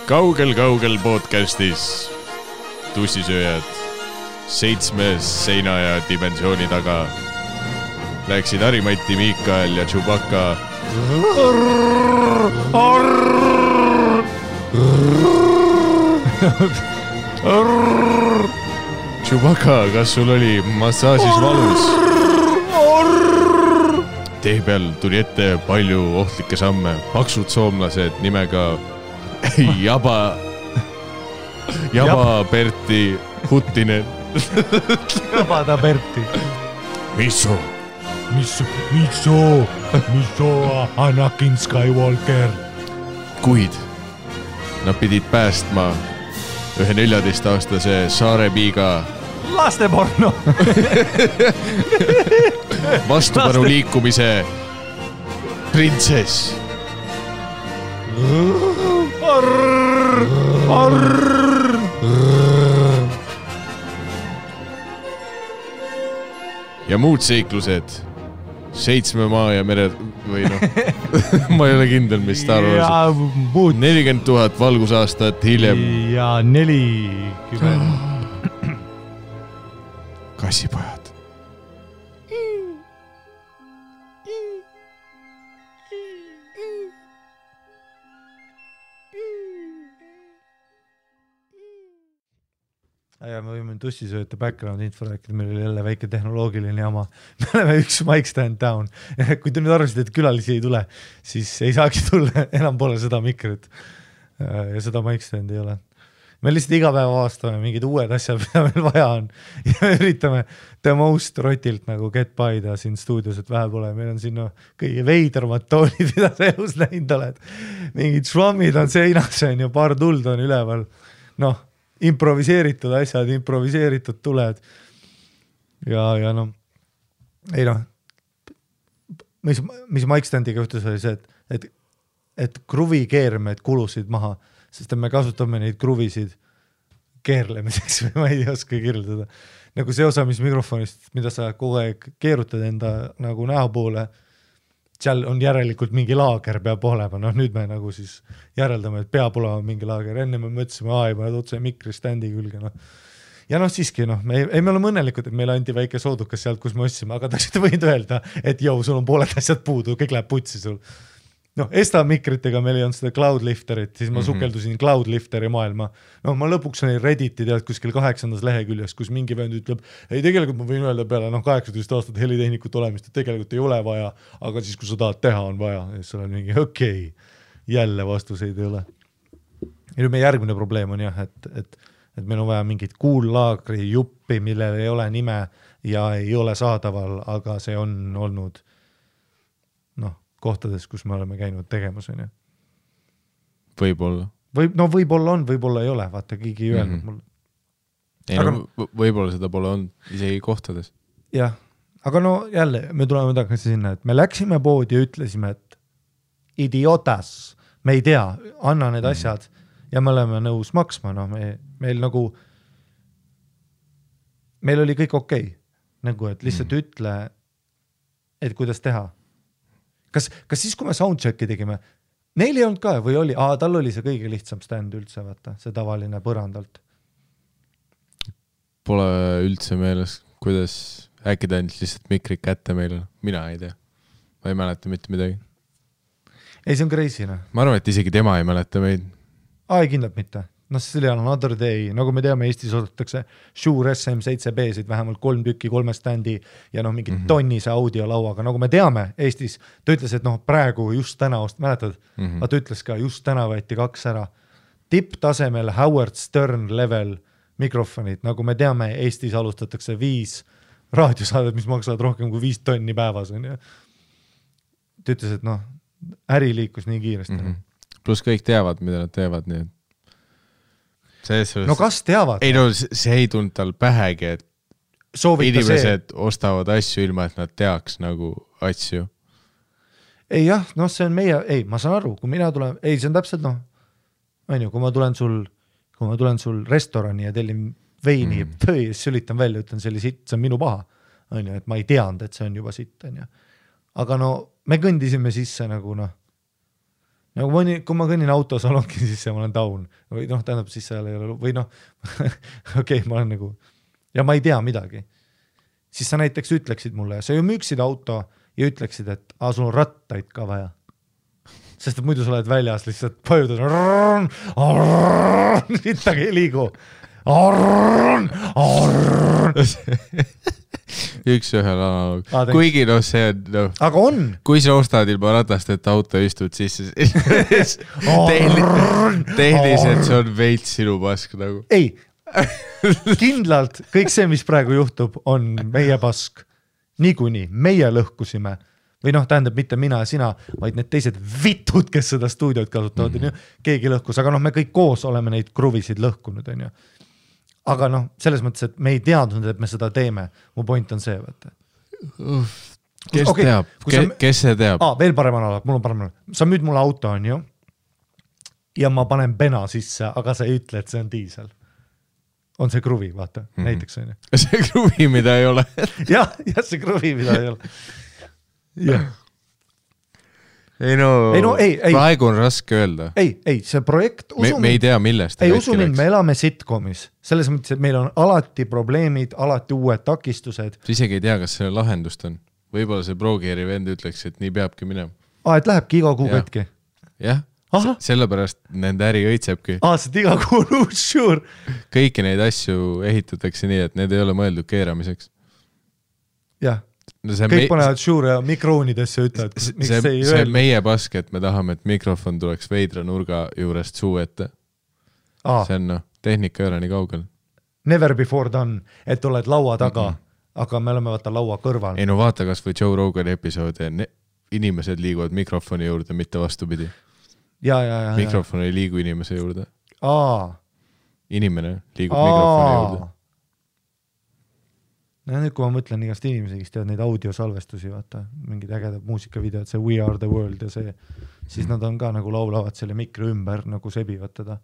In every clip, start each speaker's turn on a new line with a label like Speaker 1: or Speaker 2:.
Speaker 1: Kaugel podcastis tussisööjad 7 seina ja dimensiooni taga läksid Harimati, Miikael ja Chewbacca Chewbacca, kas sul oli massaažis valus? Tee peal tuli ette palju ohtlikke samme. Paksud soomlased nimega Jaba Berti Huttinen.
Speaker 2: Jabada Berti.
Speaker 1: Misso Anakin Skywalker. Kuid nad pidid päästma ühe 14-aastase saarepiiga
Speaker 2: lasteporno
Speaker 1: vastupanu liikumise printsess. Ja muud seiklused 7 maa ja mere või noh, ma ei ole kindel, mis Star Wars 40 000 valgusaastat hiljem
Speaker 2: ja 40
Speaker 1: kassipojad.
Speaker 2: Ja me võime tussisööta background info rääkida, meil oli jälle väike tehnoloogiline jama. Me oleme üks mic stand down. Kui te nüüd arvasid, et külalisi ei tule, siis ei saagi tulla, enam pole seda mikrit. Ja seda mic stand ei ole. Me lihtsalt iga päev avastame mingid uued asjad, mida meil vaja on. Ja me üritame the most rotilt nagu get by'da siin stuudios, et vähe pole. Meil on siin kõige veidermad toolid, mida sa elus näinud oled. Mingid švammid on seinas, on ju, paar tuld on üleval. Noh, improviseeritud asjad, improviseeritud tuled. Ja noh, ei noh, mis mic standiga juhtus oli see, et kruvi keermed kulusid maha, sest me kasutame neid kruvisid keerlemiseks või ma ei oska kirjeldada. Nagu see osa, mis mikrofonist, mida sa kogu aeg keerutad enda nagu näo poole, seal on järelikult mingi laager peab olema. Noh, nüüd me nagu siis järeldame, et peab olema mingi laager. Enne me mõtlesime, ei paned otse mikristandi külge. No. Ja noh, siiski, me oleme õnnelikud, et meile anti väike soodukas sealt, kus me ostsime, aga ta võid öelda, et sul on pooled asjad puudu, kõik läheb putsi sul. Noh, Esta mikritega meil ei olnud seda Cloudlifterit, siis ma sukeldusin Cloudlifteri maailma. No ma lõpuks olin Redditi tead kuskil 8. leheküljes, kus mingi vend ütleb, ei tegelikult ma võin öelda peale 18 aastat helitehnikut olemist, et tegelikult ei ole vaja, aga siis kui sa tahad teha, on vaja. Ja siis on mingi okei, jälle vastuseid ei ole. Ja nüüd meie järgmine probleem on jah, et meil on vaja mingit kuullaagri juppi, millel ei ole nime ja ei ole saadaval, aga see on olnud kohtades, kus me oleme käinud tegemas.
Speaker 1: Võib-olla.
Speaker 2: Võib-olla on, võib-olla ei ole. Vaata, keegi ei öelnud mulle.
Speaker 1: Ei, aga võib-olla seda pole olnud isegi kohtades.
Speaker 2: Jah, aga jälle me tuleme tagasi sinna, et me läksime poodi ja ütlesime, et idiotas, me ei tea, anna need asjad ja me oleme nõus maksma. Meil oli kõik okei. Nagu, et lihtsalt ütle, et kuidas teha. Kas siis, kui me soundchecki tegime, neil ei olnud ka või oli? Tal oli see kõige lihtsam stand üldse, vaata, see tavaline põrandalt.
Speaker 1: Pole üldse meeles, kuidas äkki ta ainult lihtsalt mikrik kätte meile. Mina ei tea. Ma ei mäleta mitte midagi.
Speaker 2: Ei, see on crazy,
Speaker 1: Ma arvan, et isegi tema ei mäleta meid.
Speaker 2: Ei, kindlalt mitte. See oli another day, nagu me teame, Eestis oodatakse Shure SM7B-sid vähemalt 3 tükki, 3 standi ja mingi tonnise audiolauaga. Nagu me teame Eestis, ta ütles, et praegu just täna, mäletad, ta ütles ka, just täna võeti 2 ära. Tipptasemel Howard Stern level mikrofonid, nagu me teame, Eestis alustatakse 5 raadiosaadet, mis maksavad rohkem kui 5 tonni päevas. Ta ütles, et äri liikus nii kiiresti.
Speaker 1: Plus kõik teavad, mida nad teevad, nii et
Speaker 2: kas teavad?
Speaker 1: Ei see ei tulnud tal pähegi, et inimesed ostavad asju ilma, et nad teaks nagu asju.
Speaker 2: Ei jah, see on meie, ma saan aru, kui mina tulen, see on täpselt kui ma tulen sul restorani ja tellin veini, siis sülitan välja, ütlen see oli sitt, see on minu paha. Et ma ei teanud, et see on juba sitt. Aga me kõndisime sisse nagu nagu kui ma kõnnin autosalongi, siis ma olen down. Või tähendab, siis seal ei ole, või okei, ma olen nagu, ja ma ei tea midagi. Siis sa näiteks ütleksid mulle, sa ju müüksid auto ja ütleksid, et sul on rattaid ka vaja. Sest et muidu sa oled väljas, lihtsalt pajudad, sittagi ei liigu.
Speaker 1: Üks ühel analoog. Kuigi see on,
Speaker 2: aga on.
Speaker 1: Kui sa ostad ilma ratast, et auto istud sisse, tehniliselt see on veits sinu pask nagu.
Speaker 2: Ei, kindlalt kõik see, mis praegu juhtub, on meie pask. Niikuinii, meie lõhkusime. Või tähendab mitte mina ja sina, vaid need teised vitud, kes seda stuudiot kasutavad. Keegi lõhkus, aga me kõik koos oleme neid kruvisid lõhkunud. Aga selles mõttes, et me ei teadnud, et me seda teeme. Mu point on see, vaata.
Speaker 1: Kes teab? Kes see teab?
Speaker 2: Veel parem analog, mul on parem analog. Sa müüd mulle auto, on ju? Ja ma panen pena sisse, aga sa ei ütle, et see on diisel. On see kruvi, vaata, näiteks on ju.
Speaker 1: See kruvi, mida ei ole.
Speaker 2: jah, see kruvi, mida ei ole. Jah.
Speaker 1: Praegu on raske öelda.
Speaker 2: Ei, see projekt...
Speaker 1: Me ei tea, millest.
Speaker 2: Ei, usu mind, me elame sitcomis. Selles mõttes, et meil on alati probleemid, alati uued takistused.
Speaker 1: Sa isegi ei tea, kas selle lahendust on. Võib-olla see Progeeri vend ütleks, et nii peabki minema.
Speaker 2: Et lähebki iga kuu katki?
Speaker 1: Jah, sellepärast nende äri õitsebki.
Speaker 2: Sest iga kuu sure.
Speaker 1: Kõiki neid asju ehitatakse nii, et need ei ole mõeldud keeramiseks.
Speaker 2: Jah. Kõik panevad sure ja mikroonidesse ütlevad, miks see ei
Speaker 1: öelnud. See meie pask, et me tahame, et mikrofon tuleks veidra nurga juurest suu ette. See on tehnika ei ole nii kaugel.
Speaker 2: Never before done, et oled laua taga, aga me oleme vaata laua kõrval.
Speaker 1: Ei vaata kas või Joe Rogani episoodi, inimesed liiguvad mikrofoni juurde, mitte vastupidi.
Speaker 2: Ja.
Speaker 1: Mikrofon ei liigu inimese juurde. Inimene liigub mikrofoni juurde.
Speaker 2: Nüüd, kui ma mõtlen igast inimesi, kes teevad neid audiosalvestusi, vaata, mingid ägedad muusikavideod, see We Are The World ja see, siis nad on ka nagu laulavad selle mikri ümber, nagu sebivad teda.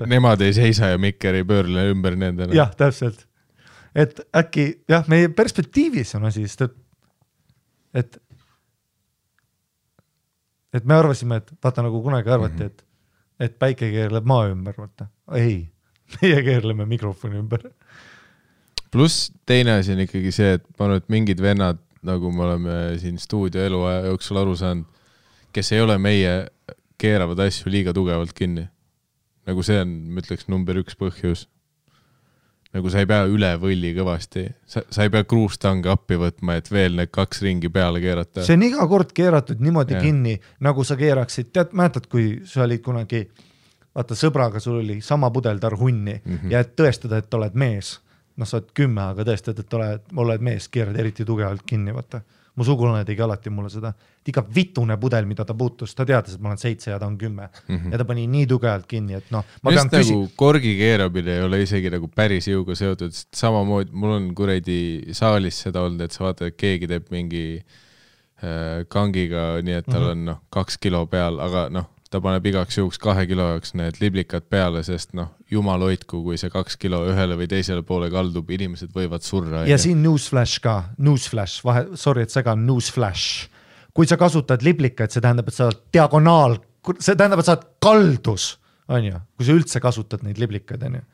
Speaker 1: Nemad ei seisa ja mikker ei pöörle ümber nendele.
Speaker 2: Jah, täpselt. Et äkki, meie perspektiivis on asi, sest et me arvasime, et vaata nagu kunagi arvati, et päike keerleb maa ümber, vaata. Ei, meie keerleme mikrofoni ümber.
Speaker 1: Pluss teine asi on ikkagi see, et ma arvan, et mingid vennad, nagu me oleme siin stuudio eluaja jooksul aru saanud, kes ei ole meie keeravad asju liiga tugevalt kinni. Nagu see on, ma ütleks, number 1 põhjus. Nagu sa ei pea üle võlli kõvasti. Sa ei pea kruustange appi võtma, et veel need 2 ringi peale keerata.
Speaker 2: See on iga kord keeratud niimoodi kinni, nagu sa keeraksid. Mäletad, kui sa olid kunagi, vaata sõbraga, sul oli sama pudel tarhunni ja et tõestada, et oled mees. Sa oled 10, aga tõestad, et oled mees, keerad eriti tugevalt kinni, vaata. Mu sugulane tegi alati mulle seda. Iga vitune pudel, mida ta puutus, ta teadis, et ma olen 7 ja ta on 10. Ja ta pani nii tugevalt kinni, et ma pean
Speaker 1: nagu korgi keeramine ei ole isegi nagu päris jõuga seotud. Samamoodi, mul on kuredi saalis seda olnud, et sa vaata, et keegi teeb mingi kangiga, nii et tal on 2 kilo peal, aga ta paneb igaks juhuks 2 kilo jaoks need liblikad peale, sest jumal hoidku, kui see 2 kilo ühele või teisele poole kaldub, inimesed võivad surra.
Speaker 2: Ja siin newsflash ka, sorry, et segan newsflash. Kui sa kasutad liblikaid, see tähendab, et sa oled diagonaal, see tähendab, et sa oled kaldus, on ju, kui sa üldse kasutad neid liblikaid, on ju.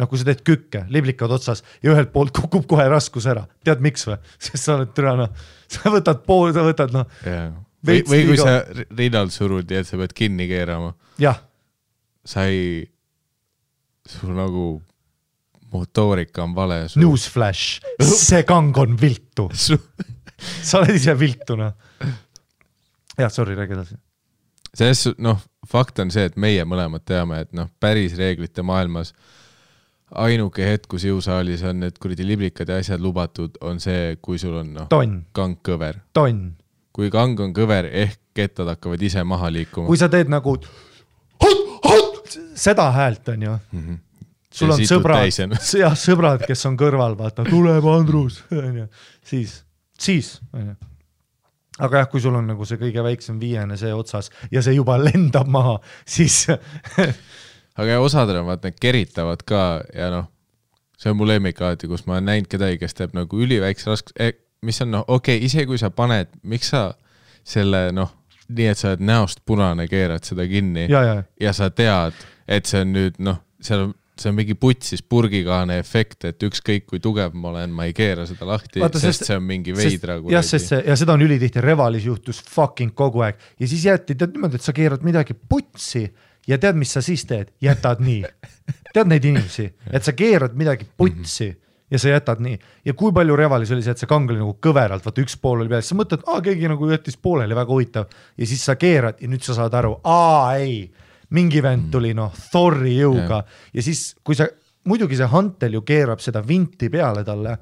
Speaker 2: Kui sa teed kükke, liblikad otsas ja ühelt poolt kukub kohe raskus ära. Tead miks või? Sest sa oled türana, sa võtad pool, sa võtad
Speaker 1: Või kui sa rinnal surud ja et sa pead kinni keerama.
Speaker 2: Jah.
Speaker 1: Sul nagu motoorika on vale.
Speaker 2: Newsflash, see kang on viltu. Sa oled ise viltuna. Jah, sorry, räägi edasi.
Speaker 1: Fakt on see, et meie mõlemad teame, et päris reeglite maailmas ainuke hetk, kus jõusaalis on need kuridi liblikad ja asjad lubatud, on see, kui sul on kang kõver. Kui kang on kõver, ehk kettad hakkavad ise maha liikuma.
Speaker 2: Kui sa teed nagu seda häält on ju. Sul on sõbrad, kes on kõrval, vaata, tuleb Andrus. Siis. Aga jah, kui sul on nagu see kõige väiksem 5 see otsas ja see juba lendab maha, siis...
Speaker 1: Aga osadel on vaat need keritavad ka ja see on mu lemmik alati, kus ma olen näinud kedagi, kes teeb nagu üliväikse raskus... mis on, okei, ise kui sa paned, miks sa selle, nii, et sa oled näost punane, keerad seda kinni ja sa tead, et see on nüüd, noh, see on mingi putsis purgikaane efekt, et ükskõik kui tugev ma olen, ma ei keera seda lahti, sest see on mingi veidra.
Speaker 2: Ja seda on ülitihti Revalis juhtus fucking kogu aeg ja siis jäeti niimoodi, et sa keerad midagi putsi ja tead, mis sa siis teed? Jätad nii. Tead neid inimesi, et sa keerad midagi putsi ja sa jätad nii. Ja kui palju Revalis oli see, et see kang oli nagu kõveralt, vaata üks pool oli peal, sa mõtled, keegi nagu jättis pooleli, väga huvitav ja siis sa keerad ja nüüd sa saad aru, ei, mingi vend tuli Thori jõuga ja siis, kui sa, muidugi see Huntel ju keerab seda vinti peale talle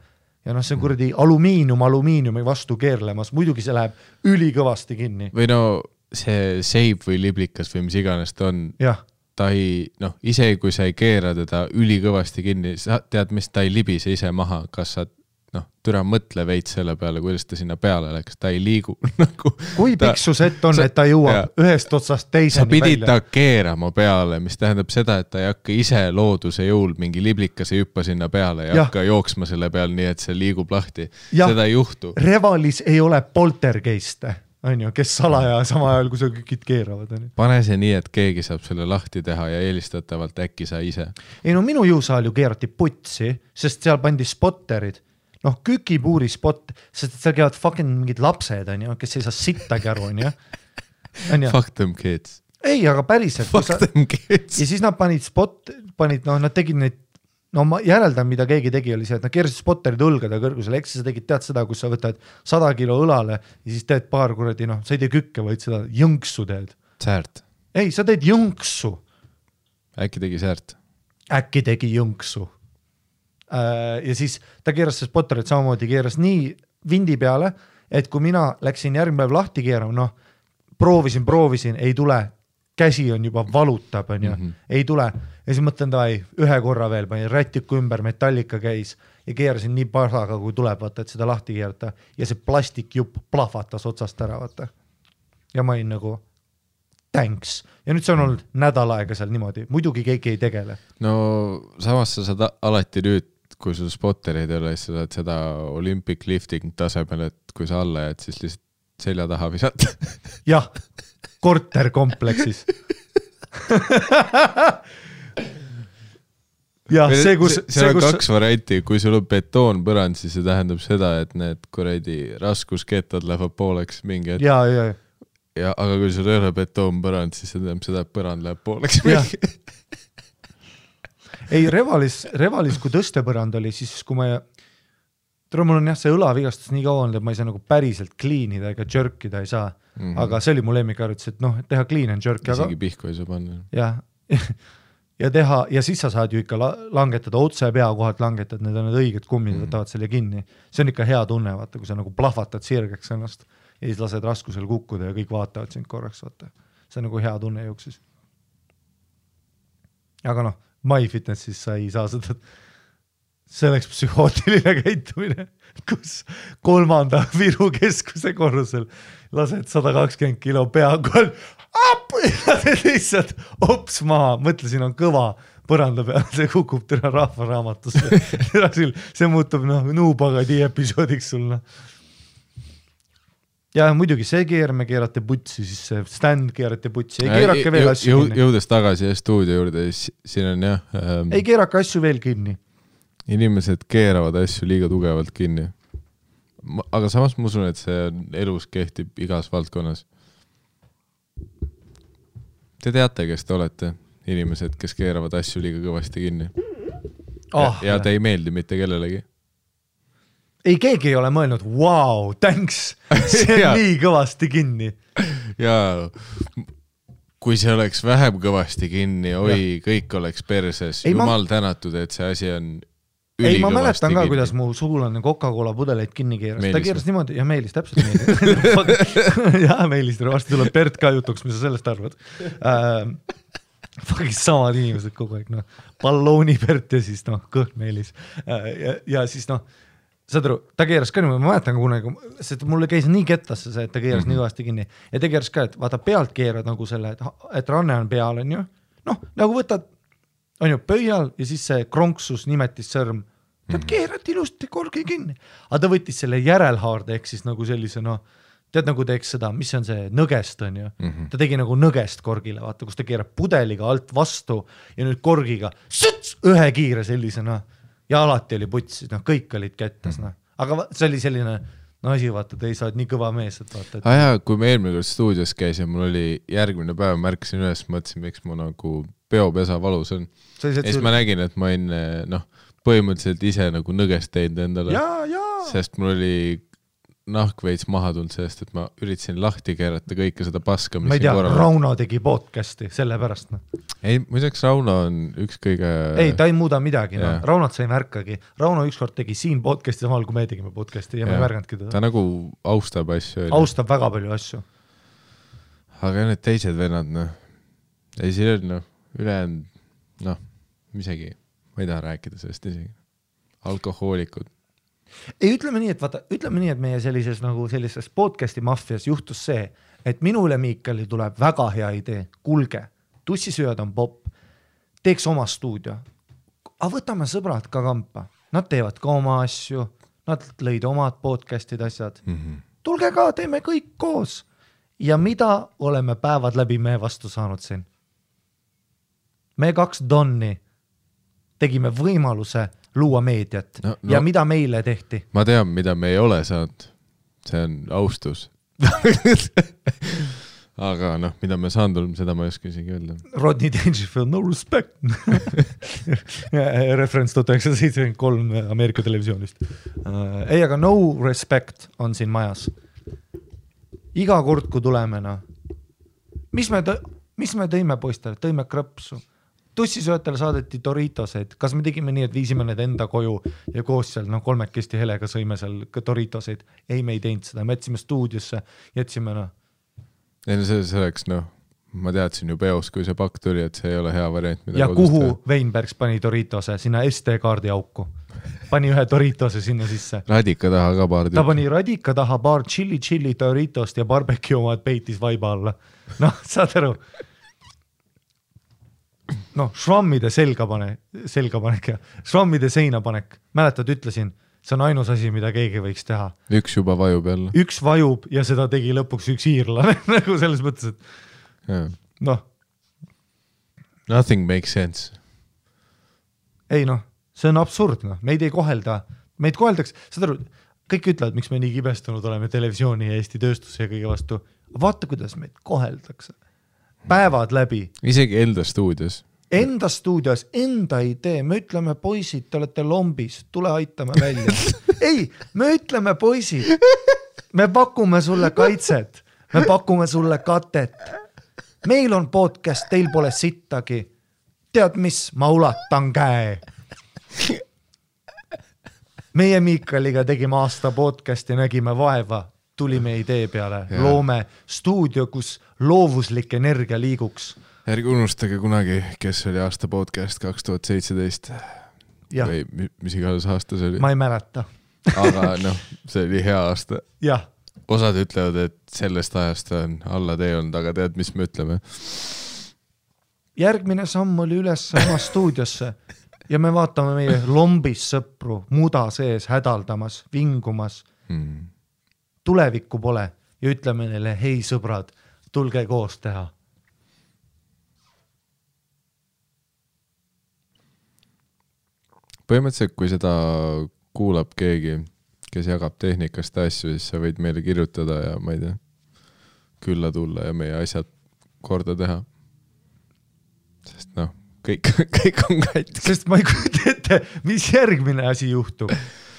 Speaker 2: ja see on kuradi alumiiniumi vastu keerlemas, muidugi see läheb ülikõvasti kinni.
Speaker 1: Või see seib või liblikas või mis iganes ta on, ta ei, ise kui sa ei keera teda ülikõvasti kinni, sa tead, mis ta ei libise ise maha, kas sa türa mõtle veits selle peale, kuidas ta sinna peale läks, ta ei liigu nagu. Kui
Speaker 2: piksus ett on, et ta jõuab ühest otsast teiseni
Speaker 1: välja? Sa pidid ta keerama peale, mis tähendab seda, et ta ei hakka ise looduse jõul mingi liblikase hüppa sinna peale ja hakka jooksma selle peal nii, et see liigub lahti. Seda ei juhtu.
Speaker 2: Revalis ei ole poltergeiste, kes salaja sama ajal, kui sa kõik keeravad.
Speaker 1: Pane see nii, et keegi saab selle lahti teha ja eelistatavalt äkki sa ise.
Speaker 2: Ei minu jõusaal ju keerati putsi, sest seal pandi spotterid. Kükipuuri spot, sest seal käivad fucking mingid lapsed, kes ei saa sittagi aru,
Speaker 1: Fuck them kids.
Speaker 2: Ei, aga päriselt.
Speaker 1: Fuck them kids.
Speaker 2: Ja siis nad nad tegid neid, ma järeldan, mida keegi tegi, oli see, et nad keerasid spotterid õlgade kõrgusele, eks sa tegid tead seda, kus sa võtad 100 kilo õlale ja siis teed paar kuradi, sa ei tee kükke, vaid seda jõnksu teed.
Speaker 1: Säärt.
Speaker 2: Ei, sa teed jõnksu.
Speaker 1: Äkki tegi säärt?
Speaker 2: Äkki tegi jõnksu. Ja siis ta keeras see spotterid samamoodi, keeras nii vindi peale, et kui mina läksin järgmine päev lahti keerama, proovisin, ei tule, käsi on juba valutab, ei tule. Ja siis mõtlen, ühe korra veel, panin rätiku ümber, metallika käis ja keerasin nii pasaga, kui tuleb, vaata, et seda lahti keerata ja see plastikjupp plahvatas otsast ära, vaata. Ja ma olin nagu thanks. Ja nüüd see on olnud nädal aega seal niimoodi. Muidugi keegi ei tegele.
Speaker 1: No samas sa saad alati nüüd, kui sul spotterid ei ole, siis sa saad seda Olympic lifting tasemel, et kui sa alla jääd, siis lihtsalt selja taha visata.
Speaker 2: Jah, korterkompleksis.
Speaker 1: Seal on kaks varianti, kui sul on betoon põrand, siis see tähendab seda, et need kuradi raskuskettad lähevad pooleks mingi hetk. Ja, aga kui sul ei ole betoon põrand, siis see tähendab seda, et põrand läheb pooleks mingi.
Speaker 2: Ei, Revalis, kui tõstepõrand oli, siis kui mul on see õlavigastus nii kaua olnud, et ma ei saa nagu päriselt kliinida ega jerkida ei saa. Aga see oli mu lemmikharjutus, et teha clean and jerk.
Speaker 1: Isegi pihku ei saa panna.
Speaker 2: Ja siis sa saad ju ikka langetada, otse pea kohalt langetad, need on need õiged kummid, võtavad selle kinni. See on ikka hea tunne, vaata, kui sa nagu plahvatad sirgeks ennast ja siis lased raskusel kukkuda ja kõik vaatavad sind korraks, vaata. See on nagu hea tunne jooksis. Aga MyFitnessis sa ei saa seda, see oleks psühhootiline käitumine, kus 3. Viru keskuse korrusel lased 120 kilo pea kohal, lased lihtsalt ops maha, mõtlesin, on kõva põranda peal, see kukub tõra rahvaraamatusse. See muutub Nuupagadi episoodiks sul. Ja muidugi see keerame keerate putsi, siis see stand keerate putsi, ei keerake veel asju kinni.
Speaker 1: Jõudes tagasi stuudio juurde, siin on
Speaker 2: ei keerake asju veel kinni.
Speaker 1: Inimesed keeravad asju liiga tugevalt kinni. Aga samas ma usun, et see elus kehtib igas valdkonnas. Te teate, kes te olete? Inimesed, kes keeravad asju liiga kõvasti kinni. Ja te ei meeldi mitte kellelegi.
Speaker 2: Ei, keegi ei ole mõelnud, wow, thanks, see on nii kõvasti kinni.
Speaker 1: Ja kui see oleks vähem kõvasti kinni, kõik oleks perses. Jumal tänatud, et see asi on ülikõvasti kinni.
Speaker 2: Ei, ma mäletan ka, kuidas mu sugulane Coca-Cola pudeleid kinni keeras. Ta keeras niimoodi, ja Meelis, täpselt Meelis. Ja Meelis, varsti tuleb Bert ka jutuks, mis sa sellest arvad. Fucking samad inimesed kogu aeg, ballooni Bert ja siis kõht Meelis. Ja siis saad aru, ta keeras ka niimoodi, ma mäletan kunagi, sest mulle käis nii kettasse see, et ta keeras nii kõvasti kinni. Ja ta keeras ka, et vaata pealt keerad nagu selle, et ranne on peal, on ju. Nagu võtad, on ju, pöial ja siis see kronksus nimetis sõrm. Ta keerati ilusti korgi kinni. Aga ta võttis selle järelhaarde, ehk siis nagu sellise, tead nagu teeks seda, mis on see nõgest on ju, ta tegi nagu nõgest korgile, vaata, kus ta keerab pudeliga alt vastu ja nüüd korgiga ühe kiire sellisena ja alati oli putsis, kõik olid kättes, aga see oli selline asi, vaata, te ei saa nii kõva mees, et vaata.
Speaker 1: Jaa, kui me eelmine kord stuudios käisin, mul oli järgmine päev, märkasin üles, mõtlesin, miks mu nagu peopesa valus on. Ja siis ma nägin, et ma olin põhimõtteliselt ise nagu nõgest teinud endale, sest mul oli nahk veits maha tulnud sellest, et ma üritasin lahti keerata kõike seda paska, mis
Speaker 2: ma ei tea, Rauno tegi podcasti sellepärast.
Speaker 1: Ei, muideks Rauno on üks kõige...
Speaker 2: Ei, ta ei muuda midagi, Raunot sa ei märkagi. Rauno ükskord tegi siin podcasti samal, kui me tegime podcasti ja me ei märganudki teda.
Speaker 1: Ta nagu austab asju.
Speaker 2: Austab väga palju asju.
Speaker 1: Aga need teised vennad, ei siin on, ülejäänud, isegi, ma ei taha rääkida sellest isegi. Alkohoolikud.
Speaker 2: Ei, ütleme nii, et meie sellises podcasti maffias juhtus see, et minule Miikali tuleb väga hea idee, kulge, tussisööd on popp, teeks oma stuudio, aga võtame sõbrad ka kampa, nad teevad ka oma asju, nad lõid omad podcastid asjad, tulge ka, teeme kõik koos ja mida oleme päevad läbi me vastu saanud siin? Me 2 donni tegime võimaluse luua meediat ja mida meile tehti?
Speaker 1: Ma tean, mida me ei ole saanud. See on austus. Aga mida me saanud oleme, seda ma ei oska isegi öelda.
Speaker 2: Rodney Dangerfield, no respect. Reference 1973 Ameerika televisioonist. Ei, aga no respect on siin majas. Iga kord, kui tuleme, mis me tõime poistele? Tõime krõpsu. Tussisöötele saadeti Doritoseid. Kas me tegime nii, et viisime need enda koju ja koos seal 3 helega sõime seal Doritoseid? Ei, me ei teinud seda. Me jätsime stuudiosse, jätsime
Speaker 1: Ei, see oleks, ma teadsin ju peos, kui see pakk tuli, et see ei ole hea variant.
Speaker 2: Ja kuhu Weinbergs pani Doritose? Sinna SD-kaardi auku. Pani ühe Doritose sinna sisse.
Speaker 1: Radika taha ka paar.
Speaker 2: Ta pani radika taha paar chili Doritost ja barbecue omad peitis vaiba alla. Saad aru? Švammide selgapanek ja švammide seinapanek. Mäletad, ütlesin, see on ainus asi, mida keegi võiks teha.
Speaker 1: Üks juba vajub jälle.
Speaker 2: Üks vajub ja seda tegi lõpuks üks iirlane, nagu selles mõttes, et
Speaker 1: Nothing makes sense.
Speaker 2: Ei see on absurd, meid ei kohelda, meid koheldaks, saad aru, kõik ütlevad, miks me nii kibestunud oleme televisiooni ja Eesti tööstuse ja kõige vastu. Vaata, kuidas meid koheldakse. Päevad läbi.
Speaker 1: Isegi enda stuudios.
Speaker 2: Enda stuudios, enda idee. Me ütleme, poisid, te olete lombis, tule aitame välja. Ei, me ütleme, poisid, me pakume sulle kaitset, me pakume sulle katet. Meil on podcast, teil pole sittagi. Tead mis, ma ulatan käe. Meie Miikaliga tegime aasta podcasti, nägime vaeva. Tulime idee peale, loome stuudio, kus loovuslik energia liiguks.
Speaker 1: Ärge unustage kunagi, kes oli aasta podcast 2017 või mis iganes aasta see oli.
Speaker 2: Ma ei mäleta.
Speaker 1: Aga see oli hea aasta.
Speaker 2: Jah.
Speaker 1: Osad ütlevad, et sellest ajast on alla tee olnud, aga tead, mis me ütleme?
Speaker 2: Järgmine samm oli üles oma stuudiosse ja me vaatame meie lombis sõpru muda sees hädaldamas, vingumas. Tulevikku pole ja ütleme neile, hei sõbrad, tulge koos teha.
Speaker 1: Põhimõtteliselt, kui seda kuulab keegi, kes jagab tehnikast asju, siis sa võid meile kirjutada ja ma ei tea, külla tulla ja meie asjad korda teha. Sest kõik on katki.
Speaker 2: Sest ma ei kujuta ette, mis järgmine asi juhtub.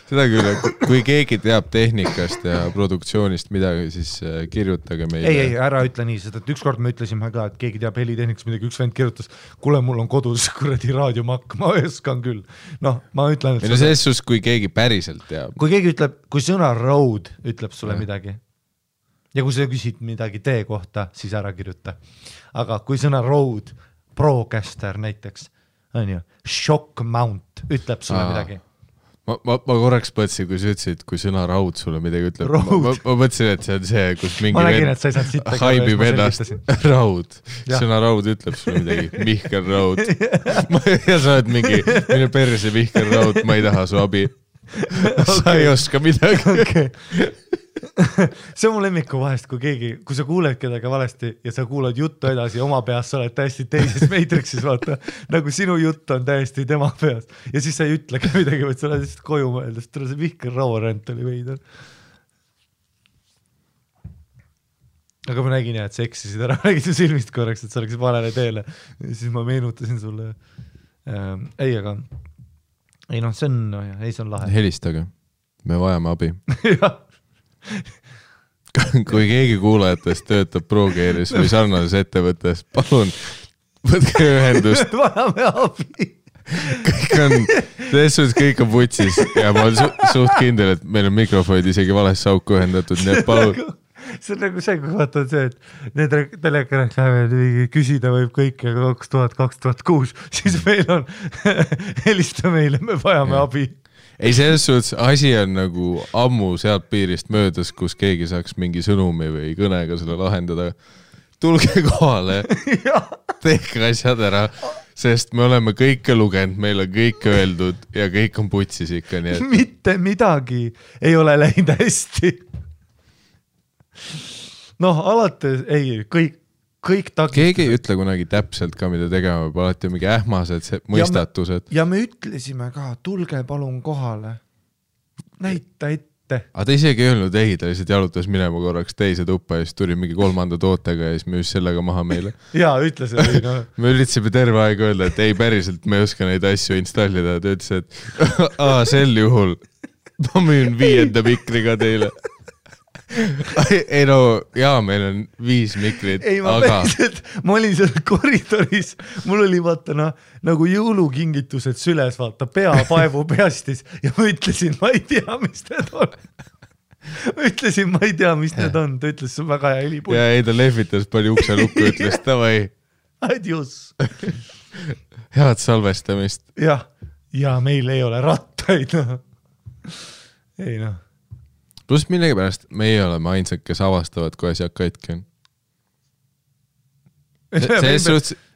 Speaker 1: Seda küll, kui keegi teab tehnikast ja produktsioonist midagi, siis kirjutage meile.
Speaker 2: Ei, ära ütle nii, sest et ükskord me ütlesime ka, et keegi teab helitehnikast midagi, üks vend kirjutas, kuule, mul on kodus kuradi raadiomakk, ma õskan küll. Ma ütlen, et...
Speaker 1: selles sus, kui keegi päriselt teab.
Speaker 2: Kui keegi ütleb, kui sõna road ütleb sulle midagi ja kui sa küsid midagi tee kohta, siis ära kirjuta. Aga kui sõna road, Procaster näiteks, on ju, shock mount ütleb sulle midagi.
Speaker 1: Ma korraks mõtlesin, kui sa ütlesid, kui sõna raud sulle midagi ütleb. Ma mõtlesin, et see on see, kus mingi
Speaker 2: nägin, et sa ei saanud sitta
Speaker 1: haibib ennast raud. Sõna raud ütleb sulle midagi. Mihkel Raud. Ja sa oled mingi, minu perse Mihkel Raud, ma ei taha su abi. Sa ei oska midagi.
Speaker 2: see on mu lemmiku vahest, kui sa kuuled kedagi valesti ja sa kuulad juttu edasi oma peas, sa oled täiesti teises Matrixis, vaata, nagu sinu jutt on täiesti tema peas ja siis sa ei ütlegi midagi, vaid sa oled lihtsalt koju mõeldes, tule see Vihker Rauarent oli veider. Aga ma nägin jah, et sa eksisid ära, nägid su silmist korraks, et sa oleksid valele teele ja siis ma meenutasin sulle ei, aga ei noh, see on, no jah, ei see on lahe.
Speaker 1: Helistage, me vajame abi.
Speaker 2: jah.
Speaker 1: Kui keegi kuulajatest töötab ProGearis või sarnases ettevõttes, palun võtke ühendust.
Speaker 2: Vajame abi.
Speaker 1: Kõik on, selles suhtes kõik on putsis ja ma olen suht kindel, et meil on mikrofonid isegi valesse auku ühendatud, nii et palun.
Speaker 2: See on nagu see, kui vaatad see, et need telekanad küsida võib kõike 2000-2006, siis meil on helista meile, me vajame abi.
Speaker 1: Ei, selles suhtes asi on nagu ammu sealt piirist möödas, kus keegi saaks mingi sõnumi või kõnega selle lahendada. Tulge kohale, tehke asjad ära, sest me oleme kõike lugenud, meil on kõik öeldud ja kõik on putsis ikka. Nii et...
Speaker 2: Mitte midagi ei ole läinud hästi. Noh, alates, ei, kõik takistused. Keegi ei ütle kunagi täpselt ka, mida tegema, alati mingi ähmased mõistatused. Ja me ütlesime ka, tulge palun kohale. Näita ette.
Speaker 1: Aga ta isegi ei öelnud ei, ta lihtsalt jalutas minema korraks teise tuppa ja siis tuli mingi 3. tootega ja siis me just sellega maha meile.
Speaker 2: Jaa, ütles, et no.
Speaker 1: Me üritasime terve aeg öelda, et ei päriselt, me ei oska neid asju installida. Ta ütles, et sel juhul ma müün 5. mikriga teile. Ei no, jaa, meil on 5 mikrit,
Speaker 2: ei,
Speaker 1: aga...
Speaker 2: ma olin seal koridoris, mul oli vaata nagu jõulukingitused süles, vaata, peapaevu peastis ja ma ütlesin, ma ei tea, mis need on. Need on, ta ütles, see on väga hea helipult.
Speaker 1: Ja ei, ta lehvitas palju ukse lukku, ütles, tavai.
Speaker 2: Adios.
Speaker 1: Head salvestamist.
Speaker 2: Ja meil ei ole rattaid, noh. Ei noh.
Speaker 1: Plus millegipärast meie oleme ainsad, kes avastavad, kui asjad katki on.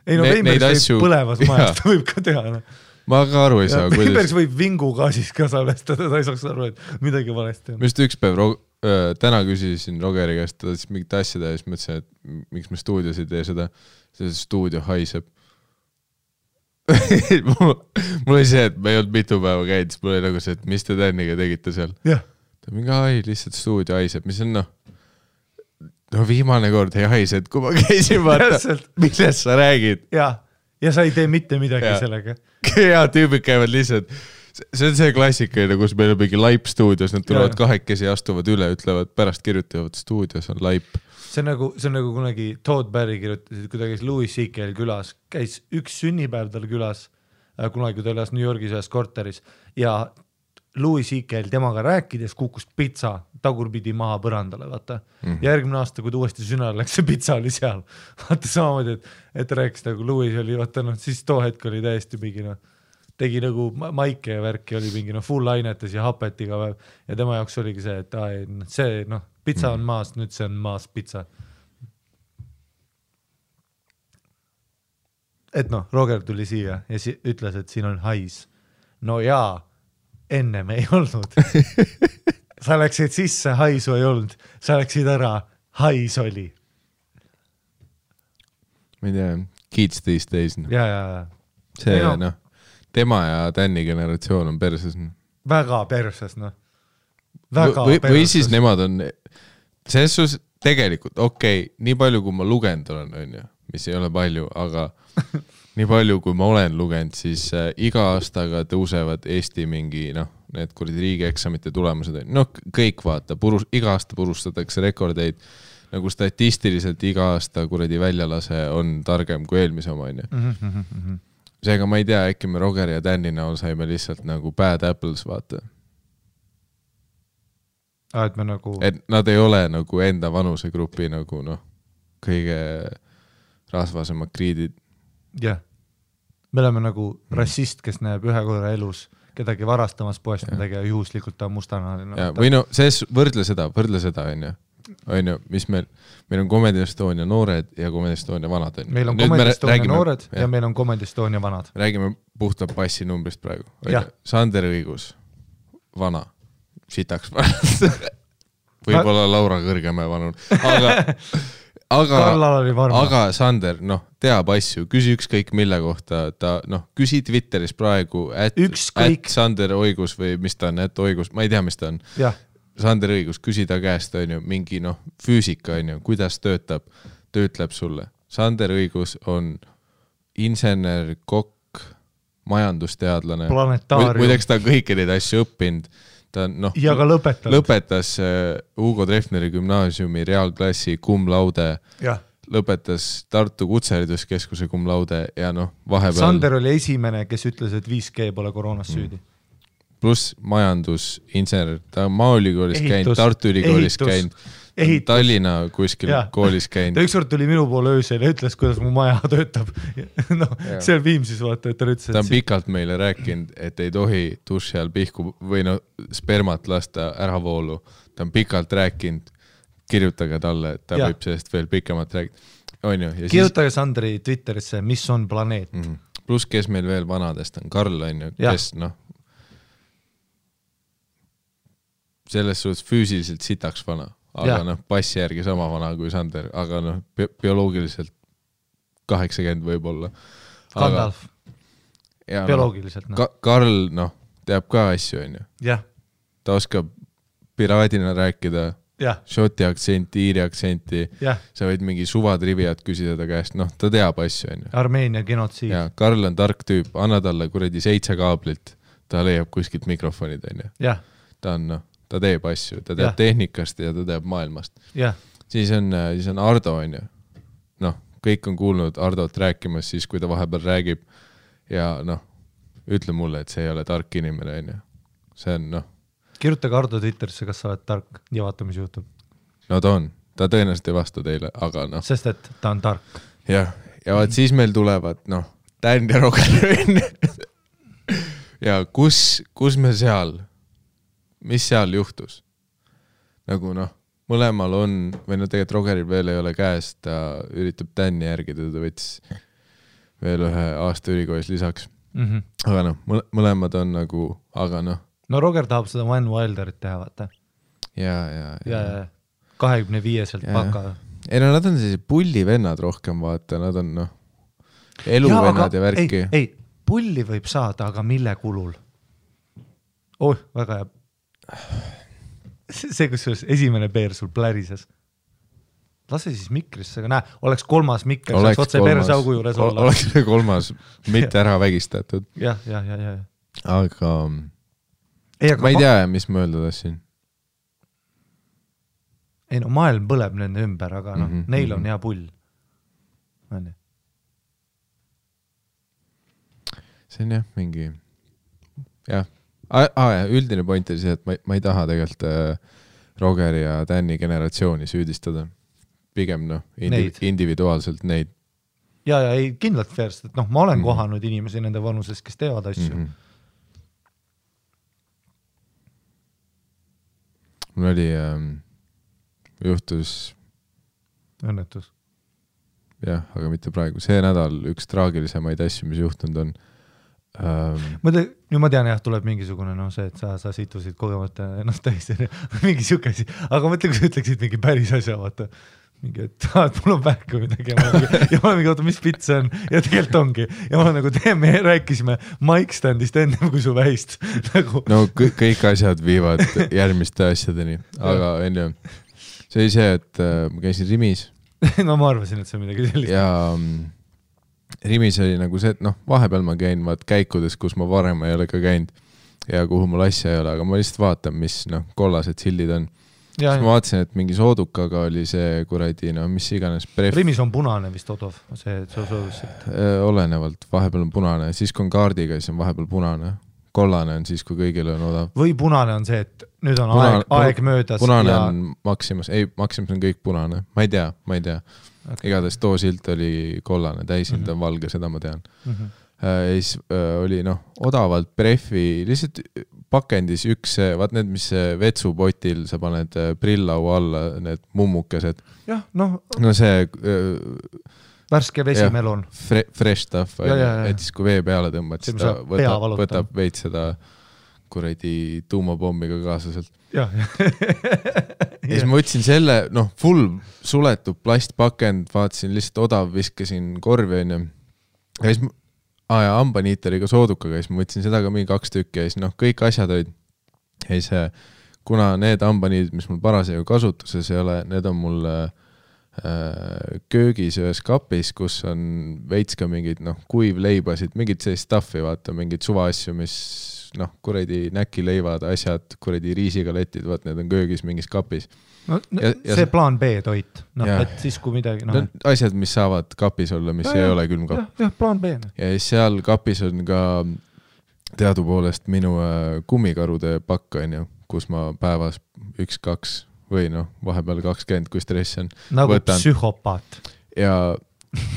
Speaker 2: Neid asju... põlevas majast võib ka teha. No.
Speaker 1: Ma ka aru ei saa.
Speaker 2: Veimbergs võib vingugaasis ka salvestada, ta ei saaks aru, et midagi valesti on.
Speaker 1: Mist üks päev täna küsisin Rogeri käest, ta siis mingit asjada ja siis mõtlesin, et miks me stuudios ei tee seda. See stuudio haiseb. Mul oli see, et me ei olnud mitu päeva käid, siis mul oli nagu see, et mis te Tänniga tegite seal.
Speaker 2: Jah.
Speaker 1: Mingi lihtsalt stuudio haiseb, mis on viimane kord ei haise, et kui ma käisin vaata, millest sa räägid.
Speaker 2: Ja sa ei tee mitte midagi sellega.
Speaker 1: Ja tüübid käivad lihtsalt, see on see klassikaline, kus meil on mingi laip stuudios, nad tulevad kahekesi ja astuvad üle, ütlevad pärast kirjutavad stuudios on laip.
Speaker 2: See on nagu kunagi Todd Barry kirjutasid, kui ta käis Louis C.K.'l külas, käis üks sünnipäev tal külas, kunagi ta elas New Yorgis ühes korteris ja Louis C.K.'l temaga rääkides kukkus pitsa tagurpidi maha põrandale, vaata. Ja järgmine aasta, kui ta uuesti sünnal läks, see pitsa oli seal. Vaata samamoodi, et rääkis nagu Louis oli, vaata siis too hetk oli täiesti mingi, tegi nagu maike ja värki oli mingi full ainetes ja hapet iga päev. Ja tema jaoks oligi see, et see, pitsa on maas, nüüd see on maas pitsa. Et Roger tuli siia ja ütles, et siin on hais. No jaa. Enne me ei olnud. Sa läksid sisse, haisu ei olnud. Sa läksid ära, hais oli.
Speaker 1: Ma ei tea, kids these days.
Speaker 2: Ja.
Speaker 1: See, tema ja Tänni generatsioon on perses.
Speaker 2: Väga perses,
Speaker 1: Või siis nemad on, selles suhtes tegelikult, nii palju kui ma lugenud olen, mis ei ole palju, aga... Nii palju, kui ma olen lugenud, siis iga aastaga tõusevad Eesti mingi, need kuradi riigieksamite tulemused. Kõik vaata, iga aasta purustatakse rekordeid, nagu statistiliselt iga aasta kuradi väljalase on targem kui eelmise oma. Seega ma ei tea, äkki me Roger ja Tänni näol saime lihtsalt nagu bad apples, vaata.
Speaker 2: Et me nagu...
Speaker 1: Et nad ei ole nagu enda vanusegrupi nagu, kõige rasvasemad kriidid.
Speaker 2: Jah. Me oleme nagu rassist, kes näeb ühe korra elus kedagi varastamas poest midagi ja juhuslikult ta on mustanahaline.
Speaker 1: Või võrdle seda, on ju, mis meil on Comedy Estonia noored ja Comedy Estonia vanad.
Speaker 2: Meil on Comedy Estonia noored ja meil on Comedy Estonia vanad.
Speaker 1: Räägime puhta passi numbrist praegu. Sander Õigus, vana, sitaks vana. võib-olla Laura Kõrgemäe vanur, aga Sander, teab asju, küsi ükskõik mille kohta, küsi Twitteris praegu, Sander Oigus või mis ta on, Oigus, ma ei tea, mis ta on. Sander Õigus, küsi ta käest, mingi füüsika, kuidas töötab, ta ütleb sulle. Sander Õigus on insener, kokk, majandusteadlane. Muideks ta on kõiki neid asju õppinud. Ta
Speaker 2: ja ka
Speaker 1: lõpetas Hugo Treffneri gümnaasiumi reaalklassi cum laude, lõpetas Tartu Kutsehariduskeskuse cum laude ja vahepeal...
Speaker 2: Sander oli esimene, kes ütles, et 5G pole koroonas süüdi.
Speaker 1: Pluss majandusinsener, ta on Maaülikoolis käinud, Tartu Ülikoolis käinud, Tallinna kuskil koolis käinud.
Speaker 2: Ta ükskord tuli minu poole öösel ja ütles, kuidas mu maja töötab. See on Viimsis, vaata, et ta ütles,
Speaker 1: ta on pikalt meile rääkinud, et ei tohi duši all pihku või spermat lasta ära voolu. Ta on pikalt rääkinud, kirjutage talle, et ta võib sellest veel pikemalt rääkida.
Speaker 2: Kirjutage Sandri Twitterisse, mis on planeet.
Speaker 1: Pluss, kes meil veel vanadest on, Karl on ju, kes selles suhtes füüsiliselt sitaks vana, aga passi järgi sama vana kui Sander, aga bioloogiliselt 80 võib-olla.
Speaker 2: Gandalf. Bioloogiliselt.
Speaker 1: Karl, teab ka asju, on ju. Ta oskab piraadina rääkida, šoti aktsenti, iiri aktsenti, sa võid mingi suvatriviat küsida ta käest, ta teab asju, on ju.
Speaker 2: Armeenia genotsiid.
Speaker 1: Karl on tark tüüp, anna talle kuradi 7 kaablit, ta leiab kuskilt mikrofonid, on ju. Ta on, ta teeb asju, ta teab tehnikast ja ta teab maailmast. Siis on Ardo, on ju. Kõik on kuulnud Ardot rääkimas siis, kui ta vahepeal räägib ja ütle mulle, et see ei ole tark inimene, on ju. See on,
Speaker 2: Kirjutage Ardo Twitterisse, kas sa oled tark ja vaata, mis juhtub.
Speaker 1: Ta on. Ta tõenäoliselt ei vasta teile, aga
Speaker 2: Sest, et ta on tark.
Speaker 1: Ja vaat siis meil tulevad, Dan ja Roger. Ja kus me seal... mis seal juhtus? Mõlemal on, või tegelikult Rogeril veel ei ole käes, ta üritab Danni järgida, ta võttis veel ühe aasta ülikoolis lisaks. Aga mõlemad on aga
Speaker 2: Roger tahab seda Van Wilderit teha, vaata. Ja 25-selt paka.
Speaker 1: Ei, nad on sellised pullivennad rohkem, vaata, nad on eluvennad ja värki.
Speaker 2: Ei, pulli võib saada, aga mille kulul? Väga hea. See, kus esimene peer sul plärises. Lase siis mikrisse, aga oleks 3. mikker, saaks otse persaugu juures olla.
Speaker 1: Oleks 3, mitte ära vägistatud.
Speaker 2: Ja.
Speaker 1: Aga ma ei tea, mis ma öelda tassin.
Speaker 2: Ei maailm põleb nende ümber, aga neil on hea pull.
Speaker 1: See on mingi üldine point oli see, et ma ei taha tegelikult Rogeri ja Danni generatsiooni süüdistada. Pigem individuaalselt neid.
Speaker 2: Ja ei kindlalt fairst, et ma olen kohanud inimesi nende vanuses, kes teevad asju.
Speaker 1: Mul oli juhtus
Speaker 2: õnnetus.
Speaker 1: Aga mitte praegu. See nädal üks traagilisemaid asju, mis juhtunud on.
Speaker 2: Ma tean, tuleb mingisugune see, et sa situsid kogemata ennast täis mingi siuke asi, aga mõtle, kui sa ütleksid mingi päris asja, vaata mingi, et mul on vähk või midagi ja ma olen mingi, oota, mis pitt see on ja tegelikult ongi ja ma me rääkisime mic standist ennem kui su vähist
Speaker 1: kõik asjad viivad järgmiste asjadeni, aga enne see oli see, et ma käisin Rimis
Speaker 2: ma arvasin, et see on midagi sellist
Speaker 1: ja Rimis oli see, et vahepeal ma käin käikudes, kus ma varem ei ole ka käinud ja kuhu mul asja ei ole, aga ma lihtsalt vaatan, mis kollased sildid on. Siis ma vaatasin, et mingi soodukaga oli see kuradi, mis iganes bref.
Speaker 2: Rimis on punane vist odov, see soodusselt.
Speaker 1: Olenevalt, vahepeal on punane, siis kui on kaardiga, siis on vahepeal punane. Kollane on siis, kui kõigil on odav.
Speaker 2: Või punane on see, et nüüd on aeg möödas.
Speaker 1: Punane on Maximus, ei, Maximus on kõik punane, ma ei tea. Okay. Igatahes too silt oli kollane, täisilt on valge, seda ma tean. Siis oli odavalt prefi, lihtsalt pakendis üks, vaat need, mis vetsupotil sa paned prillau alla, need mummukesed. See
Speaker 2: värske vesimelon.
Speaker 1: Fresh stuff, et siis kui vee peale tõmbad, siis ta võtab veits seda kuradi tuumapommiga kaasaselt.
Speaker 2: Jah.
Speaker 1: Ja siis ma võtsin selle, full suletud plastpakend, vaatasin lihtsalt odav, viskasin korvi onju. Ja siis hambaniiteriga soodukaga, siis ma võtsin seda ka mingi 2 tükki ja siis kõik asjad olid. Ja siis, kuna need hambaniidid, mis mul parasjagu kasutuses ei ole, need on mul köögis ühes kapis, kus on veits ka mingid kuivleibasid, mingid sellist stuffi, vaata, mingid suvaasju, mis kuradi näkileivad, asjad, kuradi riisigaletid, vaat need on köögis mingis kapis.
Speaker 2: No, see plaan B toit, et siis kui midagi...
Speaker 1: Asjad, mis saavad kapis olla, mis ei ole külmkapp.
Speaker 2: Jah, plaan B.
Speaker 1: Ja seal kapis on ka teadupoolest minu kummikarude pakk, kus ma päevas 1-2 või vahepeal 20, kui stress on.
Speaker 2: Nagu võtan. Psühhopaat.
Speaker 1: Ja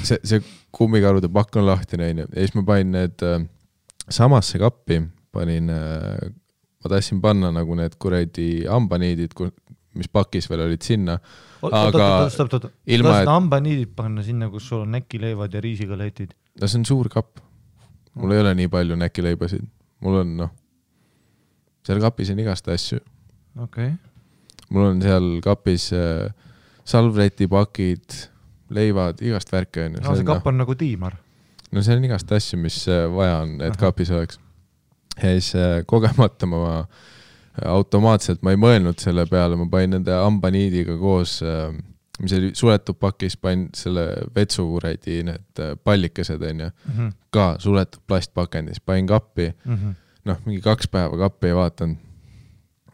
Speaker 1: see kummikarude pakk on lahtine, ja siis ma panin need samasse kappi, ma tahtsin panna nagu need kuradi hambaniidid, mis pakis veel olid sinna.
Speaker 2: Stopp. Hambaniidid panna sinna, kus sul on näkileivad ja riisigaletid.
Speaker 1: No see on suur kapp. Mul ei ole nii palju näkileibasid. Mul on, seal kapis on igast asju.
Speaker 2: Okei.
Speaker 1: Mul on seal kapis salvretipakid, leivad, igast värke.
Speaker 2: No see kapp on nagu tiimar.
Speaker 1: No see on igast asju, mis vaja on, et kapis oleks. Ja siis kogemata ma automaatselt, ma ei mõelnud selle peale, ma panin nende hambaniidiga koos, mis oli suletud pakis, panin selle vetsukuredi, need pallikesed ka suletud plastpakendis, panin kappi, mingi 2 päeva kappi ei vaatanud.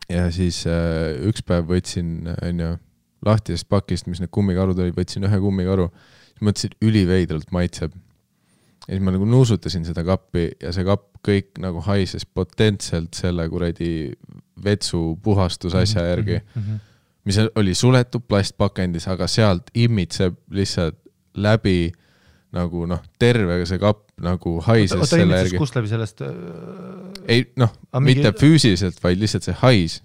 Speaker 1: Ja siis üks päev võtsin lahtisest pakist, mis need kummikarud olid, võtsin 1 kummikaru, siis mõtlesin, üliveidralt maitseb. Ja siis ma nagu nuusutasin seda kappi ja see kapp kõik nagu haises potentselt selle kuradi vetsu puhastusasja järgi, mis oli suletud plastpakendis, aga sealt imitseb lihtsalt läbi nagu terve see kapp nagu haises selle järgi.
Speaker 2: Kust läbi sellest?
Speaker 1: Ei, mitte füüsiliselt, vaid lihtsalt see hais.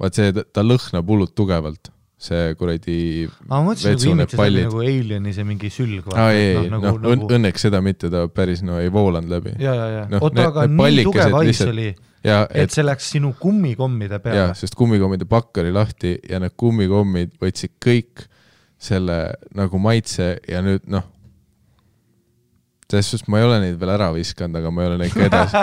Speaker 1: Vaat see, ta lõhnab hullult tugevalt. See kuradi vetsu need pallid.
Speaker 2: Nagu alieni see mingi sülg.
Speaker 1: Õnneks seda mitte, ta päris ei voolanud läbi.
Speaker 2: Ja. Oota, aga nii tugev hais oli, et see läks sinu kummikommide peale.
Speaker 1: Ja, sest kummikommide pakk oli lahti ja need kummikommid võtsid kõik selle nagu maitse ja nüüd selles suhtes ma ei ole neid veel ära viskanud, aga ma ei ole neid ka edasi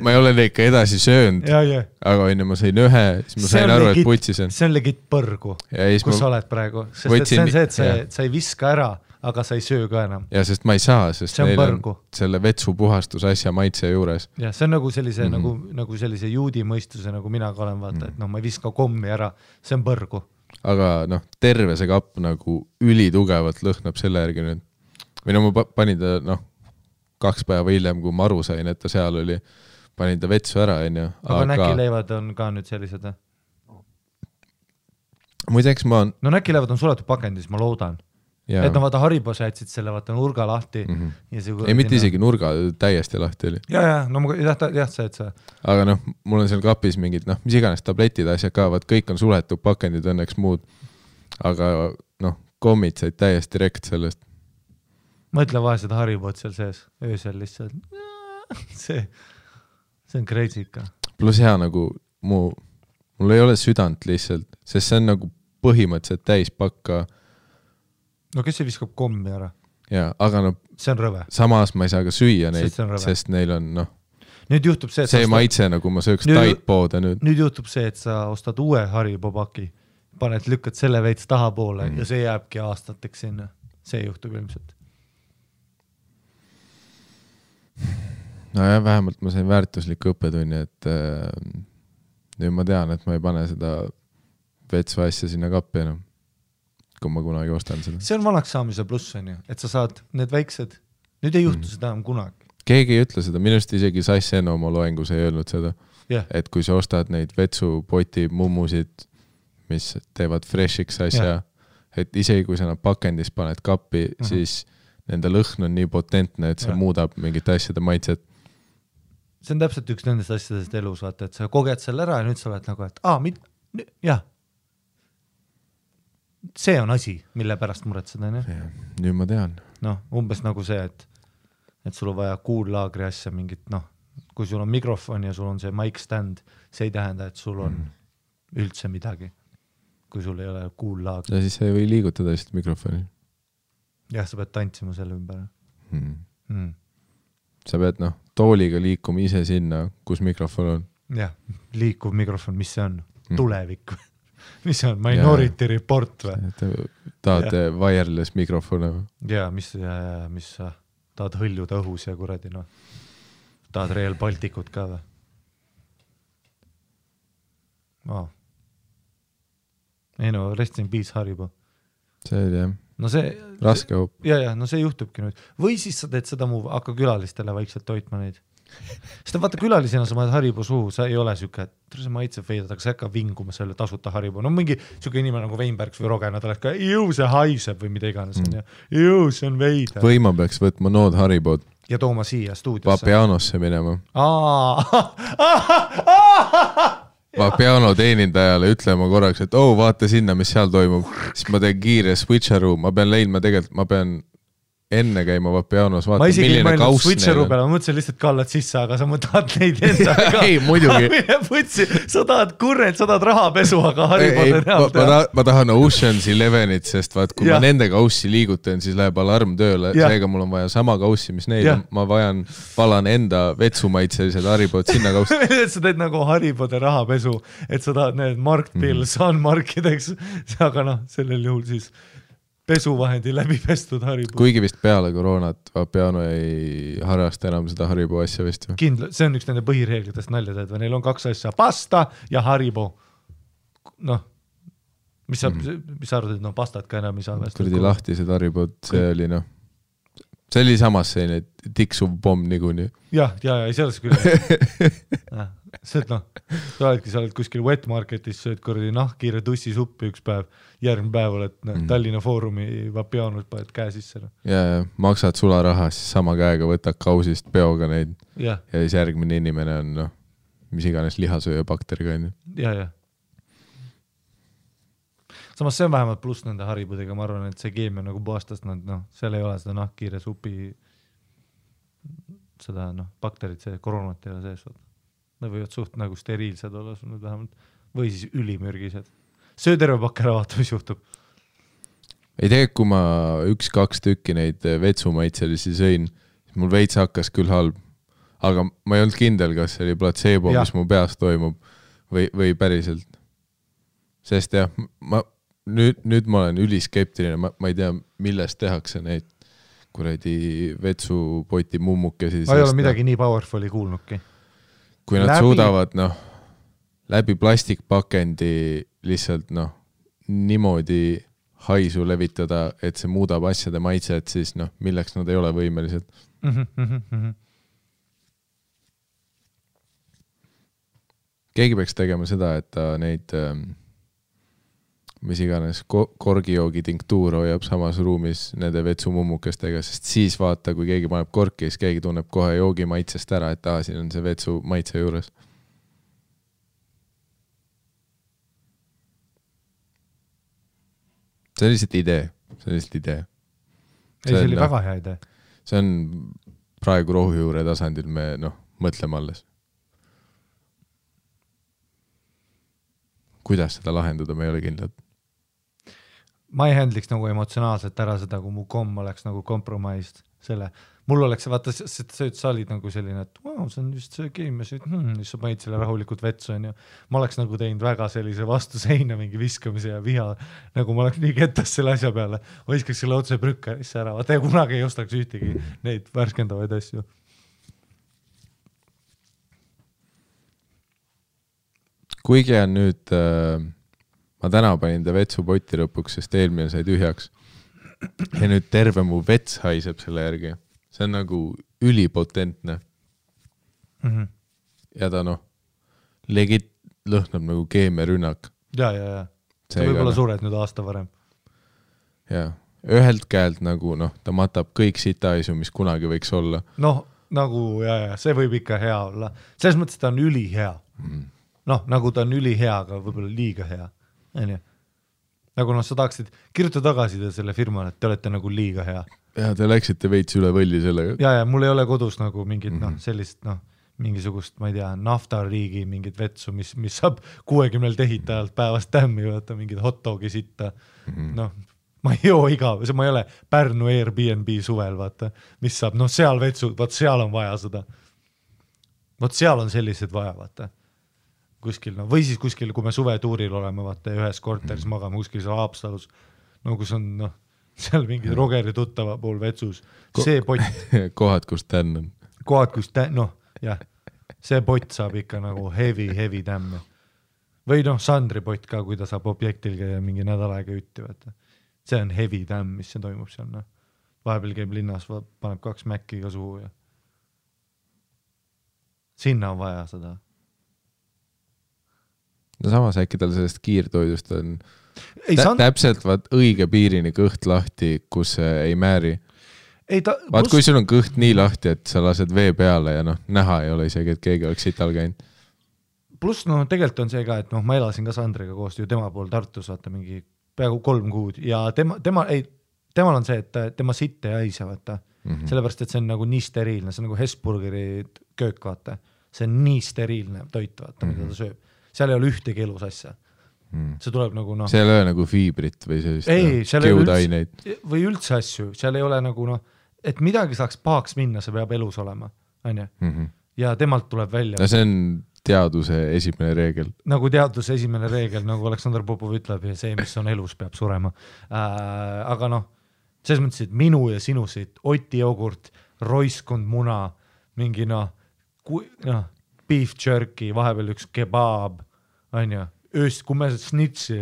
Speaker 1: ma ei ole neid ka edasi söönud, aga ma sain ühe, siis ma sain aru, et putsis on.
Speaker 2: See on legit põrgu, kus sa oled praegu, sest see on see, et sa ei viska ära, aga sa ei söö ka enam.
Speaker 1: Ja sest ma ei saa, sest neil on selle vetsu puhastusasja maitse juures.
Speaker 2: Ja see on nagu sellise, nagu sellise juudi mõistuse, nagu mina ka olen vaata, et ma ei viska kommi ära, see on põrgu.
Speaker 1: Aga terve see kapp nagu ülitugevalt lõhnab selle järgi nüüd. Või ma panin ta, 2 päeva hiljem, kui ma aru sain, et ta seal oli, panin ta vetsu ära,
Speaker 2: Aga näkileivad on ka nüüd sellised?
Speaker 1: Muideks ma on...
Speaker 2: No näkileivad on suletud pakendis, ma loodan. Ja. Et vaata Haribos jätsid selle, vaata nurga lahti.
Speaker 1: Ei, mitte isegi nurga, täiesti lahti oli.
Speaker 2: Ja, see, et see.
Speaker 1: Aga mul on seal kapis mingid, mis iganes tabletid asjad ka, vaat kõik on suletud pakendid, õnneks muud. Aga kommid said täiesti rekt sellest.
Speaker 2: Mõtle vahe seda Haribot seal sees, öösel lihtsalt. See on crazy ikka.
Speaker 1: Plus hea nagu mul ei ole südant lihtsalt, sest see on nagu põhimõtteliselt täispakka.
Speaker 2: No kes see viskab kommi ära?
Speaker 1: Ja, aga
Speaker 2: see on rõve.
Speaker 1: Samas ma ei saa ka süüa neid, sest neil on
Speaker 2: nüüd juhtub see,
Speaker 1: see maitse nagu ma sööks taitpoode nüüd.
Speaker 2: Nüüd juhtub see, et sa ostad uue Haribo paki, paned, lükkad selle veits taha poole ja see jääbki aastateks sinna. See juhtub ilmselt.
Speaker 1: No ja vähemalt ma sain väärtuslikku õppetunni, et nüüd ma tean, et ma ei pane seda vetsu asja sinna kappi enam, kui ma kunagi ostan seda.
Speaker 2: See on vanaks saamise pluss, et sa saad need väiksed, nüüd ei juhtu seda enam kunagi.
Speaker 1: Keegi ei ütle seda, minust isegi Sass Enno oma loengus ei öelnud seda, et kui sa ostad neid vetsupoti mummusid, mis teevad freshiks asja, et isegi kui sa nad pakendis paned kappi, siis nende lõhn on nii potentne, et see muudab mingit asjade maitset.
Speaker 2: See on täpselt üks nendest asjadest elus, vaata, et sa koged selle ära ja nüüd sa oled nagu, et see on asi, mille pärast muretseda.
Speaker 1: Nüüd ma tean.
Speaker 2: Umbes nagu see, et sul on vaja kuullaagri asja mingit, kui sul on mikrofon ja sul on see mic stand, see ei tähenda, et sul on üldse midagi, kui sul ei ole kuullaag.
Speaker 1: Ja siis sa ei või liigutada lihtsalt mikrofoni.
Speaker 2: Jah, sa pead tantsima selle ümber.
Speaker 1: Sa pead tooliga liikuma ise sinna, kus mikrofon on.
Speaker 2: Jah, liikuv mikrofon, mis see on? Tulevik või? Mis see on? Minority Report või?
Speaker 1: Tahad wireless mikrofone või?
Speaker 2: Ja, mis sa tahad hõljuda õhus ja kuradi, tahad Real Balticut ka või? Ei rest in peace Haribo.
Speaker 1: See oli jah.
Speaker 2: No see
Speaker 1: raske hoop.
Speaker 2: Ja, see juhtubki nüüd. Või siis sa teed seda hakka külalistele vaikselt toitma neid. Sest vaata külalisena sa maad Haribo suhu, sa ei ole süke, et see maitseb veidad, aga sa ei hakka vinguma selle tasuta Haribo. No mingi süke inimene nagu Weinbergs või Rogena, ta oleks ka, see haiseb või mida iganes. See on veida.
Speaker 1: Või ma peaks võtma nood Haribod.
Speaker 2: Ja tooma siia stuudiosse.
Speaker 1: Vapianosse minema. Vapiano teenindajale ütlema korraks, et vaata sinna, mis seal toimub. Siis ma teen kiire switcheroo, ma pean enne käima Vapianos, vaata milline kauss neil on.
Speaker 2: Ma mõtlesin lihtsalt kallad sisse, aga sa tahad neid enda ka.
Speaker 1: Ei, muidugi.
Speaker 2: Sa tahad kurrent, sa tahad rahapesu, aga Haribod
Speaker 1: ma tahan Ocean's 11-it, sest vaat, kui ma nende kaussi liigutan, siis läheb alarm tööle. Seega mul on vaja sama kaussi, mis neil on. Ma valan enda vetsumaitselised Haribod sinna kaussi.
Speaker 2: Sa teed nagu Haribode rahapesu, et sa tahad need markpills on markideks, aga sellel juhul siis pesuvahendi läbi pestud Haribo.
Speaker 1: Kuigi vist peale koroonat Vapiano ei harrasta enam seda Haribo asja vist.
Speaker 2: Kindla, see on üks nende põhireeglitest nalja teed, või neil on 2 asja, pasta ja Haribo. Mis sa arvad, et pastat ka enam ei saa?
Speaker 1: Kurdi lahtised Haribod, see oli see oli samas selline tiksuv pomm niikuinii.
Speaker 2: Ja, selles küll. See, sa oled kuskil wet marketis, sööd kurdi nahkkiire tussisuppi üks päev, järgmine päev oled Tallinna Foorumi Vapianus paned käe sisse.
Speaker 1: Ja, maksad sularaha, siis sama käega võtad kausist peoga neid.
Speaker 2: Ja
Speaker 1: siis järgmine inimene on, mis iganes lihasööja bakteriga.
Speaker 2: Ja. Samas see on vähemalt pluss nende Haribudega, ma arvan, et see keemia nagu puhastast, seal ei ole seda nahkkiire supi, seda bakterid, see koroonat ei ole sees. Nad võivad suht nagu steriilsed olla sul nüüd vähemalt, või siis ülimürgised. Söö terve pakk ära, vaata, mis juhtub.
Speaker 1: Ei tea, kui ma 1-2 tükki neid vetsumaitselisi sõin, mul veits hakkas küll halb, aga ma ei olnud kindel, kas see oli placebo, mis mu peas toimub või päriselt. Sest jah, nüüd ma olen üliskeptiline, ma ei tea, millest tehakse neid kuradi vetsupoti mummukesi.
Speaker 2: Ma ei ole midagi nii powerfulli kuulnudki.
Speaker 1: Kui nad suudavad läbi plastikpakendi lihtsalt niimoodi haisu levitada, et see muudab asjade maitset, siis milleks nad ei ole võimelised. Keegi peaks tegema seda, et ta neid mis iganes korgijoogi tinktuur hoiab samas ruumis nende vetsumummukestega, sest siis vaata, kui keegi paneb korki, siis keegi tunneb kohe joogi maitsest ära, et siin on see vetsu maitse juures. See on lihtsalt idee.
Speaker 2: See oli väga hea idee.
Speaker 1: See on praegu rohujuure tasandil me mõtleme alles. Kuidas seda lahendada, me ei ole kindlad.
Speaker 2: Ma ei handliks nagu emotsionaalselt ära seda, kui mu komm oleks nagu kompromised selle. Mul oleks, vaata, sa olid nagu selline, et see on just see keemia, siis sa panid selle rahulikult vetsu. Ma oleks nagu teinud väga sellise vastu seina mingi viskamise ja viha, nagu ma oleks nii kettas selle asja peale. Viskaks selle otse brükkarisse ära, vaata ja kunagi ei ostaks ühtegi neid värskendavaid asju.
Speaker 1: Kuigi on nüüd, ma täna panin ta vetsupoti lõpuks, sest eelmine sai tühjaks. Ja nüüd terve mu vets haiseb selle järgi. See on nagu ülipotentne. Ja ta legit lõhnab nagu keemiarünnak.
Speaker 2: Ja. See võib-olla sured nüüd aasta varem.
Speaker 1: Ja, ühelt käelt nagu, ta matab kõik sitaisu, mis kunagi võiks olla.
Speaker 2: Nagu, see võib ikka hea olla. Selles mõttes ta on ülihea. Nagu ta on ülihea, aga võib-olla liiga hea. Nagu sa tahaksid kirjuta tagasi selle firmale, et te olete nagu liiga hea.
Speaker 1: Ja te läksite veits üle võlli sellega.
Speaker 2: Ja mul ei ole kodus nagu mingit sellist mingisugust, ma ei tea, naftariigi mingit vetsu, mis saab 60 tehitajalt päevast tämmi, vaata mingid hot dogi sitta, noh, ma ei joo ma ei ole Pärnu Airbnb suvel, vaata, mis saab, noh, seal vetsu, vaat seal on vaja seda. Vaat seal on sellised vaja, vaata. Kuskil, no, või siis kuskil, kui me suvetuuril oleme, vaata, ühes korteris magame kuskil seal Haapsalus, no kus on, noh, seal mingi Rogeri tuttava pool vetsus, see pott.
Speaker 1: Kohad, kus tän on.
Speaker 2: Kohad, kus noh, jah, see pott saab ikka nagu heavy tämmi. Või noh, Sandri pott ka, kui ta saab objektil käia mingi nädal aega ütti, vaata. See on heavy tämm, mis see toimub seal, noh. Vahepeal käib linnas, paneb 2 mäkki ka suhu ja sinna on vaja seda.
Speaker 1: No samas äkki tal sellest kiirtoidust on täpselt vaat õige piirini kõht lahti, kus ei määri. Vaat kui sul on kõht nii lahti, et sa lased vee peale ja noh, näha ei ole isegi, et keegi oleks sital käinud.
Speaker 2: Pluss noh, tegelikult on see ka, et noh, ma elasin ka Sandriga koos ju tema pool Tartus, vaata mingi peaaegu 3 kuud ja temal on see, et tema sitt ei haise, vaata. Sellepärast, et see on nagu nii steriilne, see on nagu Hesburgeri köök, vaata. See on nii steriilne toit, vaata, mida ta sööb. Seal ei ole ühtegi elus asja. See tuleb nagu noh.
Speaker 1: Seal ei ole nagu fiibrit või sellist keudaineid.
Speaker 2: Või üldse asju, seal ei ole nagu noh, et midagi saaks pahaks minna, see peab elus olema, on ju? Ja temalt tuleb välja.
Speaker 1: No see on teaduse esimene reegel.
Speaker 2: Nagu teaduse esimene reegel, nagu Aleksandr Popov ütleb, ja see, mis on elus, peab surema. Aga noh, selles mõttes, et minu ja sinu siit, Oti jogurt, roiskund muna, mingi noh, beef jerky, vahepeal üks kebab, on ju, kui me snitsi,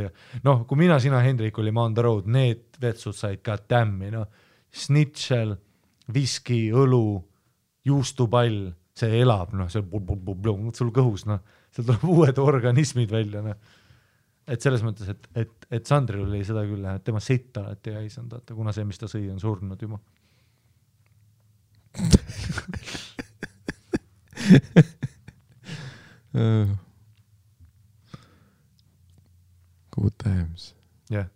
Speaker 2: noh, kui mina, sina, Hendrik olime on the road, need vetsud said ka tämmi, noh, snitšel, viski, õlu, juustupall, see elab, noh, see sul kõhus, noh, seal tuleb uued organismid välja, noh. Et selles mõttes, et Sandril oli seda küll, et tema sitt alati ei haisanud, kuna see, mis ta sõi, on surnud juba.
Speaker 1: Good times.
Speaker 2: Jah.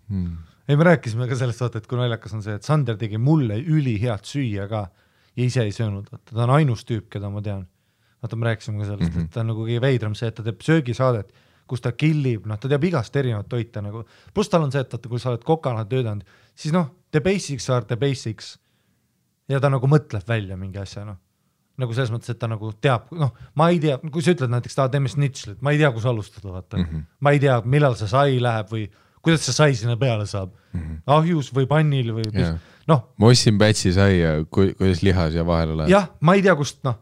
Speaker 2: Ei, me rääkisime ka sellest, vaata, et kui naljakas on see, et Sander tegi mulle ülihead süüa ka ja ise ei söönud, vaata, ta on ainus tüüp, keda ma tean. Vaata, me rääkisime ka sellest, et ta on nagu kõige veidram see, et ta teeb söögisaadet, kus ta killib, noh, ta teab igast erinevat toita nagu. Plus tal on see, et kui sa oled kokana töödanud, siis noh, the basics are the basics. Ja ta nagu mõtleb välja mingi asja, noh. Nagu selles mõttes, et ta nagu teab, noh, ma ei tea, kui sa ütled näiteks, ta teeme snitšlit, ma ei tea, kus alustada, vaata. Ma ei tea, millal see sai läheb või kuidas see sai sinna peale saab. Ahjus või pannil või noh.
Speaker 1: Mossin pätsi sai ja kuidas lihas ja vahele läheb.
Speaker 2: Jah, ma ei tea, kust, noh.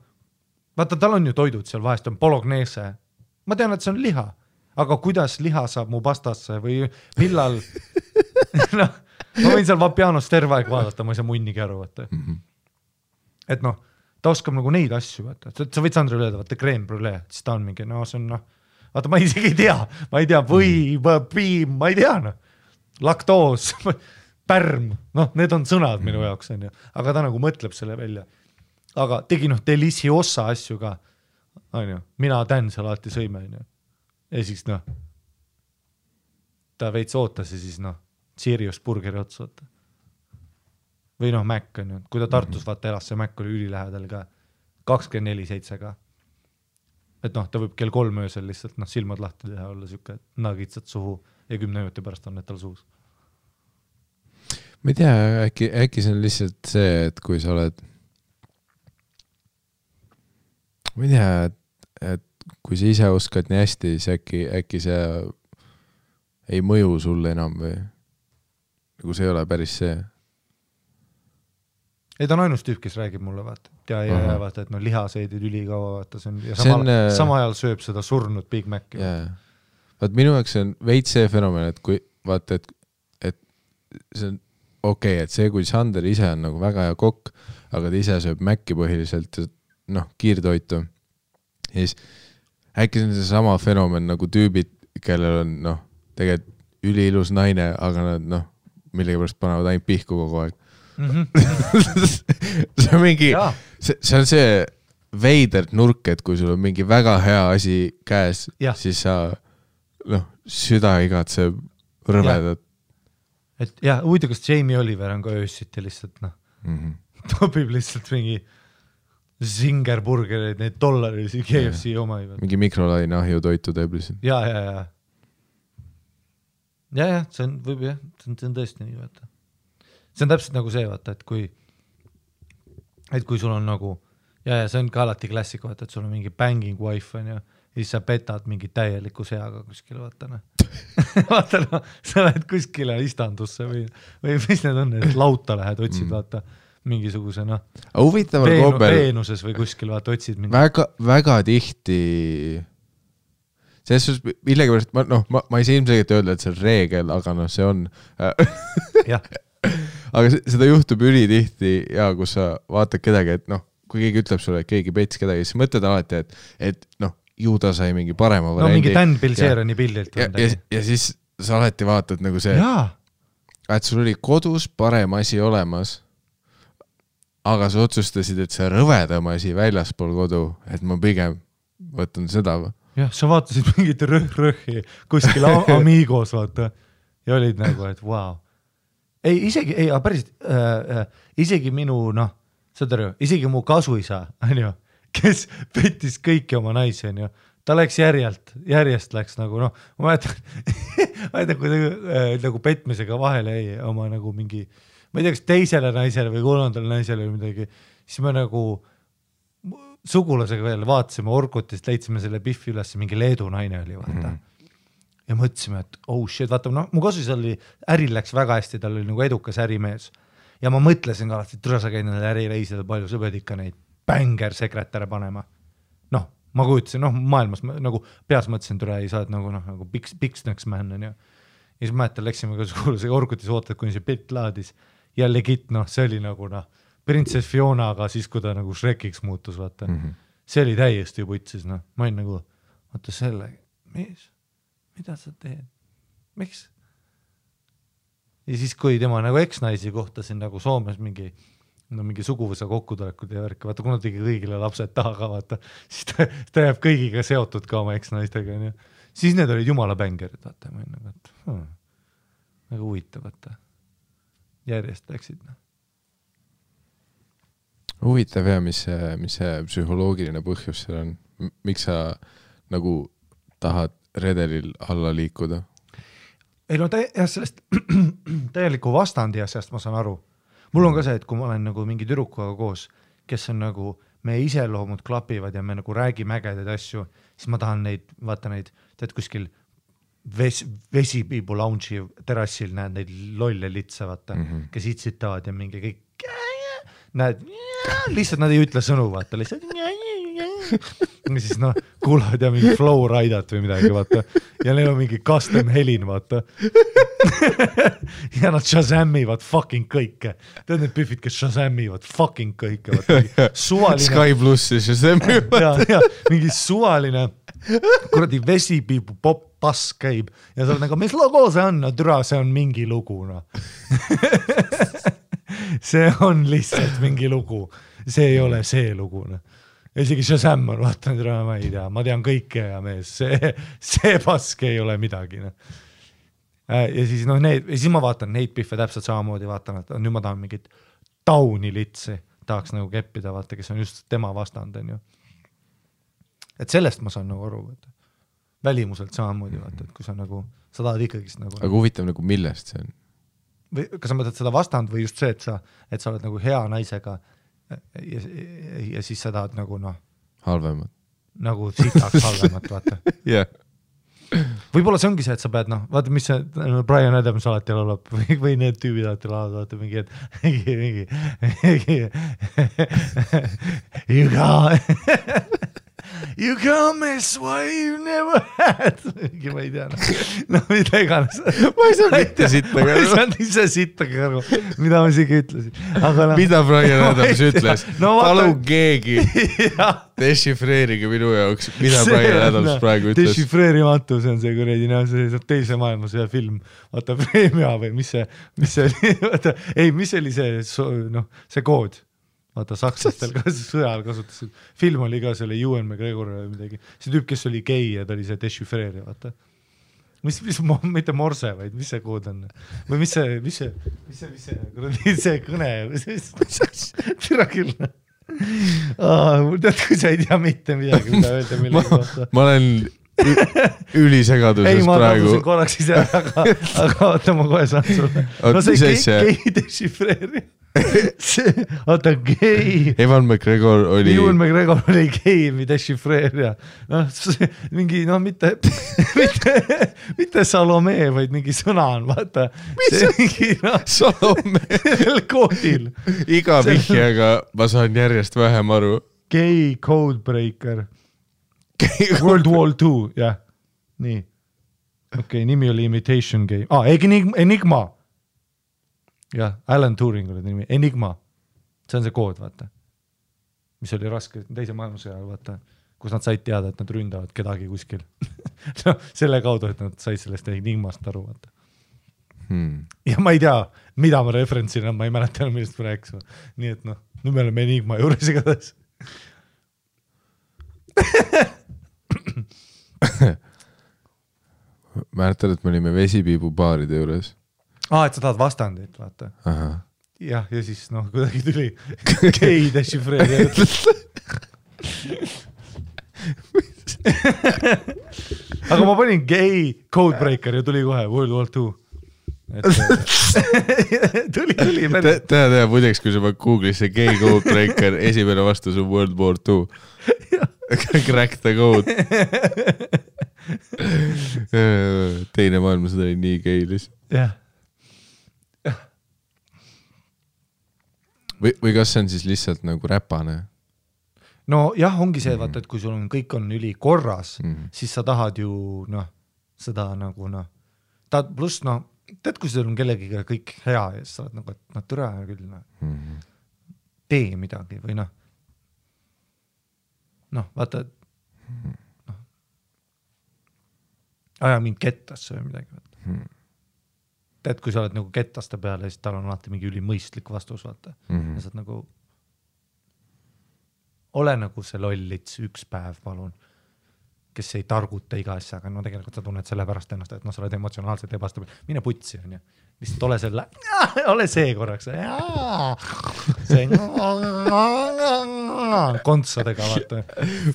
Speaker 2: Vaata, tal on ju toidud seal vahest, on bolognese. Ma tean, et see on liha. Aga kuidas liha saab mu pastasse või millal noh, ma võin seal Vapianos terve aeg vaadata, ma ei saa munnigi aru, vaata. Et noh, ta oskab nagu neid asju, vaata. Sa võid Sandrile öelda, vaata, crème brûlée, siis ta on mingi, no see on noh, vaata, ma isegi ei tea, piim, ma ei tea, noh. Laktoos, pärm, noh, need on sõnad minu jaoks, on ju. Aga ta nagu mõtleb selle välja. Aga tegi noh, deliciosa asju ka, on ju. Mina tän seal alati sõime, on ju. Ja siis noh, ta veits ootas ja siis noh, Sirius burgeri otsata. Või noh, Mac on ju, kui ta Tartus vaata elas, see Mac oli ülilähedal ka, 24/7 ka. Et noh, ta võib kell 3 öösel lihtsalt noh, silmad lahti teha, olla siuke nagitsad suhu ja 10 minuti pärast on need tal suus.
Speaker 1: Ma ei tea, äkki see on lihtsalt see, et kui sa oled ma ei tea, et kui sa ise oskad nii hästi, siis äkki see ei mõju sulle enam või nagu see ei ole päris see.
Speaker 2: Ei, ta on ainus tüüp, kes räägib mulle, vaata. Ja vaata, et no lihaseedid ülikaua, vaata, sama ajal sööb seda surnud Big Maci.
Speaker 1: Vaat minu jaoks on veits see fenomen, et kui vaata, et see on okei, et see, kui Sander ise on nagu väga hea kokk, aga ta ise sööb Maci põhiliselt noh, kiirtoitu. Ja siis äkki see on see sama fenomen nagu tüübid, kellel on noh, tegelikult üliilus naine, aga nad noh, millegipärast panevad ainult pihku kogu aeg. see on mingi, see on see veidert nurk, et kui sul on mingi väga hea asi käes, siis sa noh, süda igatseb rõvedad.
Speaker 2: Et jah, huvitav, kas Jamie Oliver on ka öössiti lihtsalt noh, topib lihtsalt mingi Zingerburgereid, neid dollarilisi KFC oma.
Speaker 1: Mingi mikrolaine ahju toitu teeb lihtsalt.
Speaker 2: Ja, see on, võib jah, see on tõesti nii, vaata. See on täpselt nagu see, vaata, et kui sul on nagu, ja see on ka alati klassik, vaata, et sul on mingi banging wife on ja siis sa petad mingi täieliku seaga kuskile, vaata noh. Vaata noh, sa lähed kuskile istandusse või mis need on, et lauta lähed, otsid, vaata, mingisuguse noh, Veenuses või kuskil, vaata, otsid mingi.
Speaker 1: Väga tihti, selles suhtes millegipärast, ma ei saa ilmselgelt öelda, et see on reegel, aga noh, see on. Aga seda juhtub ülitihti ja kus sa vaatad kedagi, et noh, kui keegi ütleb sulle, et keegi pets kedagi, siis mõtled alati, et noh, ju ta sai mingi parema variandi.
Speaker 2: No mingi Dan Bilzerani pildilt.
Speaker 1: Ja siis sa alati vaatad nagu see, et sul oli kodus parem asi olemas, aga sa otsustasid, et see rõvedam asi väljaspool kodu, et ma pigem võtan seda.
Speaker 2: Jah, sa vaatasid mingit rõhhi kuskil Amigos, vaata, ja olid nagu, et wow. Isegi minu, noh, saad aru, isegi mu kasuisa, on ju, kes pettis kõiki oma naisi, on ju, ta läks järjest läks nagu, noh, ma mäletan, kui nagu petmisega vahele jäi oma nagu mingi, ma ei tea, kas teisele naisele või kolmandale naisele või midagi, siis me nagu sugulasega veel vaatasime Orkutist, leidsime selle Biffi üles, mingi Leedu naine oli, vaata. Ja mõtlesime, et oh shit, vaata, no, mu kasus oli, äril läks väga hästi, tal oli nagu edukas ärimees. Ja ma mõtlesin ka alati, et sa käid nendele ärireisidel palju, sa pead ikka neid bängersekretäre panema. Noh, ma kujutasin, noh, maailmas nagu peas mõtlesin, türa ei saad nagu piksnäks man on ja siis mäletan, läksime ka sugulasega Orkutis ootad, kuni see pilt laadis ja legit, noh, see oli nagu, noh, Princess Fionaga siis, kui ta nagu Shrekiks muutus, vaata. See oli täiesti putsis, noh, ma olin nagu, vaata selle, mida sa teed? Miks? Ja siis, kui tema nagu eksnaisi kohtasin nagu Soomes mingi suguvõsa kokkutulekud ja värk, vaata, kuna tegi kõigile lapsed taha, vaata, siis ta jääb kõigiga seotud ka oma eksnaistega, ja siis need olid jumala bängerid, vaata, ma olin nagu, et väga huvitav, vaata. Järjest läksid, noh.
Speaker 1: Huvitav ja mis see psühholoogiline põhjus seal on? Miks sa nagu tahad redelil alla liikuda?
Speaker 2: Ei no sellest täieliku vastandi asjast ma saan aru. Mul on ka see, et kui ma olen nagu mingi tüdrukuga koos, kes on nagu, me iseloomud klapivad ja me nagu räägime ägedaid asju, siis ma tahan neid, vaata neid, tead kuskil vesipiibu lounge'i terassil näed neid lolle litsa, vaata, kes itsitavad ja mingi kõik näed, lihtsalt nad ei ütle sõnu, vaata, lihtsalt ja siis noh, kuulavad ja mingi flow raidat või midagi, vaata, ja neil on mingi custom helin, vaata. Ja nad shazamivad fucking kõike. Tead need püfid, kes shazamivad fucking kõike, vaata. Suvaline...
Speaker 1: Sky Plussi shazamivad.
Speaker 2: Ja, mingi suvaline kuradi vesipiibu pop pass käib ja sa oled nagu, mis logo see on? No türa, see on mingi lugu, no. See on lihtsalt mingi lugu. See ei ole see lugu, no. Isegi Shazam on, vaatan, ma ei tea, ma tean kõike ja mees, see pask ei ole midagi. No. Ja siis, no, siis ma vaatan neid pihve täpselt samamoodi, vaatan, et nüüd ma tahan mingit tauni litsi, tahaks nagu keppida, vaata, kes on just tema vastand, on ju. Et sellest ma saan nagu aru, vaata. Välimuselt samamoodi, vaata, et kui sa nagu, sa tahad ikkagist nagu...
Speaker 1: Aga huvitav nagu millest see on?
Speaker 2: Või kas sa mõtled seda vastand või just see, et sa oled nagu hea naisega ja siis sa tahad nagu noh
Speaker 1: halvemat.
Speaker 2: Nagu sitaks halvemat, vaata.
Speaker 1: Yeah.
Speaker 2: Võib-olla see ongi see, et sa pead noh, vaata mis see Brian Adams alati laulab või need tüübid alati laulavad, vaata mingi, you can't miss what you never had. Ma ei tea, no mida iganes.
Speaker 1: Ma ei saa mitte sitta
Speaker 2: ma ei saanud ise sitta kõrvu, mida ma isegi ütlesin. Aga no,
Speaker 1: mida Brian Adams ütles? No, palun keegi dešifreerige minu jaoks, mida Brian Adams praegu ütles.
Speaker 2: Dešifreerimatu, see on see kuredi, see teise maailmas ühe film, vaata Premia või mis see oli, vaata, ei, mis oli see kood? Vaata, sakslastel ka sõjal kasutasid. Film oli ka selle Ewan McGregor või midagi. See tüüp, kes oli gei ja ta oli see dešifreeri, vaata. Mitte morse, vaid mis see kood on? Või mis see kõne? Tira küll. Tead, kui sa ei tea mitte midagi, mida öelda millegi kohta.
Speaker 1: Ma olen ülisegaduses praegu.
Speaker 2: Ei, ma korraks ise, aga oota, ma kohe saan sulle. No see gei dešifreeri. Oota, gei.
Speaker 1: Ewan McGregor oli
Speaker 2: gei dešifreerija. Mingi, mitte Salome, vaid mingi sõna on, vaata.
Speaker 1: Salome?
Speaker 2: Sellel koodil.
Speaker 1: Iga vihjaga ma saan järjest vähem aru.
Speaker 2: Gei codebreaker. World War II, jah. Nii. Okei, nimi oli Imitation Game. Enigma. Jah, Alan Turing oli nimi. Enigma. See on see kood, vaata. Mis oli raske teise maailmasõja, vaata. Kus nad said teada, et nad ründavad kedagi kuskil. No, selle kaudu, et nad said sellest Enigmast aru, vaata. Ja ma ei tea, mida ma referentsin, ma ei mäleta, millest ma rääkis. Nii et nüüd me oleme Enigma juures igatahes.
Speaker 1: Mäletad, et me olime vesipiibu baaride juures.
Speaker 2: Et sa tahad vastandit, vaata. Jah, ja siis kuidagi tuli gei dešifreeri. Aga ma panin gei codebreaker ja tuli kohe World War II. Tuli.
Speaker 1: Tea, muideks, kui sa paned Google'isse gei codebreaker, esimene vastus on World War II. Crack the code. Teine maailmasõda oli nii geilis.
Speaker 2: Jah.
Speaker 1: Või kas see on siis lihtsalt nagu räpane?
Speaker 2: No jah, ongi see, vaata, et kui sul on kõik on üli korras, siis sa tahad ju, seda nagu, pluss, tead, kui sul on kellegiga kõik hea ja sa oled nagu, et türa küll, tee midagi või vaata, aja mind kettasse või midagi, vaata. Tead, kui sa oled nagu kettaste peale, siis tal on alati mingi ülimõistlik vastus, vaata. Ja sa oled nagu, ole nagu see lollits üks päev, palun, kes ei targuta iga asja, aga tegelikult sa tunned selle pärast ennast, et sa oled emotsionaalselt ebastabil. Mine putsi, on ju. Lihtsalt ole selle, ole see korraks. See kontsadega, vaata.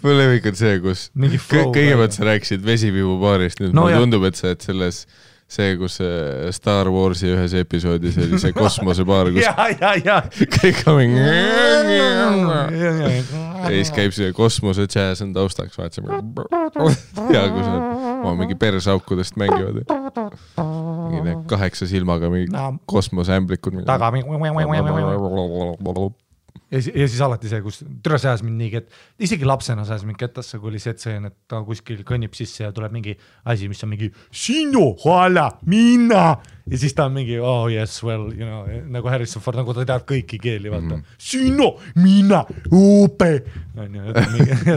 Speaker 1: Mul lemmik on see, kus kõigepealt sa rääkisid vesipiibu baarist, nüüd mulle tundub, et sa et selles see, kus Star Warsi ühes episoodis oli see kosmosebaar, kus kõik on ja siis käib see kosmose jazz on taustaks, vaatsime ja kus on mingi persaukudest mängivad mingi 8 silmaga mingi kosmoseämblikud
Speaker 2: taga ja siis alati see, kus türa sääs mind nii, et isegi lapsena sääs mind kettasse, kui oli see, et ta kuskil kõnnib sisse ja tuleb mingi asi, mis on mingi sinu, hala, minna ja siis ta on mingi, oh yes, well, you know, nagu Harrison Ford, nagu ta tead kõiki keeli, vaata sinu, minna, upe ja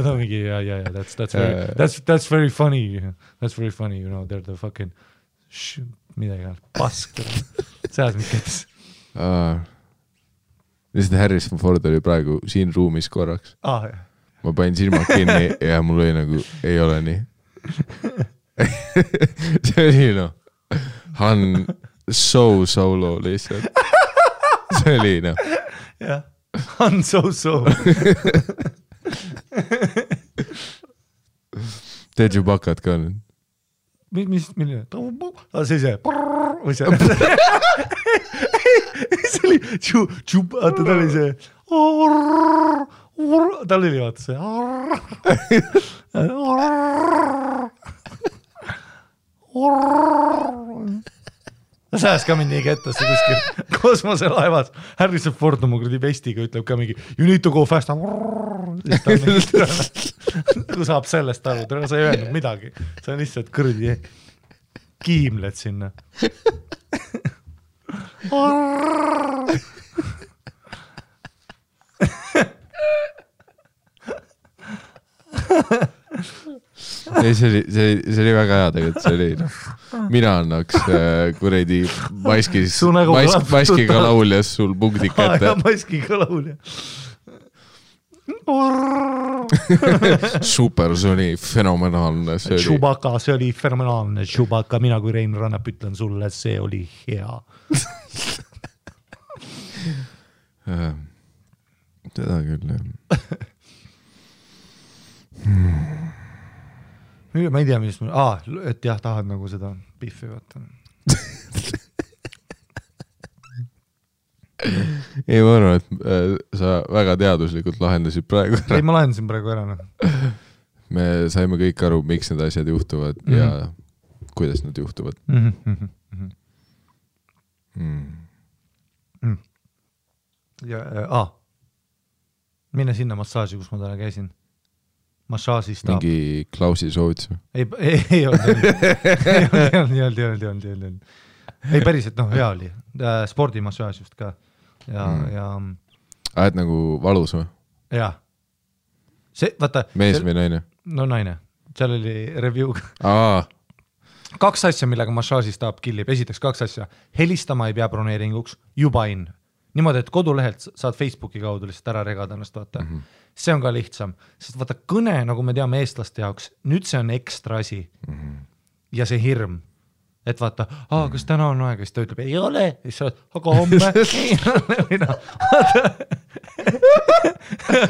Speaker 2: ta mingi, yeah, that's very funny, you know, they're the fucking midagi, pask sääs mind kettasse lihtsalt Harrison Ford oli praegu siin ruumis korraks. Ma panin silmad kinni ja mul oli nagu, ei ole nii. See oli Han Solo lihtsalt. See oli jah, Han So.
Speaker 1: Teed ju bakad ka nüüd?
Speaker 2: Milline? See. Või see? See oli vaata, ta oli see tal oli vaata see sääs ka mind nii kettasse kuskil kosmoselaevas Harrison Ford oma kuradi vestiga ütleb ka mingi you need to go fast kui saab sellest aru, sa ei öelnud midagi, sa on lihtsalt kõrdi kiimled sinna
Speaker 1: see oli väga hea tegelikult, see oli mina annaks kuredi maskiga lauljas sul punktid kätte.
Speaker 2: Maskiga laulja.
Speaker 1: Supersoni fenomenaalne.
Speaker 2: Chewbacca, see oli fenomenaalne. Chewbacca, mina kui Rein Rannap ütlen sulle, see oli hea.
Speaker 1: Seda küll, jah.
Speaker 2: Ma ei tea, mis et jah, tahad nagu seda biffi vaata.
Speaker 1: Ei, ma arvan, et sa väga teaduslikult lahendasid praegu ära.
Speaker 2: Ei, ma lahendasin praegu ära.
Speaker 1: Me saime kõik aru, miks need asjad juhtuvad ja kuidas nad juhtuvad.
Speaker 2: Ja, mine sinna massaaži, kus ma täna käisin. Massaažist
Speaker 1: mingi Klausi soovitus?
Speaker 2: Ei olnud. Ei päriselt, hea oli. Spordimassaaž just ka.
Speaker 1: Et nagu valus või?
Speaker 2: Jaa. Vaata,
Speaker 1: mees või naine?
Speaker 2: No naine. Seal oli review. 2 asja, millega massaažistaab killib. Esiteks 2 asja. Helistama ei pea broneeringuks, juba in. Niimoodi, et kodulehelt saad Facebooki kaudu lihtsalt ära regada ennast, vaata. See on ka lihtsam. Sest vaata, kõne, nagu me teame eestlaste jaoks, nüüd see on ekstra asi. Ja see hirm. Et vaata, kas täna on aega, siis ta ütleb, ei ole. Siis sa oled, aga homme ei ole.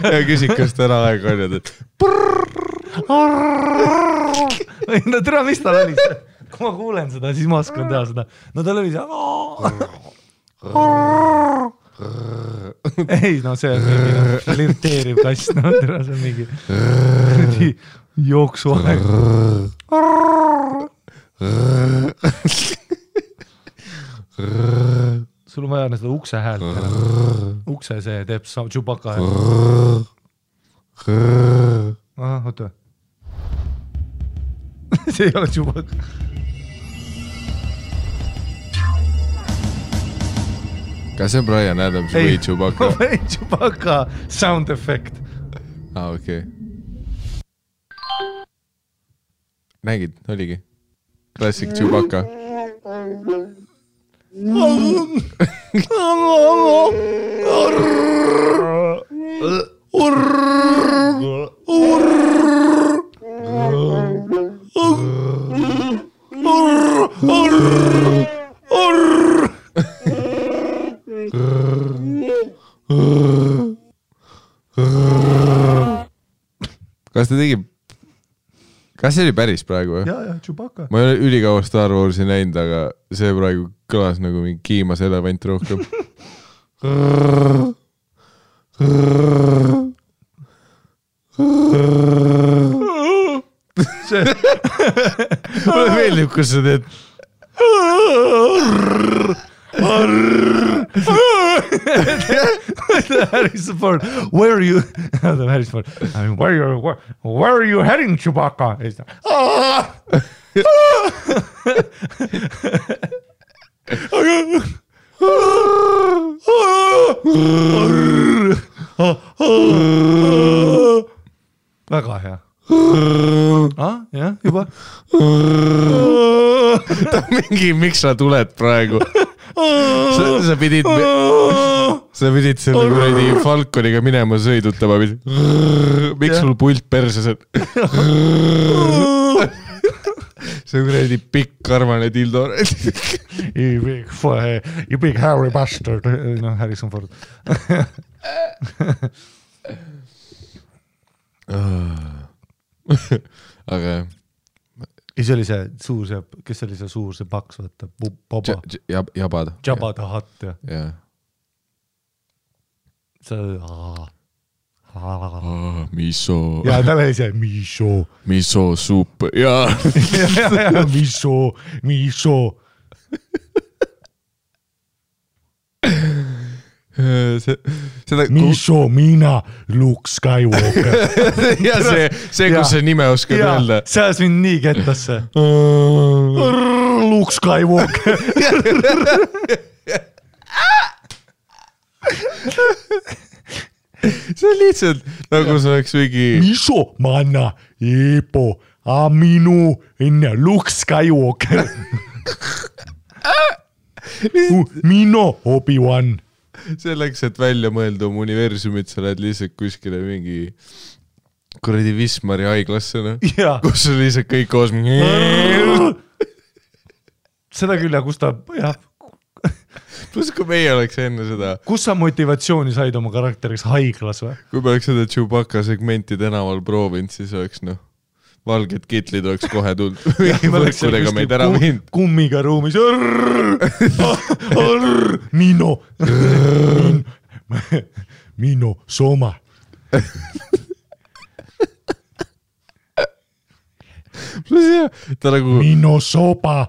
Speaker 1: Ja küsid, kas täna aega on, et
Speaker 2: no tere, mis tal oli see? Kui ma kuulen seda, siis ma oskan teha seda. No tal oli see ei, no see on mingi flirteeriv kass, no tere, see on mingi jooksuaeg. Sul on vaja seda ukse häält. Ukse see teeb Chewbacca häält. Oota. See ei ole Chewbacca.
Speaker 1: Kas see on Brian Adams või Chewbacca?
Speaker 2: Või Chewbacca sound effect.
Speaker 1: Okei. Nägid, oligi. Classic Chewbacca. Kas see oli päris praegu või?
Speaker 2: Jaa, Chewbacca.
Speaker 1: Ma ei ole ülikaua Star Warsi näinud, aga see praegu kõlas nagu mingi kiimas elevant rohkem. Mulle meeldib, kus sa teed.
Speaker 2: Harrison Ford, where are you? Harrison Ford, where are you heading, Chewbacca? Väga hea. Jah, juba.
Speaker 1: Mingi, miks sa tuled praegu? Sa pidid selle kuradi Falconiga minema sõidutama. Miks sul pult perses? See kuradi pikk karmane dildo.
Speaker 2: You big hairy bastard. No, Harrison Ford.
Speaker 1: Aga
Speaker 2: see oli see suur, kes oli see suur, see paks, võtta, Boba.
Speaker 1: Jabad.
Speaker 2: Jabba the Hutt,
Speaker 1: jah.
Speaker 2: See
Speaker 1: miso.
Speaker 2: Ja, tal oli see miso.
Speaker 1: Miso supp, jaa.
Speaker 2: Miso. Miso, mina, Luke Skywalker.
Speaker 1: Ja see kus see nime oskad öelda.
Speaker 2: See ajas mind nii kettasse. Luke Skywalker.
Speaker 1: See on lihtsalt nagu see oleks mingi
Speaker 2: Miso, manna, Eepo, Aminu, enne Luke Skywalker. Mino, Obi-Wan.
Speaker 1: Selleks, et välja mõelda oma universumit, sa lähed lihtsalt kuskile mingi kuradi Wismari haiglassena, kus on lihtsalt kõik koos.
Speaker 2: Seda küll, ja kus ta, jah,
Speaker 1: Plus kui meie oleks enne seda,
Speaker 2: kus sa motivatsiooni said oma karakteriks haiglas või?
Speaker 1: kui me oleks seda Chewbacca segmenti tänaval proovinud, siis oleks valged kitlid oleks kohe tulnud. Mingi võrkudega meid ära viinud.
Speaker 2: Kummiga ruumis. Mino. Mino Soma.
Speaker 1: Ta nagu...
Speaker 2: Mino Soba,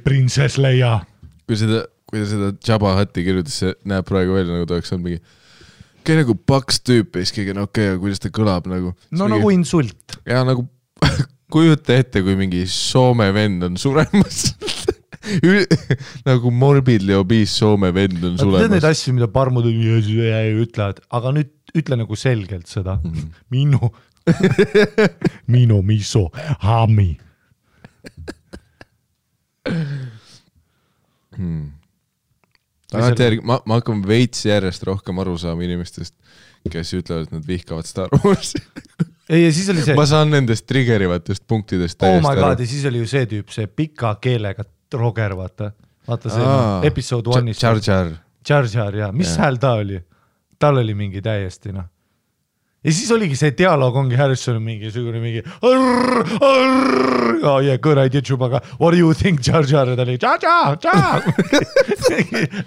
Speaker 2: prinsess Leia.
Speaker 1: Kui ta seda Jabba Hutti kirjutas, see näeb praegu välja, nagu ta oleks olnud mingi nagu paks tüüp, iskigi, okei, kuidas ta kõlab nagu.
Speaker 2: No nagu insult.
Speaker 1: Ja nagu kujuta ette, kui mingi Soome vend on suremas. Nagu morbidly obese Soome vend on suremas.
Speaker 2: Tead neid asju, mida parmud ütlevad, aga nüüd ütle nagu selgelt seda. Mino miso hami.
Speaker 1: Ma hakkan veits järjest rohkem aru saama inimestest, kes ütlevad, et nad vihkavad Star Warsi.
Speaker 2: Ei, ja siis oli see...
Speaker 1: Ma saan nendest triggerivatest punktidest täiesti
Speaker 2: my God, ja siis oli ju see tüüp, see pika keelega Roger, vaata see episode 1-is. Jar Jar, jah. Mis hääl ta oli? Tal oli mingi täiesti, noh. Ja siis oligi see dialoog ongi Harrison mingi oh yeah, good idea Chewbacca, what do you think Jar Jar, ja ta oli Jar Jar, Jar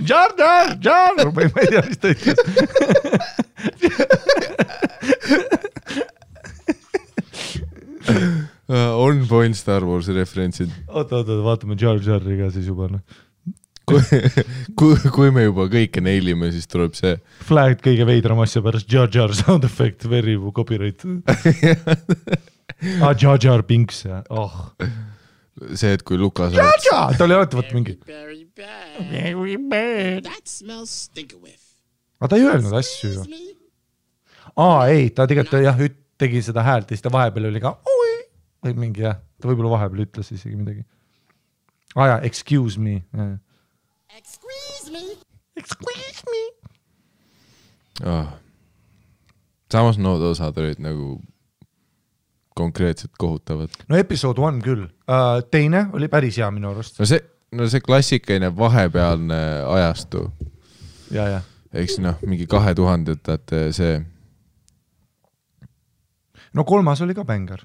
Speaker 2: Jar Jar, Jar, ma ei tea, mis ta ütles.
Speaker 1: On point Star Warsi referentsid.
Speaker 2: Oota, vaatame Jar Jarri ka siis juba, noh.
Speaker 1: Kui me juba kõike neilime, siis tuleb see
Speaker 2: Flag kõige veidram asja pärast Jar Jar sound effect, very copyright. Jar Jar Binks, ja
Speaker 1: see, et kui Lukas
Speaker 2: Jar Jar, ta oli alati võt mingi aga ta ei öelnud asju ju. Ei, ta tegelikult jah, tegi seda häält ja siis ta vahepeal oli ka või mingi jah, ta võib-olla vahepeal ütles isegi midagi. Ja, excuse me. Excuse me.
Speaker 1: Samas nood osad olid nagu konkreetselt kohutavad.
Speaker 2: No episode 1 küll. Teine oli päris hea minu arust.
Speaker 1: No see klassikaline vahepealne ajastu.
Speaker 2: Ja.
Speaker 1: Eks mingi 2000-ndate see.
Speaker 2: No 3 oli ka bängar.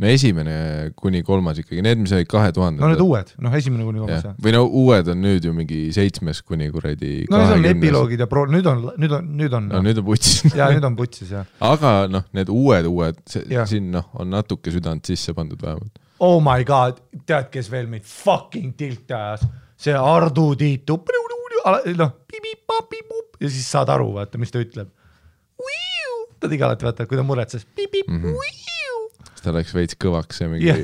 Speaker 1: No esimene kuni 3 ikkagi, need mis olid 2000.
Speaker 2: No need uued, esimene kuni 3.
Speaker 1: Või uued on nüüd ju mingi 7 kuni kuradi 20.
Speaker 2: No need on epiloogid ja nüüd on.
Speaker 1: No nüüd on putsis.
Speaker 2: Ja nüüd on putsis, jah.
Speaker 1: Aga need uued, siin on natuke südant sisse pandud vähemalt.
Speaker 2: Oh my God, tead, kes veel meid fucking tilt ajas? See Ardu Tiitu, ja siis saad aru, vaata, mis ta ütleb. Ta tegi alati, vaata, kui ta muretses.
Speaker 1: Ta läks veits kõvaks ja mingi...
Speaker 2: Ja.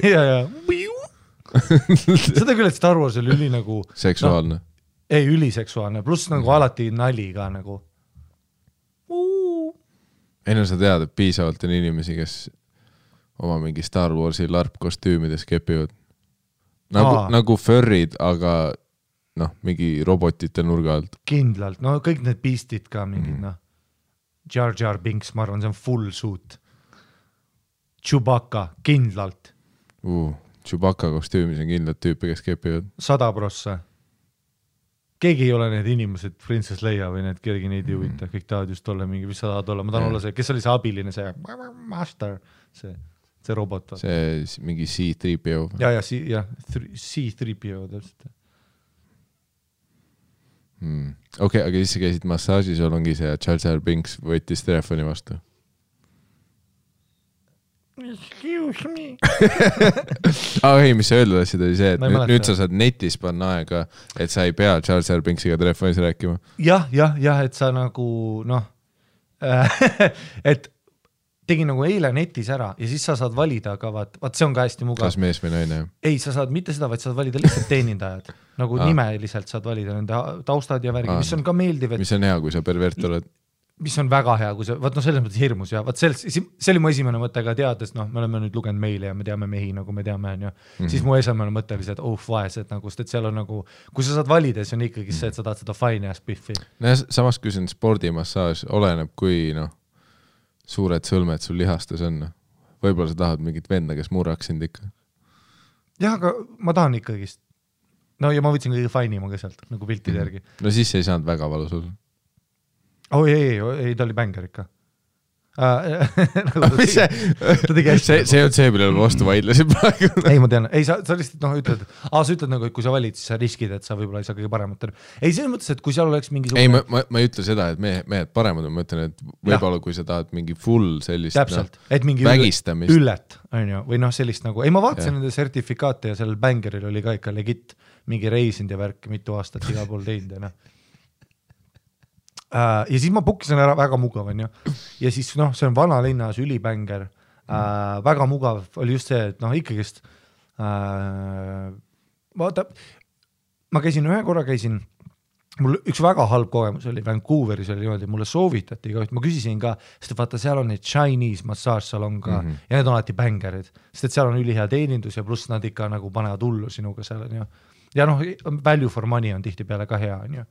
Speaker 2: Seda küll, et Star Wars oli üli nagu...
Speaker 1: Seksuaalne.
Speaker 2: Ei, üliseksuaalne, pluss nagu alati nali ka nagu...
Speaker 1: Ei, sa tead, et piisavalt on inimesi, kes oma mingi Star Warsi larpkostüümides kepivad. Nagu furrid, aga mingi robotite nurga alt.
Speaker 2: Kindlalt, kõik need beastid ka mingid, Jar Jar Binks, ma arvan, see on full suit. Chewbacca, kindlalt.
Speaker 1: Chewbacca kostüümis on kindlalt tüüpe, kes kepivad.
Speaker 2: 100%. Keegi ei ole need inimesed, Princess Leia või need, keegi neid ei huvita. Kõik tahavad just olla mingi, mis sa tahad olla. Ma tahan olla see, kes oli see abiline, see master, see robot.
Speaker 1: See mingi C-3PO.
Speaker 2: Ja, C-3PO täpselt.
Speaker 1: Okei, aga siis sa käisid massaažis, ongi see Jar Jar Binks võttis telefoni vastu.
Speaker 2: Excuse me.
Speaker 1: Ei, mis sa öeldud asjad oli see, et nüüd sa saad netis panna aega, et sa ei pea Jar Jar Binksiga telefonis rääkima.
Speaker 2: Jah, et sa nagu, et tegin nagu eile netis ära ja siis sa saad valida, aga vaat see on ka hästi mugav.
Speaker 1: Kas mees või naine?
Speaker 2: Ei, sa saad mitte seda, vaid saad valida lihtsalt teenindajad. Nagu nimeliselt saad valida nende taustad ja värgi, mis on ka meeldiv.
Speaker 1: Mis on hea, kui sa pervert oled?
Speaker 2: Mis on väga hea, kui see, selles mõttes hirmus ja see oli mu esimene mõte ka teades, me oleme nüüd lugenud meile ja me teame mehi, nagu me teame, siis mu esimene mõte oli see, et vaesed, nagu, sest seal on nagu, kui sa saad valida, siis on ikkagi see, et sa tahad seda fine ja spiffi.
Speaker 1: Samas, kui see on spordimassaaž, oleneb, kui suured sõlmed sul lihastes on. Võib-olla sa tahad mingit venda, kes murraks sind ikka.
Speaker 2: Jah, aga ma tahan ikkagist no ja ma võtsin kõige fainima ka sealt nagu piltide järgi.
Speaker 1: No siis ei saanud väga valus olla.
Speaker 2: Ei, ta oli bänger ikka.
Speaker 1: see on see, millele ma vastu vaidlesin praegu.
Speaker 2: Ei, ma tean. Ei, sa lihtsalt ütled, sa ütled nagu, et kui sa valid, siis sa riskid, et sa võib-olla ei saa kõige paremat. Ei, selles mõttes, et kui seal oleks mingisugune...
Speaker 1: Ei, ma ei ütle seda, et mehed paremad, ma ütlen, et võib-olla kui sa tahad mingi full sellist
Speaker 2: täpselt, et mingi
Speaker 1: vägistamist.
Speaker 2: Üllet, on ju, või sellist nagu... Ei, ma vaatasin nende sertifikaate ja sellel bängeril oli ka ikka legit mingi reisind ja värk mitu aastat igal pool teinud ja ja siis ma pukkisin ära, väga mugav on ju. Ja siis see on vana linnas ülibänger, väga mugav oli just see, et ikkagist vaata, ma ühe korra mul üks väga halb kogemus oli Vancouveris oli niimoodi, mulle soovitati ka, ma küsisin ka, sest vaata seal on neid Chinese massaažsalon ka ja need on alati bängerid, sest et seal on ülihea teenindus ja pluss nad ikka nagu panevad hullu sinuga seal on ju. Ja value for money on tihti peale ka hea on ju.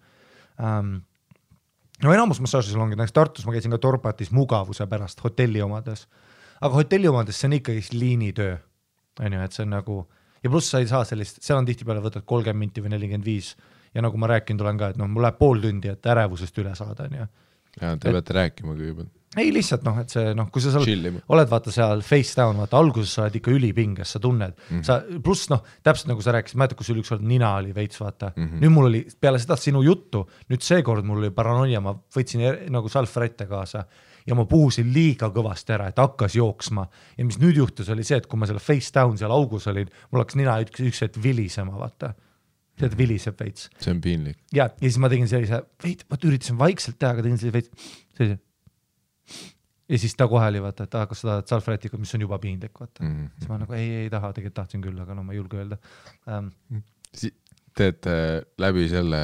Speaker 2: No enamus massaažisalongid, näiteks Tartus ma käisin ka Torpatis mugavuse pärast hotelli omades, aga hotelli omades see on ikkagi liinitöö, on ju, et see on nagu, ja pluss sa ei saa sellist, seal on tihti peale võtad 30 minti või 45 ja nagu ma rääkinud olen ka, et mul läheb pool tundi, et ärevusest üle saada, on ju.
Speaker 1: Ja te peate rääkima kõigepealt.
Speaker 2: Ei lihtsalt et see kui sa oled vaata seal face down, vaata alguses sa oled ikka ülipinges, sa tunned, sa pluss täpselt nagu sa rääkisid, mäletad, kui sul üks olnud nina oli veits, vaata, nüüd mul oli peale seda sinu juttu, nüüd seekord mul oli paranoia, ma võtsin nagu salfrette kaasa ja ma puhusin liiga kõvasti ära, et hakkas jooksma ja mis nüüd juhtus oli see, et kui ma selle face down seal augus olin, mul hakkas nina üks hetk vilisema, vaata. See viliseb veits.
Speaker 1: See on piinlik.
Speaker 2: Ja siis ma tegin sellise, ma üritasin vaikselt teha, aga tegin sellise ja siis ta kohe oli vaata, et kas sa tahad salfretikud, mis on juba piinlik, vaata. Siis ma nagu ei taha, tegelikult tahtsin küll, aga ma ei julge öelda.
Speaker 1: Teete läbi selle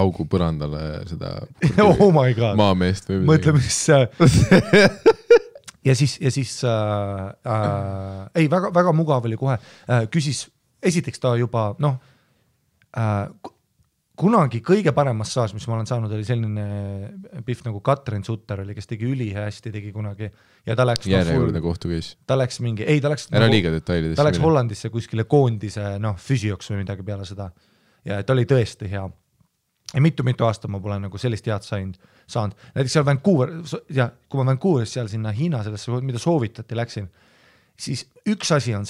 Speaker 1: augu põrandale seda
Speaker 2: oh my God.
Speaker 1: Maameest või
Speaker 2: mõtle, mis ja siis ei, väga mugav oli kohe. Küsis, esiteks ta juba kunagi kõige parem massaaž, mis ma olen saanud, oli selline pihv nagu Katrin Sutter oli, kes tegi ülihästi, tegi kunagi ja ta läks
Speaker 1: järjekordne kohtu käis.
Speaker 2: Ta läks mingi, ei ta läks
Speaker 1: ära liiga detailidesse.
Speaker 2: Ta läks Hollandisse kuskile koondise füsioks või midagi peale seda ja ta oli tõesti hea ja mitu aastat ma pole nagu sellist head saanud. Näiteks seal Vancouver ja kui ma Vancouveris seal sinna Hiina sellesse, mida soovitati läksin, siis üks asi on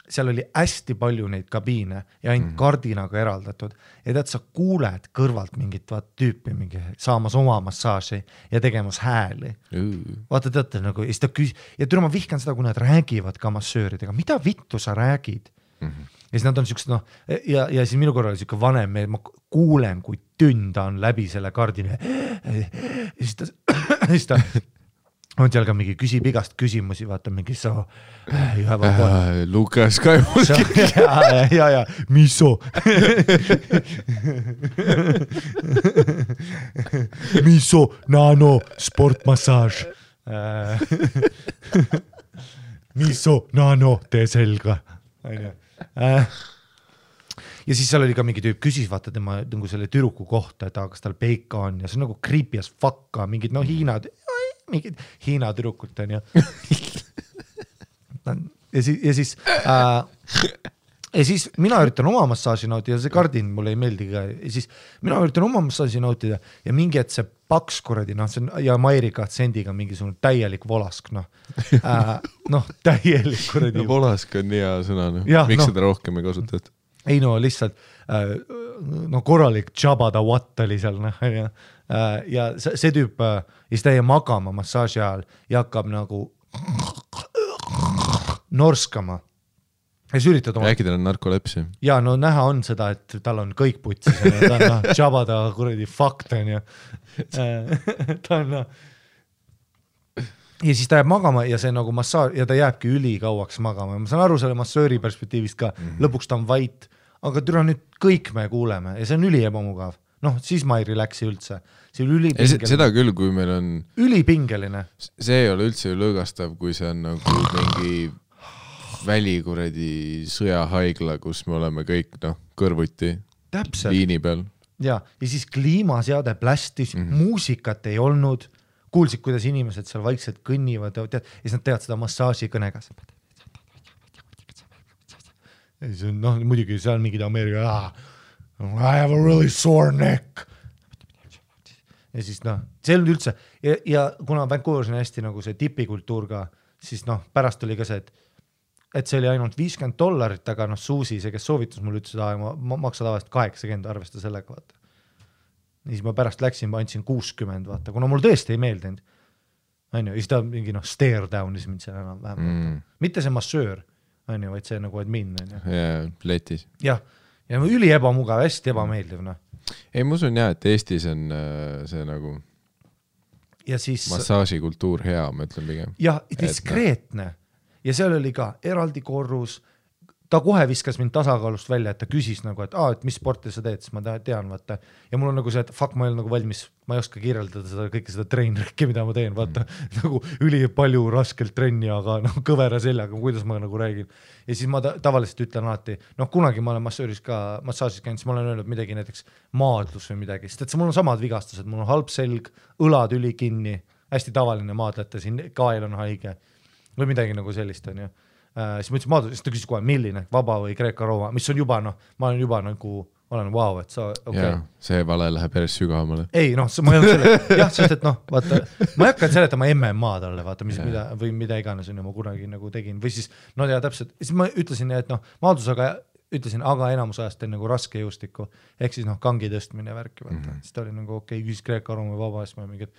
Speaker 2: seal oli hästi palju neid kabiine ja ainult kardinaga eraldatud ja tead, sa kuuled kõrvalt mingit tüüpi mingi saamas oma massaaži ja tegemas hääli. Vaata teate nagu, ja türa ma vihkan seda, kui nad räägivad ka massööridega, mida vittu sa räägid? Ja siis nad on siuksed, ja siis minu korral oli siuke vanem, ma kuulen, kui tünda on läbi selle kardina ja siis ta on seal ka mingi küsib igast küsimusi, vaata mingi
Speaker 1: Lukas Kaimul
Speaker 2: ja miso miso nano sportmassaaž miso nano tee selga ja siis seal oli ka mingi tüüp küsis, vaata tema nagu selle türuku kohta, et kas tal peika on ja see on nagu creepy as fuck mingid mingid Hiina tüdrukut on ju ja siis mina üritan oma massaaži nautida, see kardin mulle ei meeldi ka ja siis mina üritan oma massaaži nautida ja mingi et see paks kuradi, see on ja Mairika Tsendiga mingisugune täielik volask täielik kuradi
Speaker 1: volask on hea sõna, miks seda rohkem ei kasutata?
Speaker 2: Ei lihtsalt korralik Jabba the Watt oli seal ja see tüüp ja siis ta jäi magama massaaži ajal ja hakkab nagu norskama ja siis üritad
Speaker 1: äkki tal on narkolepsia
Speaker 2: ja näha on seda, et tal on kõik putsis ta on Jabba the kuradi fakt on ju ta on ja siis ta jääb magama ja see nagu massaar ja ta jääbki ülikauaks magama ja ma saan aru selle massööri perspektiivist ka, lõpuks ta on vait, aga türa nüüd kõik me kuuleme ja see on üliebamugav, siis ma ei relaxi üldse, see on ülipingeline.
Speaker 1: Seda küll, kui meil on
Speaker 2: ülipingeline.
Speaker 1: See ei ole üldse lõõgastav, kui see on nagu mingi välikuredi sõjahaigla, kus me oleme kõik kõrvuti liini peal.
Speaker 2: Ja siis kliimaseade plästis, muusikat ei olnud, kuulsid, kuidas inimesed seal vaikselt kõnnivad ja siis nad teevad seda massaaži kõnega. ja siis noh, muidugi seal mingid Ameerika I have a really sore neck ja siis noh, see ei olnud üldse ja kuna Vancouveris on hästi nagu see tipikultuur ka, siis noh, pärast oli ka see, et see oli ainult $50, aga noh, Suusi, see, kes soovitas mul ütles, ma maksa tavaliselt 80, arvesta sellega, vaata. Ja siis ma pärast läksin, ma andsin 60, vaata, kuna mul tõesti ei meeldinud. Ja siis ta mingi noh, stare down'is mind seal enam vähem. Mitte see massöör, vaid see nagu admin.
Speaker 1: Ja, letis.
Speaker 2: Jah, ja üli ebamugav, hästi ebameeldiv, noh.
Speaker 1: Ei, ma usun jah, et Eestis on see nagu
Speaker 2: ja siis,
Speaker 1: massaažikultuur hea, ma ütlen pigem.
Speaker 2: Ja, diskreetne. Ja seal oli ka eraldi korrus, ta kohe viskas mind tasakaalust välja, et ta küsis nagu, et mis sporti sa teed, siis ma tean, vaata. Ja mul on nagu see, et fuck, ma ei ole nagu valmis, ma ei oska kirjeldada seda kõike seda treenrikki, mida ma teen, vaata. Nagu üli palju raskelt trenni, aga noh, kõvera seljaga, kuidas ma nagu räägin. Ja siis ma tavaliselt ütlen alati, noh, kunagi ma olen massaažis käinud, siis ma olen öelnud midagi näiteks maadlus või midagi, sest et mul on samad vigastused, mul on halb selg, õlad üli kinni, hästi tavaline maadlete, siin kael on haige või midagi nagu sellist on ju. Siis ma ütlesin maadlus, siis ta küsis kohe, milline, vaba või Kreeka-Rooma, mis on juba, noh, ma olen juba nagu, olen wow, et sa, okei.
Speaker 1: Ja, see vale läheb päris sügavamale.
Speaker 2: Ei, noh, ma ei olnud selle, jah, sest et noh, vaata, ma ei hakanud seletama MMA talle, vaata, või mida iganes on ju ma kunagi nagu tegin, või siis, no ja täpselt, siis ma ütlesin, et noh, maadlusega ütlesin, aga enamus ajast teen nagu raske jõustikku, ehk siis noh, kangi tõstmine värki, vaata, siis ta oli nagu okei, küsis Kreeka-Rooma või vaba, siis ma mingid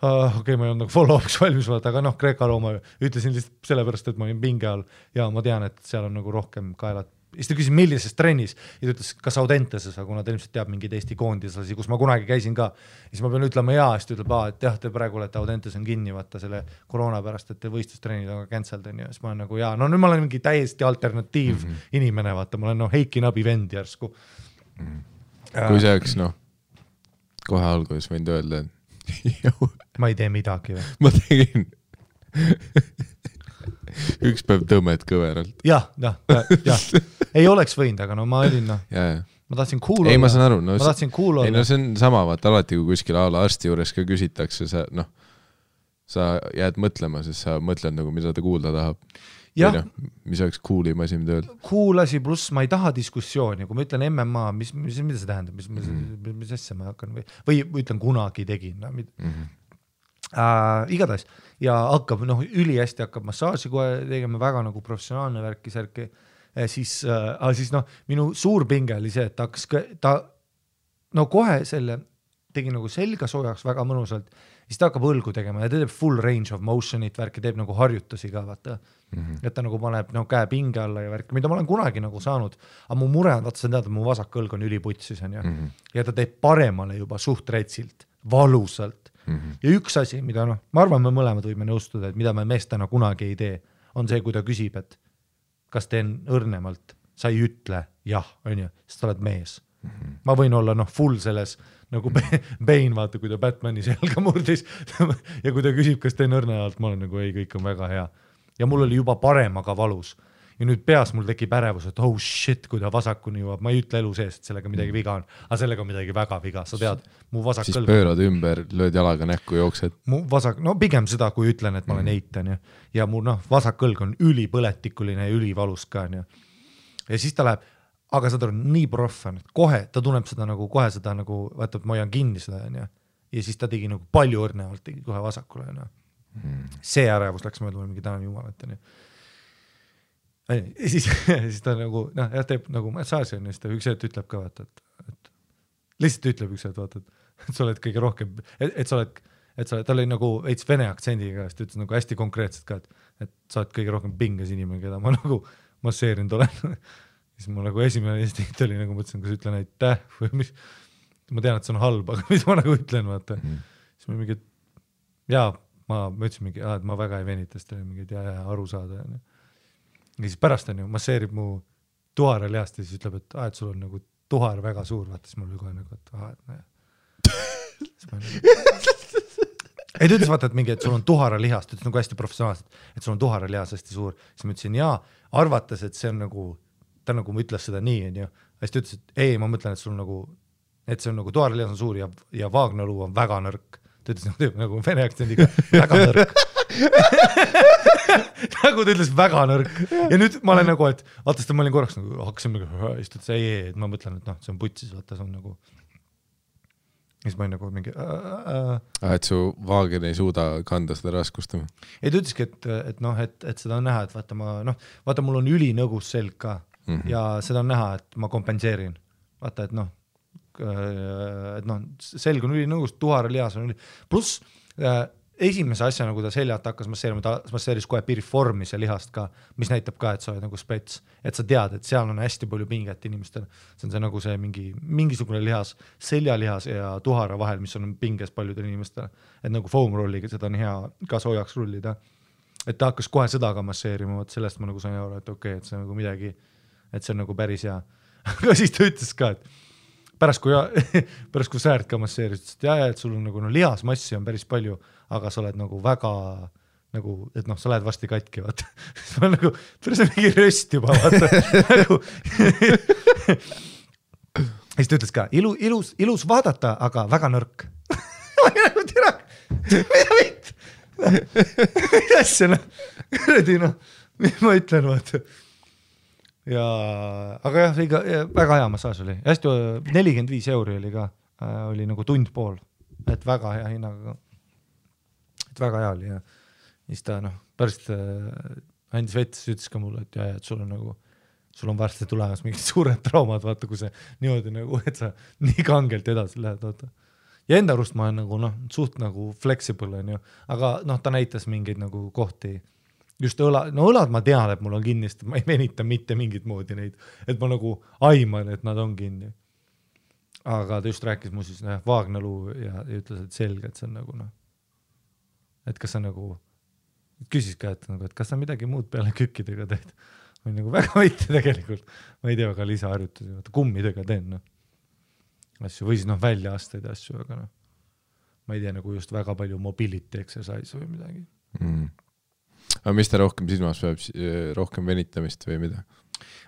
Speaker 2: okei, ma ei olnud nagu follow-up'iks valmis vaata, aga noh, Kreeka-Rooma ütlesin lihtsalt sellepärast, et ma olin pinge all ja ma tean, et seal on nagu rohkem kaelad. Siis ta küsis, millises trennis ja ta ütles, kas Audenteses, kuna ta ilmselt teab mingeid Eesti koondislasi, kus ma kunagi käisin ka. Ja siis ma pean ütlema jaa, siis ta ütleb, et jah, te praegu olete Audentes on kinni vaata selle koroona pärast, et te võistlustrennid on ka cancelled on ja siis ma olen nagu jaa, no nüüd ma olen mingi täiesti alternatiiv inimene, vaata, ma olen Heiki Nabi vend järsku.
Speaker 1: Kui see oleks, noh, kohe alguses võinud öelda, et
Speaker 2: ma ei tee midagi või?
Speaker 1: Ma tegin üks päev tõmmed kõveralt.
Speaker 2: Jah. Ei oleks võinud, aga no ma olin, noh. Ma tahtsin cool olla.
Speaker 1: Ei, ma saan aru. No,
Speaker 2: ma tahtsin cool olla.
Speaker 1: Ei, no see on sama, vaata alati, kui kuskil arsti juures ka küsitakse, sa jääd mõtlema, sest sa mõtled nagu, mida ta kuulda tahab.
Speaker 2: Jah.
Speaker 1: Või mis oleks cool'im asi, mida öelda?
Speaker 2: Cool asi pluss ma ei taha diskussiooni, kui ma ütlen MMA, mida see tähendab, mis asja ma hakkan või ütlen kunagi tegin. Igatahes ja hakkab, noh, üli hästi hakkab massaaži kohe tegema väga nagu professionaalne värki särki, siis noh, minu suur pinge oli see, et ta no kohe selle tegi nagu selga soojaks väga mõnusalt, siis ta hakkab õlgu tegema ja ta teeb full range of motion'it värki, teeb nagu harjutusi ka, vaata. Et ta nagu paneb käe pinge alla ja värki, mida ma olen kunagi nagu saanud, aga mu mure on, vaata sa tead, et mu vasak õlg on üliputsis on, ja ta teeb paremale juba suht retsilt, valusalt. Ja üks asi, mida noh, ma arvan, me mõlemad võime nõustuda, et mida me meestena kunagi ei tee, on see, kui ta küsib, et kas teen õrnemalt, sa ei ütle jah, on ju, sest sa oled mees. Ma võin olla noh, full selles nagu Bane, vaata, kui ta Batmani selga murdis ja kui ta küsib, kas teen õrnemalt, ma olen nagu ei, kõik on väga hea. Ja mul oli juba parem, aga valus. Ja nüüd peas mul tekib ärevus, et oh shit, kui ta vasakuni jõuab, ma ei ütle elu sees, et sellega midagi viga on, aga sellega midagi väga viga, sa tead, mu vasak
Speaker 1: siis pöörad ümber, lööd jalaga näkku, jooksed.
Speaker 2: Mu vasak, no pigem seda, kui ütlen, et ma olen eitan ja mu noh, vasak õlg on ülipõletikuline ja ülivalus ka. Ja siis ta läheb, aga saad aru, nii proff on, et kohe ta tunneb seda nagu, kohe seda nagu, vaata, et ma hoian kinni seda ja siis ta tegi nagu palju õrnevalt, tegi kohe vasakule. See ärevus läks mööda mingi täna jumalat. Ja siis ta nagu, noh, teeb nagu massaaži on, siis ta üks hetk ütleb ka, vaata, et lihtsalt ütleb üks hetk, vaata, et sa oled kõige rohkem, et sa oled, ta oli nagu veits vene aktsendiga, siis ta ütles nagu hästi konkreetselt ka, et sa oled kõige rohkem pinges inimene, keda ma nagu masseerinud olen. Siis mul nagu esimene instinkt oli nagu mõtlesin, kas ütlen aitäh või mis, ma tean, et see on halb, aga mis ma nagu ütlen, vaata. Siis ma mingi, jaa, ma ütlesin mingi, et ma väga ei venita, sest oli mingi, et aru saada. Ja siis pärast on ju, masseerib mu tuhara lihast ja siis ütleb, et sul on nagu tuhar väga suur, vaata, siis mul oli kohe nagu, ei, ta ütles, vaata, et mingi, et sul on tuhara lihast, ütles nagu hästi professionaalselt, et sul on tuhara lihas hästi suur. Siis ma ütlesin, jaa, arvates, et see on nagu, ta nagu ütles seda nii, on ju. Siis ta ütles, et ei, ma mõtlen, et sul nagu, et see on nagu tuhara lihas on suur ja vaagnaluu on väga nõrk. Ta ütles nagu vene aktsendiga väga nõrk. nagu ta ütles, väga nõrk. Ja nüüd ma olen nagu, et vaata, ma olin korraks nagu, hakkasin nagu, istud see ei, et ma mõtlen, et noh, see on putsis, vaata, see on nagu, siis ma olin nagu mingi
Speaker 1: et su vaagen ei suuda kanda seda raskust.
Speaker 2: Ei, ta ütleski, et noh, et seda on näha, et vaata, mul on ülinõgus selg ka ja seda on näha, et ma kompenseerin. Vaata, et noh, selg on ülinõgus, tuharalihas on pluss esimese asja, nagu ta seljalt hakkas masseerima, ta masseeris kohe piriformis ja lihast ka, mis näitab ka, et sa oled nagu spets, et sa tead, et seal on hästi palju pinget inimestel. See on see nagu see mingisugune lihas, seljalihas ja tuhara vahel, mis on pinges paljudel inimestel. Et nagu foam rolliga, seda on hea ka soojaks rullida. Et ta hakkas kohe seda ka masseerima, sellest ma nagu sain aru, et okei, et see on nagu midagi, et see on nagu päris hea. Aga siis ta ütles ka, et pärast kui Säärt ka masseeris, et sul on nagu lihasmassi on päris palju, aga sa oled nagu väga nagu, et noh, sa lähed varsti katki, vaata. Ma olen nagu, päris on mingi röst juba, vaata. Siis ta ütles ka, ilus vaadata, aga väga nõrk. Ma olin nagu tira, mida vitt? Mida asja, noh? Kõredi, noh, mis ma ütlen, vaata. Ja, aga jah, väga hea massaaž oli. Hästi 45 € oli ka, oli nagu tund pool, et väga hea hinnaga. Et väga hea oli ja siis ta pärast andis vettes, ütles ka mulle, et et sul on varsti tulemas mingid suured traumad, vaata, kui see niimoodi nagu, et sa nii kangelt edasi lähed, vaata. Ja enda arust ma olen nagu, suht nagu flexible on ju, aga ta näitas mingeid nagu kohti, just õlad ma tean, et mul on kinni, sest ma ei venita mitte mingit moodi neid, et ma nagu aiman, et nad on kinni. Aga ta just rääkis mu siis vaagnaluu ja ütles, et selge, et see on nagu et kas sa nagu, küsis ka, et kas sa midagi muud peale kükkidega teed. Ma nagu väga võite tegelikult, ma ei tea, väga lisaharjutusi, kummidega teen asju, või siis välja aastaid asju, aga ma ei tea nagu just väga palju mobility exercise või midagi.
Speaker 1: Aga mis ta rohkem silmas peab, rohkem venitamist või mida?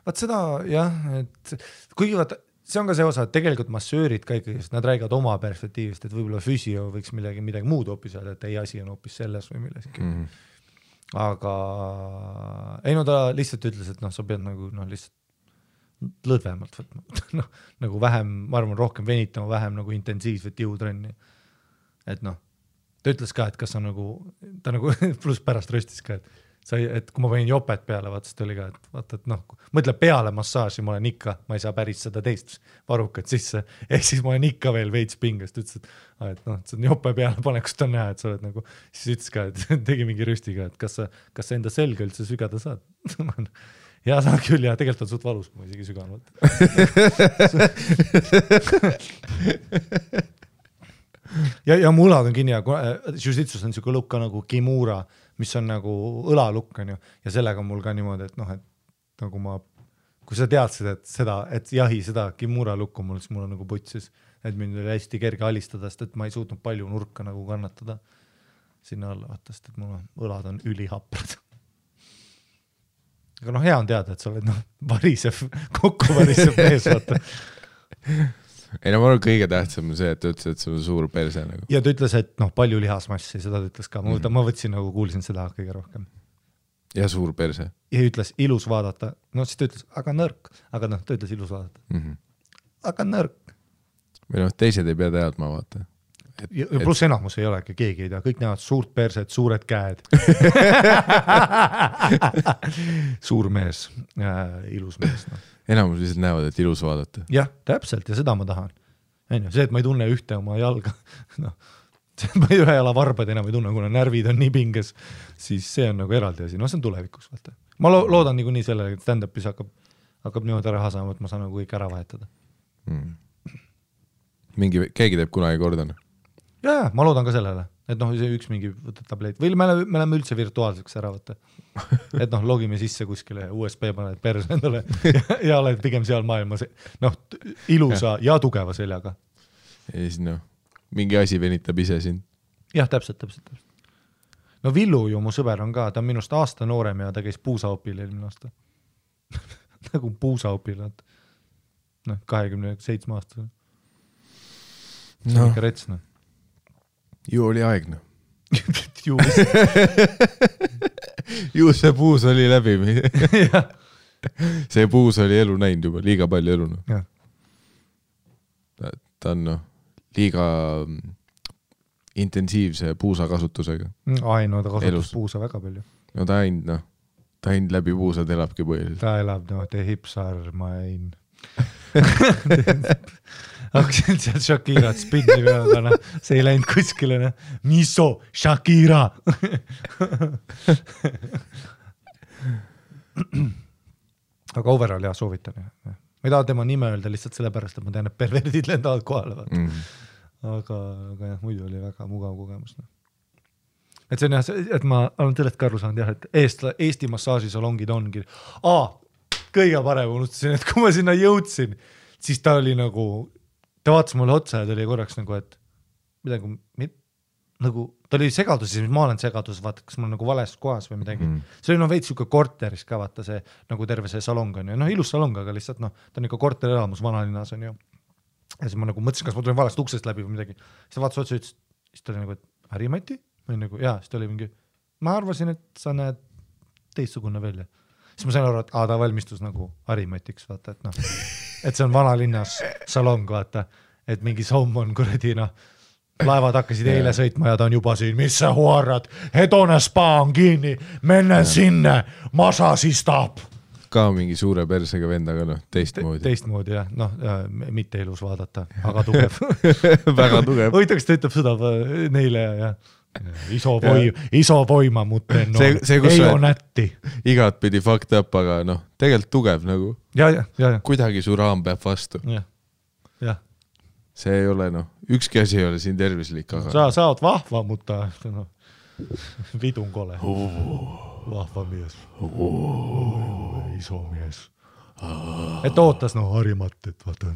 Speaker 2: Vaat seda jah, et kuigi vaata, see on ka see osa, et tegelikult massöörid ka ikkagi, nad räägivad oma perspektiivist, et võib-olla füsio võiks midagi muud hoopis öelda, et ei asi on hoopis selles või milleski. Aga ei ta lihtsalt ütles, et sa pead nagu lihtsalt lõdvemalt võtma. Nagu vähem, ma arvan, rohkem venitama, vähem nagu intensiivset jõutrenni. Et ta ütles ka, et kas on nagu, ta nagu pluss pärast röstis ka, et kui ma võin jopet peale, vaata, oli ka, et vaata, et mõtle peale massaaži, ma olen ikka, ma ei saa päris seda teist varukat sisse, ehk siis ma olen ikka veel veits pingest, ütles, et see on jope peale panekust on näha, et sa oled nagu, siis ütles ka, et tegi mingi rüstiga, et kas sa enda selga üldse sügada saad? Ja saan küll, ja tegelikult on suht valus, kui ma isegi süganud. Ja mu õlad on kinni ja jiu-jitsus on niisugune lukk nagu kimura, mis on nagu õlalukk on ju, ja sellega on mul ka niimoodi, et et nagu kui sa teadsid, et jahi seda kimura lukku mul, siis mul on nagu putsis, et mind oli hästi kerge alistada, sest et ma ei suutnud palju nurka nagu kannatada sinna alla, vaata, sest et mul õlad on ülihaprad. Aga hea on teada, et sa oled kokku varisev mees, vaata.
Speaker 1: Ei ma arvan, kõige tähtsam on see, et ta ütles, et see on suur perse nagu.
Speaker 2: Ja ta ütles, et palju lihasmassi, seda ta ütles ka. Ma võtsin nagu, kuulsin seda kõige rohkem.
Speaker 1: Ja suur perse.
Speaker 2: Ja ütles ilus vaadata. Siis ta ütles, aga nõrk. Aga ta ütles ilus vaadata. Aga nõrk.
Speaker 1: Või teised ei pea teadma, vaata.
Speaker 2: Ja pluss enamus ei olegi, keegi ei tea. Kõik näevad suurt perset, suured käed. Suur mees, ilus mees.
Speaker 1: Enamus lihtsalt näevad, et ilus vaadata.
Speaker 2: Jah, täpselt, ja seda ma tahan. See, et ma ei tunne ühte oma jalga, ma ühe jala varbad enam ei tunne, kuna närvid on nii pinges, siis see on nagu eraldi asi. See on tulevikus. Vaata. Ma loodan nii sellele, et stand-upis hakkab niimoodi ära hasama, et ma saan nagu kõik ära vahetada.
Speaker 1: Keegi teeb kunagi kordan?
Speaker 2: Ja, ma loodan ka sellele. Et üks mingi võtad tableet. Või me oleme üldse virtuaalseks ära võtta. Et logime sisse kuskile USB paned perse endale ja oled pigem seal maailmas ilusa ja tugeva seljaga.
Speaker 1: Ja siis mingi asi venitab ise sind.
Speaker 2: Jah, täpselt. Villu ju mu sõber on ka, ta on minust aasta noorem ja ta käis puusaopil eelmine aasta. Nagu puusaopil, 27 aastasel. See on ikka retsna.
Speaker 1: Ju oli aegna. Ju see puus oli läbi. See puus oli elu näinud juba, liiga palju elu. Ta on liiga intensiivse puusa kasutusega.
Speaker 2: Ai, no ta kasutus puusa väga palju.
Speaker 1: No ta ainult läbi puusad elabki põhiliselt.
Speaker 2: Ta elab, te hipsar, ma ein. Hakkasin sealt Shakirat spinni peale, see ei läinud kuskile. Miso, Shakira! Aga overall jah, soovitan. Ma ei taha tema nime öelda lihtsalt sellepärast, et ma tean, et perverdid lendavad kohale. Aga jah, muidu oli väga mugav kogemus. Et see on jah, et ma olen sellest ka aru saanud jah, et Eesti massaažisalongid ongi. Kõige parem unustasin, et kui ma sinna jõudsin, siis ta oli nagu, ta vaatas mulle otsa ja ta oli korraks nagu, et midagi, nagu, ta oli segaduses, mis ma olen segaduses, vaata, kas ma olen nagu vales kohas või midagi. See oli veits siuke korteris ka, vaata see, nagu terve see salong on ju. Ilus salong, aga lihtsalt ta on ikka korterelamus vanalinnas on ju. Ja siis ma nagu mõtlesin, kas ma tulin valest uksest läbi või midagi. Siis ta vaatas otsa ütles, siis ta oli nagu, et Harimati? Või nagu, jaa, siis ta oli mingi, ma arvasin, et sa näed teistsugune välja. Siis ma sain aru, et ta valmistus nagu Harimatiks, vaata, et see on vanalinnas salong, vaata, et mingi somm on kuradi, laevad hakkasid eile sõitma ja ta on juba siin, mis sa huarad, hedone spa on kinni, menne sinne, masa siis taab.
Speaker 1: Ka mingi suure persega vendaga, teistmoodi.
Speaker 2: Teistmoodi, jah, mitte ilus vaadata, aga tugev.
Speaker 1: Väga tugev.
Speaker 2: Hoitaks ta ütleb seda neile ja iso voima muuten, ei on nätti.
Speaker 1: Igat pidi fucked up, aga tegelikult tugev nagu.
Speaker 2: Ja.
Speaker 1: Kuidagi su raam peab vastu.
Speaker 2: Ja.
Speaker 1: See ei ole, ükski asi ei ole siin tervislik, aga...
Speaker 2: Sa oot vahva, mutta vidun kole. Vahva mies. Iso mies. Et ootas Harimat, et vaata.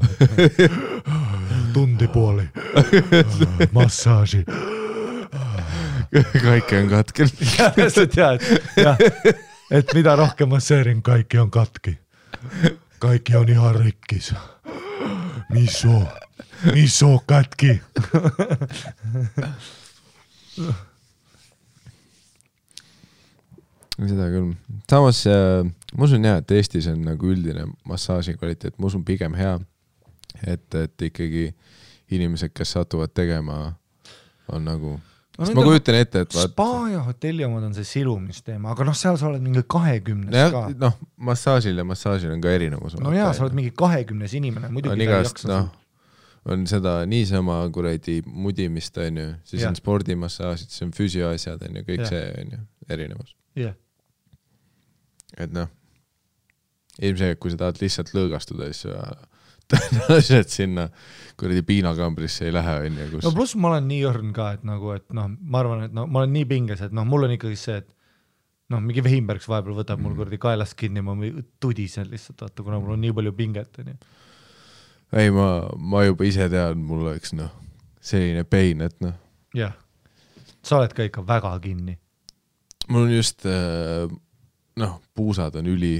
Speaker 2: Tundi puoli. Massaaži.
Speaker 1: Kaikki on katkel.
Speaker 2: Et mida rohkem masseerin, kaikki on katki. Kaikki on ihan rikkis. Miso katki.
Speaker 1: Seda küll. Samas, ma usun jah, et Eestis on nagu üldine massaaži kvaliteet, ma usun pigem hea, et ikkagi inimesed, kes satuvad tegema, on nagu... Sest ma kujutan ette, et
Speaker 2: spa ja hotelli omad on see silumisteema, aga seal sa oled mingi 20 ka.
Speaker 1: Massaažil on ka erinevus.
Speaker 2: No jaa, sa oled mingi 20 inimene, muidugi ta ei jaksa.
Speaker 1: On seda niisama kuradi mudimist, on ju, siis on spordimassaažid, siis on füsioasjad, on ju, kõik see on ju erinevus. Et ilmselt, kui sa tahad lihtsalt lõõgastuda, siis tõenäoliselt sinna kuradi piinakambrisse ei lähe.
Speaker 2: No pluss ma olen nii õrn ka, et ma arvan, et ma olen nii pinges, et mul on ikkagi see, et mingi Vehimbergs vahepeal võtab mul kuradi kaelast kinni, ma tudisen lihtsalt, vaata, kuna mul on nii palju pinget.
Speaker 1: Ei, ma juba ise tean, mul oleks selline pein, et
Speaker 2: Jah, sa oled ka ikka väga kinni.
Speaker 1: Mul on just, puusad on üli.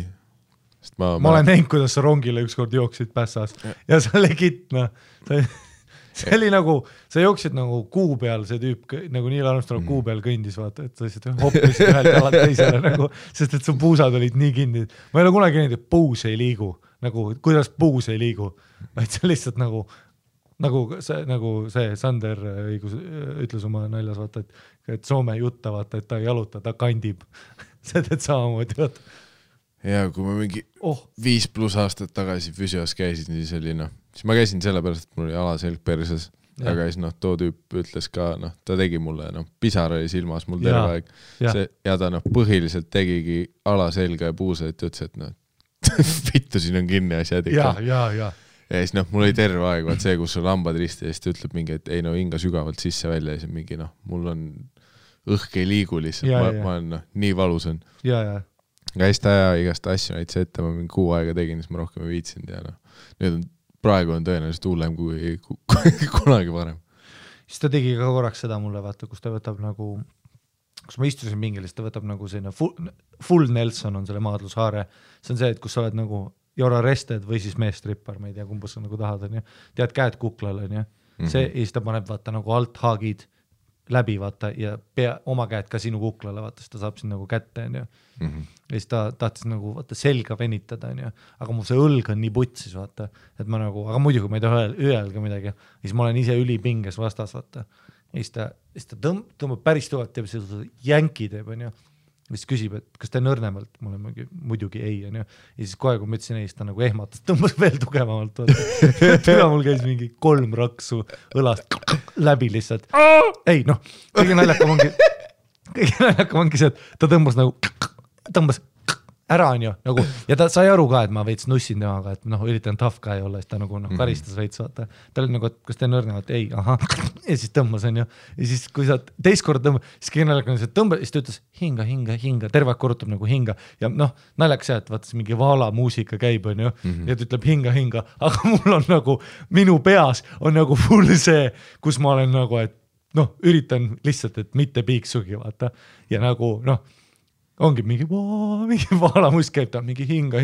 Speaker 1: Ma
Speaker 2: olen näinud, kuidas sa rongile ükskord jooksid pässas ja sa legit, see oli nagu, sa jooksid nagu kuu peal, see tüüp nagu Neil Armstrong kuu peal kõndis, vaata, et sa lihtsalt hoppisid ühelt jalalt teisele nagu, sest et su puusad olid nii kinni. Ma ei ole kunagi näinud, et puus ei liigu, nagu kuidas puus ei liigu, vaid see lihtsalt nagu see Sander ütles oma naljas, vaata, et Soome jutta, vaata, et ta ei jaluta, ta kandib. See teed samamoodi, vaata.
Speaker 1: Ja kui ma mingi 5+ aastat tagasi füsios käisin, siis oli siis ma käisin sellepärast, et mul oli alaselg perses, aga siis too tüüp ütles ka, ta tegi mulle, pisar oli silmas mul terve aeg ja ta põhiliselt tegigi alaselga ja puusa, et ütles, et vittu siin on kinni asjad ikka. Ja siis mul oli terve aeg, vaat see, kus sul lambad risti ja siis ta ütleb mingi, et ei hinga sügavalt sisse välja ja siis mingi, mul on õhk ei liigu lihtsalt, ma olen nii valus on. Käis ta ja igast asju näitse ette, ma mingi 6 aega tegin, siis ma rohkem ei viitsinud ja nüüd praegu on tõenäoliselt hullem kui kunagi varem.
Speaker 2: Siis ta tegi ka korraks seda mulle, vaata, kus ta võtab nagu, kus ma istusin mingil, siis ta võtab nagu selline full Nelson on selle maadlushaare. See on see, et kus sa oled nagu you're arrested või siis meestrippar, ma ei tea, kumbus sa nagu tahad, on ju. Tead käed kuklal, on ju. See, ja siis ta paneb vaata nagu alt haagid läbi, vaata, ja oma käed ka sinu kuklale, vaata, siis ta saab siin nagu kätte, on ju. Ja siis ta tahtis nagu, vaata, selga venitada, on ju. Aga mul see õlg on nii putsis, vaata, et ma nagu, aga muidugi ma ei taha öelda midagi. Ja siis ma olen ise ülipinges vastas, vaata. Ja siis ta tõmbab päris tuvalt, teeb seda jänki teeb, on ju. Siis küsib, et kas ta nõrnemalt, mul on muidugi ei, on ju. Ja siis kohe, kui ma ütlesin ei, siis ta nagu ehmatas, tõmbas veel tugevamalt. Tüva mul käis mingi 3 raksu õlast läbi lihtsalt. Ei, noh, kõige naljakam ongi see, et ta tõmbas ära, on ju, nagu, ja ta sai aru ka, et ma veits nussin temaga, et noh, üritan tough guy olla, siis ta nagu karistas veits, vaata. Ta oli nagu, et kas te nõrnevad? Ei, aha. Ja siis tõmbas, on ju. Ja siis, kui sa teist kord tõmbad, siis kõige naljakam on see, et tõmbad, siis ta ütles hinga, terve aeg korrutab nagu hinga. Ja noh, naljaks see, et vaata, mingi vaala muusika käib, on ju, ja ta ütleb hinga, aga mul on nagu, minu peas on nagu full see, kus ma olen nagu, et noh, üritan lihtsalt, et mitte piiksugi, vaata. Ja nagu, noh, ongi mingi vaalamusk käib ta, mingi hinga,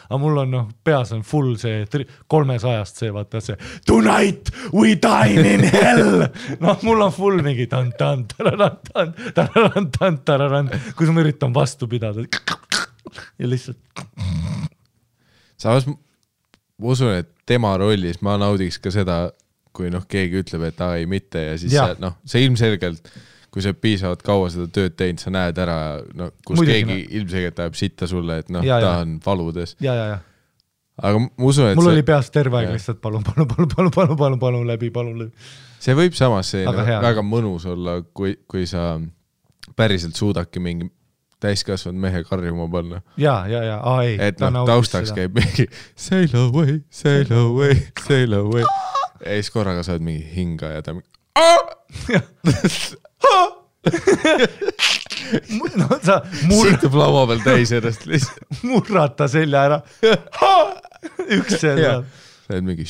Speaker 2: aga mul on noh, peas on full see 300-ast see, vaata see tonight we dine in hell. Noh, mul on full mingi tan-tan, kus ma üritan vastu pidada. Ja lihtsalt.
Speaker 1: Samas ma usun, et tema rollis ma naudiks ka seda, kui noh, keegi ütleb, et ei mitte ja siis see ilmselgelt kui sa piisavalt kaua seda tööd teinud, sa näed ära, no, kus muidugi, keegi ilmselgelt ajab sitta sulle, et noh, ta on valudes.
Speaker 2: Ja.
Speaker 1: Aga ma usun, et
Speaker 2: mul oli peas terve aeg lihtsalt palun läbi.
Speaker 1: See võib samas väga mõnus olla, kui sa päriselt suudadki mingi täiskasvanud mehe karjuma panna.
Speaker 2: Ja, ei.
Speaker 1: Et noh, taustaks käib mingi sail away. Ja siis korraga saad mingi hinga ja ta mingi
Speaker 2: no sa
Speaker 1: siitub laua peal täis ennast lihtsalt
Speaker 2: murrata selja ära üks selja
Speaker 1: sa oled mingi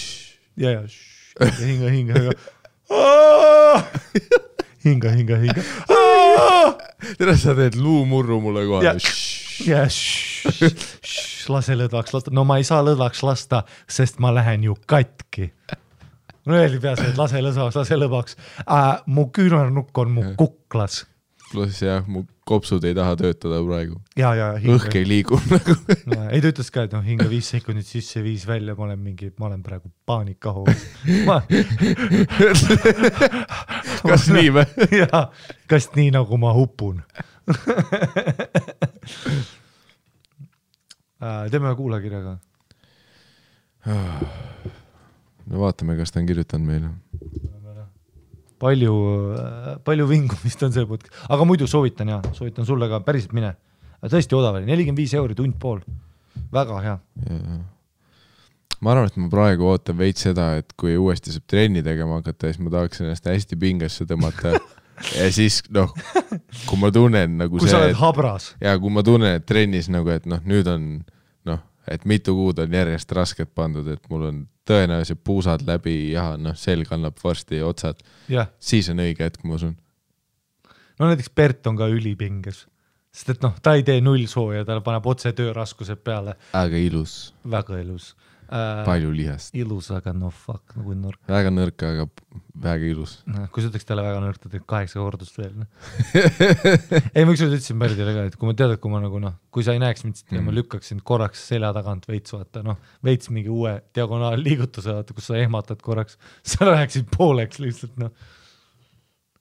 Speaker 2: hinga
Speaker 1: tere sa teed luumurru mulle kohe
Speaker 2: lase lõdvaks lasta, no ma ei saa lõdvaks lasta, sest ma lähen ju katki. No öeldi peas, et lase lõdvaks. Mu küünarnukk on mu kuklas.
Speaker 1: Pluss jah, mu kopsud ei taha töötada praegu.
Speaker 2: Ja,
Speaker 1: õhk ei liigu nagu.
Speaker 2: Ei ta ütles ka, et no hinga 5 sekundit sisse 5 välja, ma olen praegu paanikaho.
Speaker 1: Kas nii või?
Speaker 2: Jaa, kas nii nagu ma hupun. Teeme kuulakirjaga.
Speaker 1: No vaatame, kas ta on kirjutanud meile.
Speaker 2: Palju vingumist on see podcast. Aga muidu soovitan sulle ka päriselt mine. Tõesti odav oli, 45 € tund pool. Väga hea.
Speaker 1: Ma arvan, et ma praegu ootan veits seda, et kui uuesti saab trenni tegema hakata, siis ma tahaks ennast hästi pingesse tõmmata. Ja siis, noh, kui ma tunnen nagu
Speaker 2: kui sa oled habras.
Speaker 1: Ja kui ma tunnen, et trennis nagu, et noh, nüüd on, noh, et mitu kuud on järjest rasket pandud, et mul on tõenäoliselt puusad läbi ja noh, selg annab varsti otsad. Siis on õige hetk, ma usun.
Speaker 2: No näiteks Bert on ka ülipinges, sest et noh, ta ei tee 0 sooja, ta paneb otse tööraskused peale.
Speaker 1: Aga ilus.
Speaker 2: Väga ilus.
Speaker 1: Palju lihast.
Speaker 2: Ilus, aga no fuck, nagu nõrk.
Speaker 1: Väga nõrk, aga väga ilus.
Speaker 2: Kui sa ütleks talle väga nõrk, ta teeb 8 kordust veel. Ei, ma ükskord ütlesin Berdile ka, et kui ma tead, et kui ma nagu noh, kui sa ei näeks mind, ja ma lükkaksin korraks selja tagant veits, vaata, noh, veits mingi uue diagonaal liigutuse, vaata, kus sa ehmatad korraks, sa läheksid pooleks lihtsalt, noh.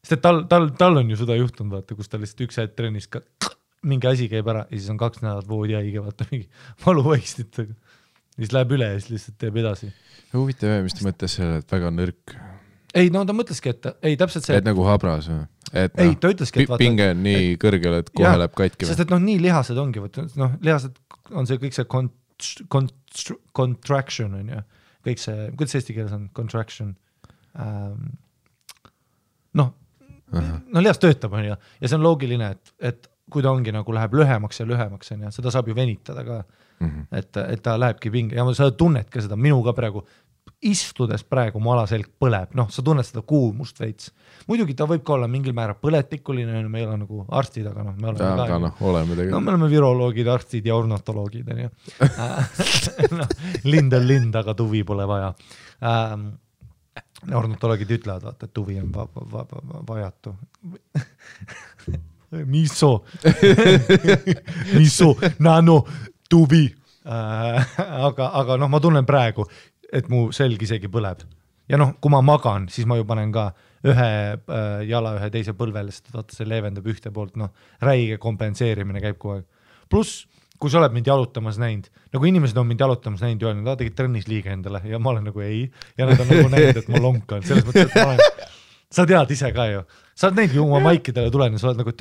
Speaker 2: Sest et tal on ju seda juhtunud, vaata, kus ta lihtsalt üks hetk trennis ka mingi asi käib ära ja siis on 2 nädalat voodi haige, vaata, mingi valuvõistitega. Siis läheb üle ja siis lihtsalt teeb edasi.
Speaker 1: Huvitav, mis ta mõtles selle, et väga nõrk?
Speaker 2: Ei, no ta mõtleski, et ei täpselt see...
Speaker 1: Et nagu habras või? Et
Speaker 2: ei, ta ütleski, et vaata...
Speaker 1: Pinge on nii kõrgel, et kohe läheb katki või?
Speaker 2: Sest et noh, nii lihased ongi, noh, lihased on see kõik see contraction on ju. Kõik see, kuidas eesti keeles on contraction? No, lihas töötab on ju. Ja see on loogiline, et kui ta ongi nagu läheb lühemaks ja lühemaks on ju, seda saab ju venitada ka. Et ta lähebki pinge ja sa tunned ka seda, minuga praegu istudes praegu mu alaselg põleb, noh, sa tunned seda kuumust veits. Muidugi ta võib ka olla mingil määra põletikuline, me ei ole nagu arstid, aga noh, me oleme me oleme viroloogid, arstid ja ornatoloogid on ju. Lind on lind, aga tuvi pole vaja. ornitoloogid ütlevad, vaata, et tuvi on vajatu. Miso, nano, tuvi. Aga noh, ma tunnen praegu, et mu selg isegi põleb. Ja noh, kui ma magan, siis ma ju panen ka ühe jala ühe teise põlvele, sest vaata, see leevendab ühte poolt, noh, räige kompenseerimine käib kogu aeg. Plus, kui sa oled mind jalutamas näinud, nagu inimesed on mind jalutamas näinud ja öelnud, tegid trennis liiga endale ja ma olen nagu ei, ja nad on nagu näinud, et ma lonkan, selles mõttes, et ma olen, sa tead ise ka ju, sa oled näinud ju oma maikidele tulen ja sa oled nagu,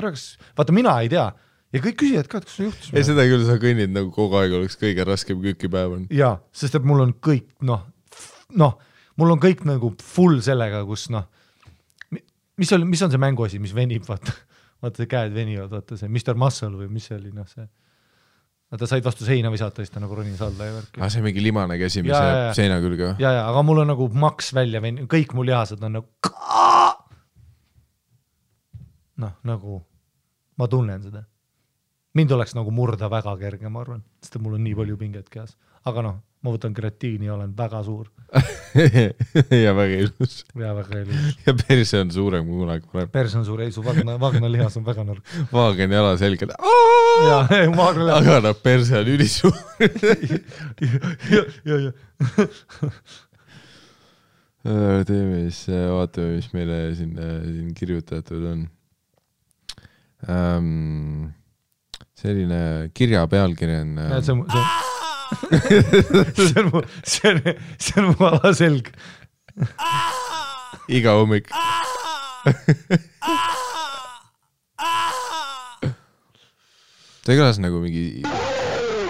Speaker 2: vaata, mina ei tea ja kõik küsijad ka, et kas sul juhtus.
Speaker 1: Ei, seda küll sa kõnnid nagu kogu aeg oleks kõige raskem köökipäev on.
Speaker 2: Jaa, sest et mul on kõik, mul on kõik nagu full sellega, kus mis on see mänguasi, mis venib, vaata see käed venivad, vaata see Mr. Muscle või mis see oli, see vaata said vastu seina visata, siis ta nagu ronis alla ja värk.
Speaker 1: See mingi limane käsi, mis jääb seina külge.
Speaker 2: Ja, aga mul on nagu maks välja veninud, kõik mul lihased on nagu ma tunnen seda. Mind oleks nagu murda väga kerge, ma arvan, sest mul on nii palju pinget kehas. Aga ma võtan kreatiini ja olen väga suur.
Speaker 1: ja väga ilus.
Speaker 2: Ja väga ilus.
Speaker 1: Ja perse on suurem kui kunagi varem.
Speaker 2: Perse on suur, ei su vagna lihas on väga nõrk.
Speaker 1: Vaagen jala selgelt. Aga perse on ülisuur. ja. Teeme siis, vaatame, mis meile siin kirjutatud on. Selline kirja pealkiri on... see on mu alaselg. Iga hommik. Ta kõlas nagu mingi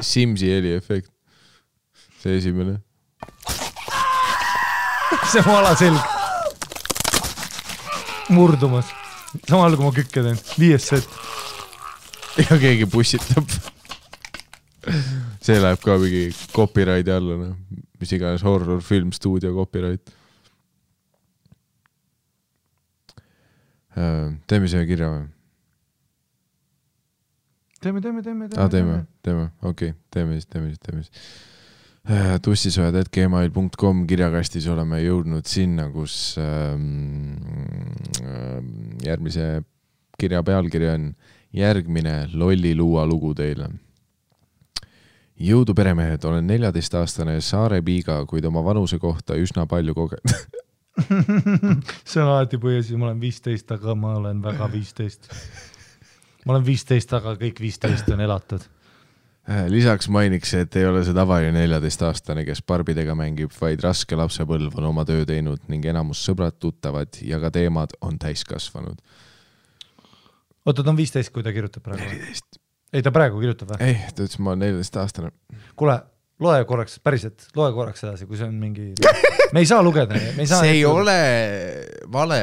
Speaker 1: Simsi heli efekt. See esimene.
Speaker 2: See on mu alaselg. Murdumas. Samal kui ma kükke teen. 5 set.
Speaker 1: Ja keegi pussitab. See läheb ka mingi copyrighti alla, mis iganes horror, film, stuudio, copyright. Teeme see kirja või? Teeme. Okei, teeme siis. tussisojad@gmail.com kirjakastis oleme jõudnud sinna, kus järgmise kirja pealkiri on järgmine lolliluua lugu teile. Jõudu peremehed, olen 14-aastane Saare piiga, kuid oma vanuse kohta üsna palju kogenud.
Speaker 2: See on alati põhjus, ma olen 15, aga ma olen väga 15. Ma olen 15, aga kõik 15 on elatud.
Speaker 1: Lisaks mainiks, et ei ole see tavaline 14-aastane, kes barbidega mängib, vaid raske lapsepõlv on oma töö teinud ning enamus sõbrad tuttavad ja ka teemad on täiskasvanud.
Speaker 2: Oota, ta on 15, kui ta kirjutab praegu?
Speaker 1: 14.
Speaker 2: Ei, ta praegu kirjutab või?
Speaker 1: Ei, ta ütles, ma olen 14-aastane.
Speaker 2: Kuule, loe korraks edasi, kui see on mingi... Me ei saa lugeda.
Speaker 1: See ei ole vale.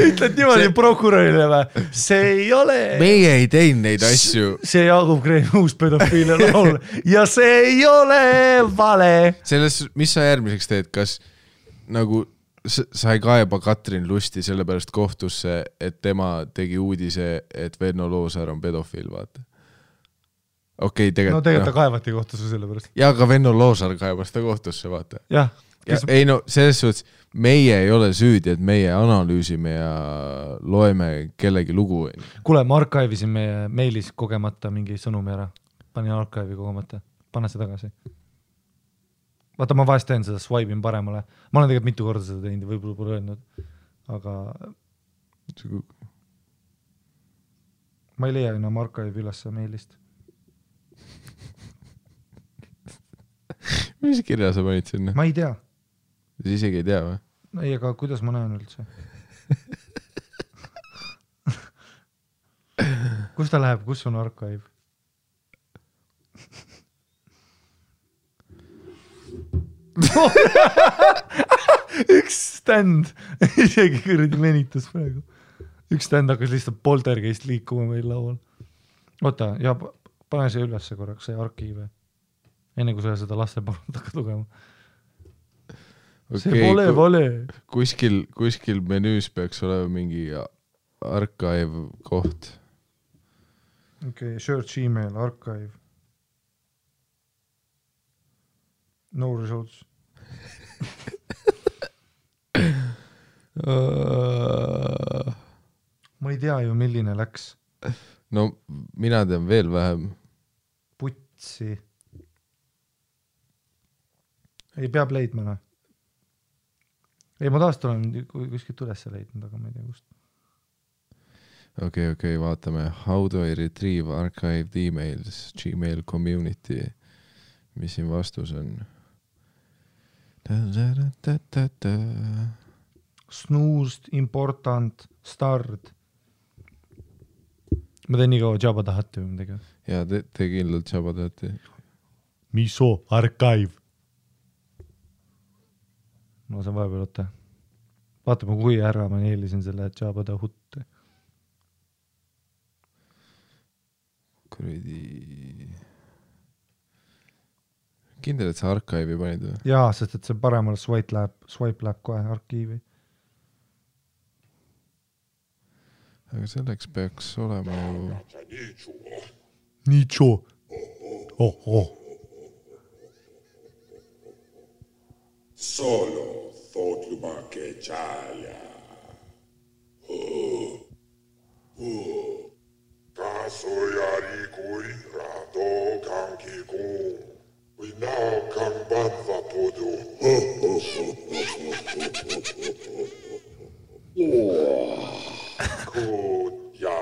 Speaker 2: Ütled niimoodi prokurörile või? See ei ole...
Speaker 1: Meie ei teinud neid asju.
Speaker 2: See Jaagup Kreemi uus pedofiilia laul. Ja see ei ole vale.
Speaker 1: Selles, mis sa järgmiseks teed? Kas nagu... Sa ei kaeba Katrin Lusti sellepärast kohtusse, et tema tegi uudise, et Venno Loosaar on pedofiil, vaata. Okei, tegelikult...
Speaker 2: No tegelikult ta kaevati kohtusse sellepärast.
Speaker 1: Ja ka Venno Loosaar kaebas ta kohtusse, vaata.
Speaker 2: Jah.
Speaker 1: Ei no, selles suhtes, meie ei ole süüdi, et meie analüüsime ja loeme kellegi lugu.
Speaker 2: Kuule, ma arkiivisin meie meilis kogemata mingi sõnumi ära. Panin arkiivi kogemata. Pane see tagasi. Vaata, ma vahest teen seda, swipe'in paremale. Ma olen tegelikult mitu korda seda teinud, võib-olla pole öelnud. Aga ma ei leia enam arkiivi ülesse meilist.
Speaker 1: Mis kirja sa panid sinna?
Speaker 2: Ma ei tea.
Speaker 1: Sa isegi ei tea või?
Speaker 2: Ei, aga kuidas ma näen üldse? Kus ta läheb? Kus on arkiiv? Üks stand isegi kõrdi venitas praegu. Üks stand hakkas lihtsalt poltergeist liikuma meil laual. Oota, ja pane see ülesse korraks, see arkiive. Enne kui sa seda laste palud hakkad lugema. See pole vale.
Speaker 1: Kuskil menüüs peaks olema mingi archive koht.
Speaker 2: Okei, search email, archive. No results. ma ei tea ju, milline läks.
Speaker 1: No mina tean veel vähem.
Speaker 2: Putsi. Ei peab leidma, noh. Ei, ma taas olen kuskilt üles leidnud, aga ma ei tea kust.
Speaker 1: Okei, vaatame. How do I retrieve archived emails? Gmail community. Mis siin vastus on?
Speaker 2: Snoozed, important, start. Ma teen nii kaua Jabba tahate või midagi.
Speaker 1: Ja te kindlalt Jabba tahate.
Speaker 2: Miso, archive. Ma saan vahepeal oota. Vaatame, kui ära ma neelisin selle Jabba tahutte.
Speaker 1: Kuridi... Kindel, et sa archive'i panid või?
Speaker 2: Jaa, sest et see paremale swipe läheb kohe arkiivi.
Speaker 1: Aga selleks peaks olema ju...
Speaker 2: Nicho. Oh.
Speaker 3: Solo thotluba ke chalja. Kasoyari kui rato kanki kun. We now come banva podu. Kut ja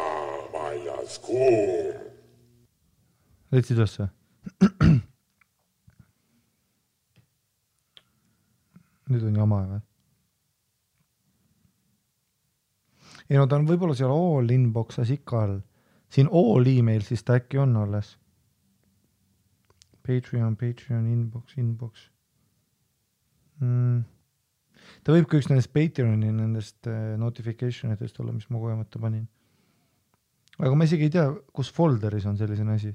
Speaker 3: majas kuum.
Speaker 2: Leidsid üldse? Nüüd on jama või? Ei no ta on võib-olla seal all inbox'as ikka all. Siin all email siis ta äkki on alles. Patreon, inbox. Ta võib ka üks nendest Patreoni nendest notificationitest olla, mis ma kogemata panin. Aga ma isegi ei tea, kus folderis on selline asi.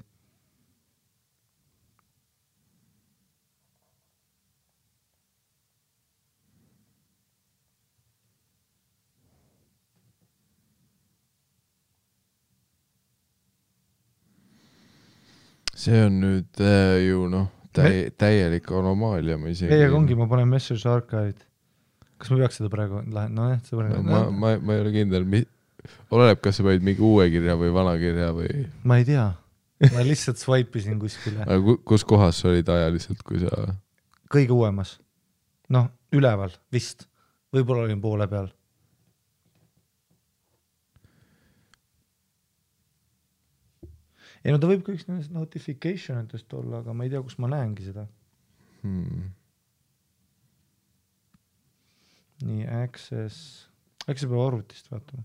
Speaker 1: See on nüüd ju täielik anomaalia.
Speaker 2: Ei, aga ongi, ma panen message archive'id. Kas ma peaks seda praegu
Speaker 1: ma ei ole kindel. Oleneb, kas sa panid mingi uue kirja või vana kirja või...
Speaker 2: Ma ei tea. Ma lihtsalt swipe'isin kuskile.
Speaker 1: Aga kus kohas olid ajaliselt, kui sa...
Speaker 2: Kõige uuemas. Noh, üleval, vist. Võib-olla olin poole peal. Ei no ta võib ka üks nendest notificationitest olla, aga ma ei tea, kus ma näengi seda. Nii, access peab arvutist vaatama.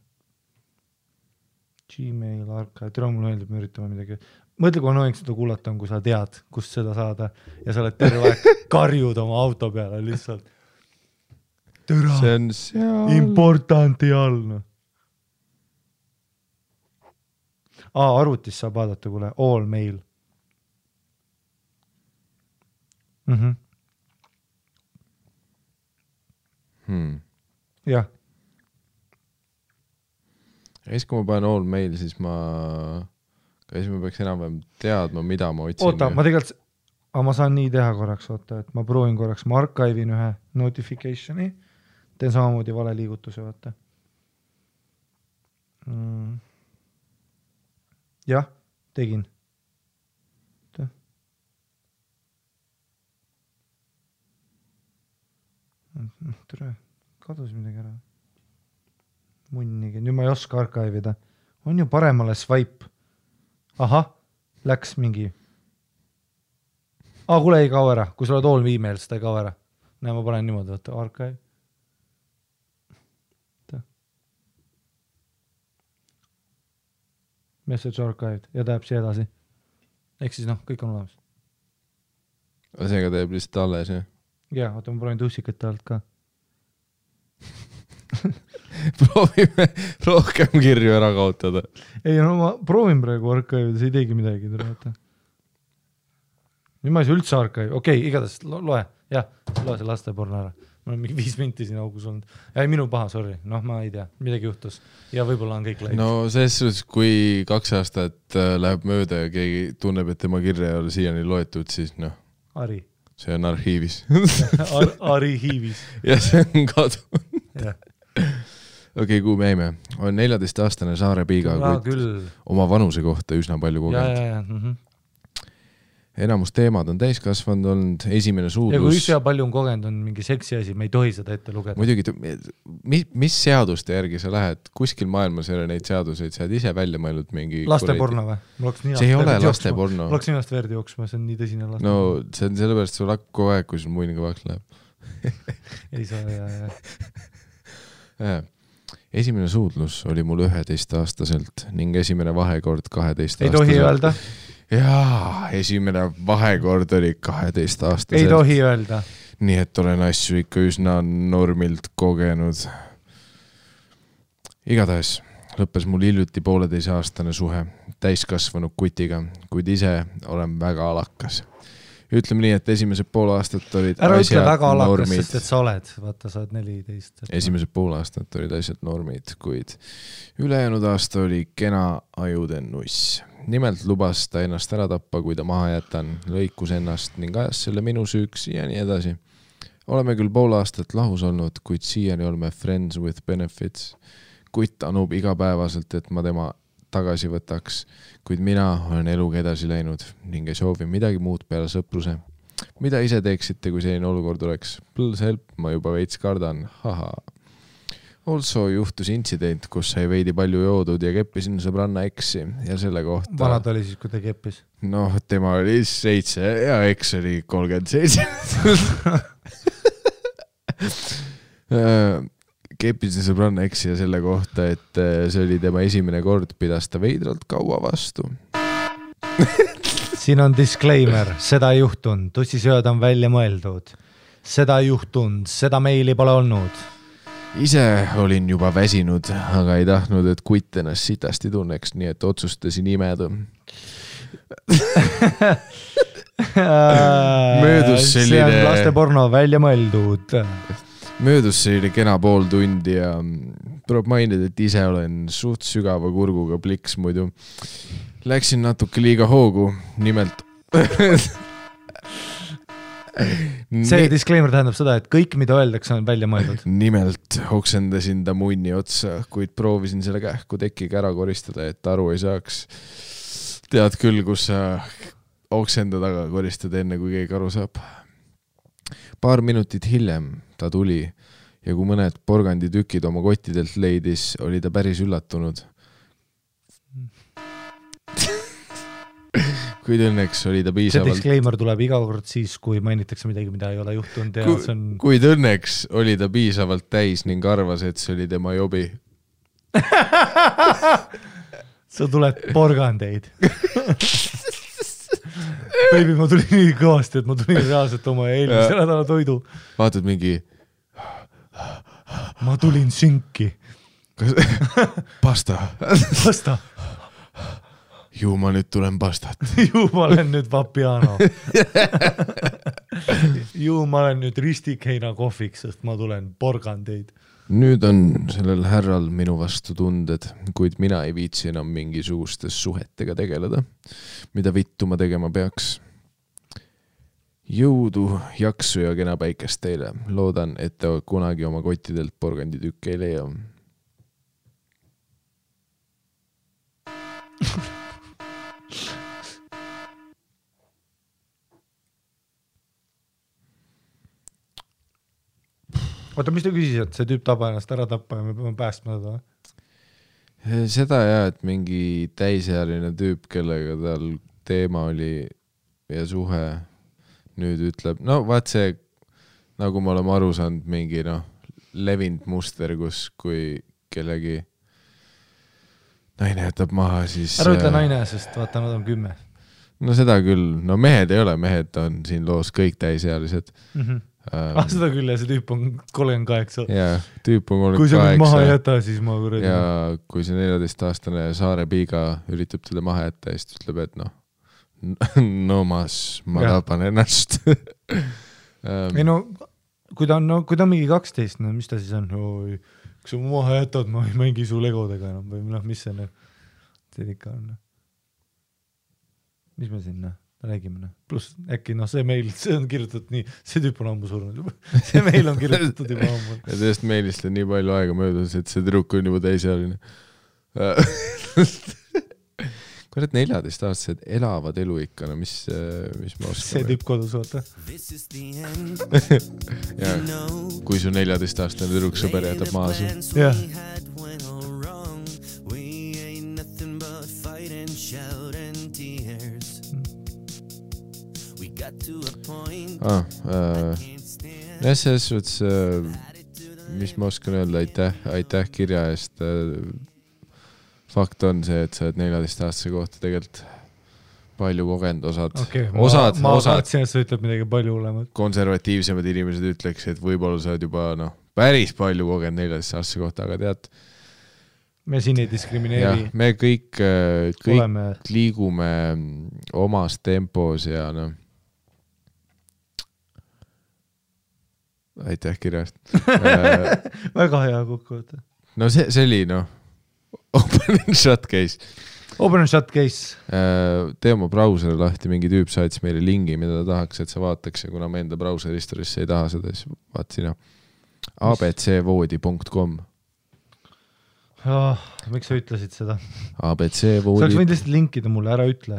Speaker 2: Gmail, archive, tere mul meeldib, me üritame midagi. Mõtle, kui annoying seda kuulata on, kui sa tead, kust seda saada ja sa oled terve aeg karjud oma auto peale lihtsalt. Tere,
Speaker 1: see on seal...
Speaker 2: importanti all, noh. Arvutis saab vaadata, kuule, all mail. Jah.
Speaker 1: Ja siis, kui ma panen all mail, siis ma peaks enam-vähem teadma, mida ma otsin.
Speaker 2: Oota, ma tegelikult, ma saan nii teha korraks, oota, et ma proovin korraks, ma archive'in ühe notificationi, teen samamoodi vale liigutuse, vaata. Jah, tegin. Tere, kadus midagi ära. Munnigi, nüüd ma ei oska archive'ida. On ju paremale swipe. Ahah, läks mingi. Kuule ei kao ära. Kui sa oled all email, siis ta ei kao ära. Näe, ma panen niimoodi, võtta archive. Message archived ja ta jääb siia edasi. Ehk siis kõik on olemas.
Speaker 1: Seega ta jääb lihtsalt alles, jah?
Speaker 2: Jaa, oota, ma proovin tuusikate alt ka.
Speaker 1: Proovime rohkem kirju ära kaotada.
Speaker 2: Ei, no ma proovin praegu archive, see ei teegi midagi. Nüüd ma ei saa üldse archive. Okei, igatahes loe. Jah, loe see lasteporno ära. Ma olen mingi 5 minti siin augus olnud. Ei, minu paha, sorry. Ma ei tea. Midagi juhtus. Ja võib-olla on kõik läinud.
Speaker 1: No selles suhtes, kui 2 aastat läheb mööda ja keegi tunneb, et tema kirja ei ole siiani loetud, siis
Speaker 2: Ari.
Speaker 1: see on arhiivis
Speaker 2: Arhiivis.
Speaker 1: ja see on kadunud. Okei, kuhu me jäime? On 14-aastane Saare Piiga, kuid oma vanuse kohta üsna palju kogenud. Enamus teemad on täiskasvanud olnud, esimene suudlus.
Speaker 2: Ja kui üsna palju on kogenud, on mingi seksi asi, me ei tohi seda ette lugeda.
Speaker 1: Muidugi, mis seaduste järgi sa lähed? Kuskil maailmas ei ole neid seaduseid, sa oled ise välja mõelnud mingi...
Speaker 2: Lasteporno või?
Speaker 1: See ei ole lasteporno.
Speaker 2: Mul oleks ninast verd jooksma, see on nii tõsine laste.
Speaker 1: No, see on sellepärast sul hakk kogu aeg, kui sul muin kõvaks läheb.
Speaker 2: Ei saa,
Speaker 1: Esimene suudlus oli mul 11-aastaselt ning esimene vahekord 12-aastaselt.
Speaker 2: Ei tohi öelda?
Speaker 1: Jaa, esimene vahekord oli 12-aastaselt.
Speaker 2: Ei tohi öelda.
Speaker 1: Nii et olen asju ikka üsna normilt kogenud. Igatahes lõppes mul hiljuti 1,5-aastane suhe täiskasvanud kutiga, kuid ise olen väga alakas. Ütleme nii, et esimesed 5 aastat olid
Speaker 2: ära
Speaker 1: asjad
Speaker 2: ütle väga alakas,
Speaker 1: normid.
Speaker 2: sest et sa oled. Vaata, sa oled 14.
Speaker 1: Esimesed 5 aastat olid asjad normid, kuid ülejäänud aasta oli kena ajuden nuss. Nimelt lubas ta ennast ära tappa, kui ta maha jätan, lõikus ennast ning ajas selle minu süüks ja nii edasi. Oleme küll 5 aastat lahus olnud, kuid siiani oleme friends with benefits. Kutt anub igapäevaselt, et ma tema tagasi võtaks, kuid mina olen eluga edasi läinud ning ei soovi midagi muud peale sõpruse. Mida ise teeksite, kui selline olukord oleks? Please help, ma juba veits kardan. Haha. Also juhtus intsident, kus sai veidi palju joodud ja keppisin sõbranna eksi ja selle kohta...
Speaker 2: Vanad oli siis, kui ta keppis?
Speaker 1: Noh, tema oli 7 ja eks oli 37. Keppisin sõbranna eksi ja selle kohta, et see oli tema esimene kord, pidas ta veidralt kaua vastu.
Speaker 2: Siin on disclaimer, seda ei juhtunud, tussisööd on välja mõeldud. Seda ei juhtunud, seda meili pole olnud.
Speaker 1: Ise olin juba väsinud, aga ei tahtnud, et kutt ennast sitasti tunneks, nii et otsustasin imeda. Möödus selline...
Speaker 2: See on lasteporno välja mõeldud.
Speaker 1: Möödus selline kena 5 tundi ja tuleb mainida, et ise olen suht sügava kurguga pliks muidu. Läksin natuke liiga hoogu, nimelt...
Speaker 2: See disclaimer tähendab seda, et kõik, mida öeldakse, on välja mõeldud.
Speaker 1: Nimelt oksendasin ta munni otsa, kuid proovisin selle kähku tekiga ära koristada, et aru ei saaks. Tead küll, kus sa oksenda taga koristad enne, kui keegi aru saab. Paar minutit hiljem ta tuli ja kui mõned porganditükid oma kottidelt leidis, oli ta päris üllatunud. Kuid õnneks oli ta piisavalt...
Speaker 2: See disclaimer tuleb iga kord siis, kui mainitakse midagi, mida ei ole juhtunud. Ja see on...
Speaker 1: Kuid õnneks oli ta piisavalt täis ning arvas, et see oli tema jobi.
Speaker 2: Sa tuled porgandeid. Baby, ma tulin nii kõvasti, et ma tulin reaalselt oma eelmise nädala toidu.
Speaker 1: Vaatad mingi...
Speaker 2: Ma tulin sünki.
Speaker 1: Pasta.
Speaker 2: Pasta.
Speaker 1: Ju ma nüüd tulen pastat.
Speaker 2: Ju ma olen nüüd vapiano. Ju ma olen nüüd ristikheina kohviks, sest ma tulen porgandeid.
Speaker 1: Nüüd on sellel härral minu vastu tunded, kuid mina ei viitsi enam mingisugustes suhetega tegeleda. Mida vittu ma tegema peaks? Jõudu, jaksu ja kena päikest teile. Loodan, et te kunagi oma kottidelt porganditükke ei leia.
Speaker 2: Oota, mis te küsisid, see tüüp taba ennast ära tappa ja me peame päästma seda?
Speaker 1: Seda jah, et mingi täisealine tüüp, kellega tal teema oli ja suhe nüüd ütleb, no vaat see, nagu me oleme aru saanud, mingi levinud muster, kus kui kellegi naine jätab maha, siis...
Speaker 2: Ära ütle naine, sest vaata, nad on 10.
Speaker 1: No seda küll, no mehed ei ole, mehed on siin loos kõik täisealised.
Speaker 2: Seda küll ja see tüüp on 38.
Speaker 1: Jaa, tüüp on 38.
Speaker 2: Kui sa mind maha jäta, siis ma kuradi.
Speaker 1: Ja kui see 14-aastane Saare Piiga üritab teda maha jätta, siis ütleb, et no ma tapan ennast.
Speaker 2: Ei no, kui ta on mingi 12, no mis ta siis on? Kui sa maha jätad, ma ei mängi su legodega enam või mis see ikka on? Mis me sinna? räägime. Pluss äkki see meil, see on kirjutatud nii, see tüüp on ammu surnud juba. See meil on kirjutatud juba ammu.
Speaker 1: Ja sellest meilist on nii palju aega möödas, et see tüdruk on juba täisealine. Kurat 14-aastased elavad elu ikka, no mis ma oskan.
Speaker 2: See tüüp kodus oota.
Speaker 1: Ja, kui su 14-aastane tüdruk sõber jätab maha su.
Speaker 2: Jah. Selles suhtes, mis ma oskan öelda, aitäh kirja eest. Fakt on see, et sa oled 14-aastase kohta tegelikult palju kogenud ma tahtsin, et sa ütleb midagi palju hullemat.
Speaker 1: Konservatiivsemad inimesed ütleks, et võib-olla sa oled juba päris palju kogenud 14-aastase kohta, aga tead,
Speaker 2: me siin ei diskrimineeri.
Speaker 1: Me kõik liigume omas tempos ja aitäh kirjast.
Speaker 2: Väga hea kokkuvõte.
Speaker 1: No see oli open and shut case.
Speaker 2: Open and shut case.
Speaker 1: Tee oma brauseri lahti, mingi tüüp saatis meile lingi, mida ta tahaks, et sa vaataks ja kuna me enda brauseri historisse ei taha seda, siis vaat sina abcvoodi.com.
Speaker 2: Miks sa ütlesid seda?
Speaker 1: abcvoodi.
Speaker 2: Sa oleks võinud lihtsalt linkida mulle, ära ütle.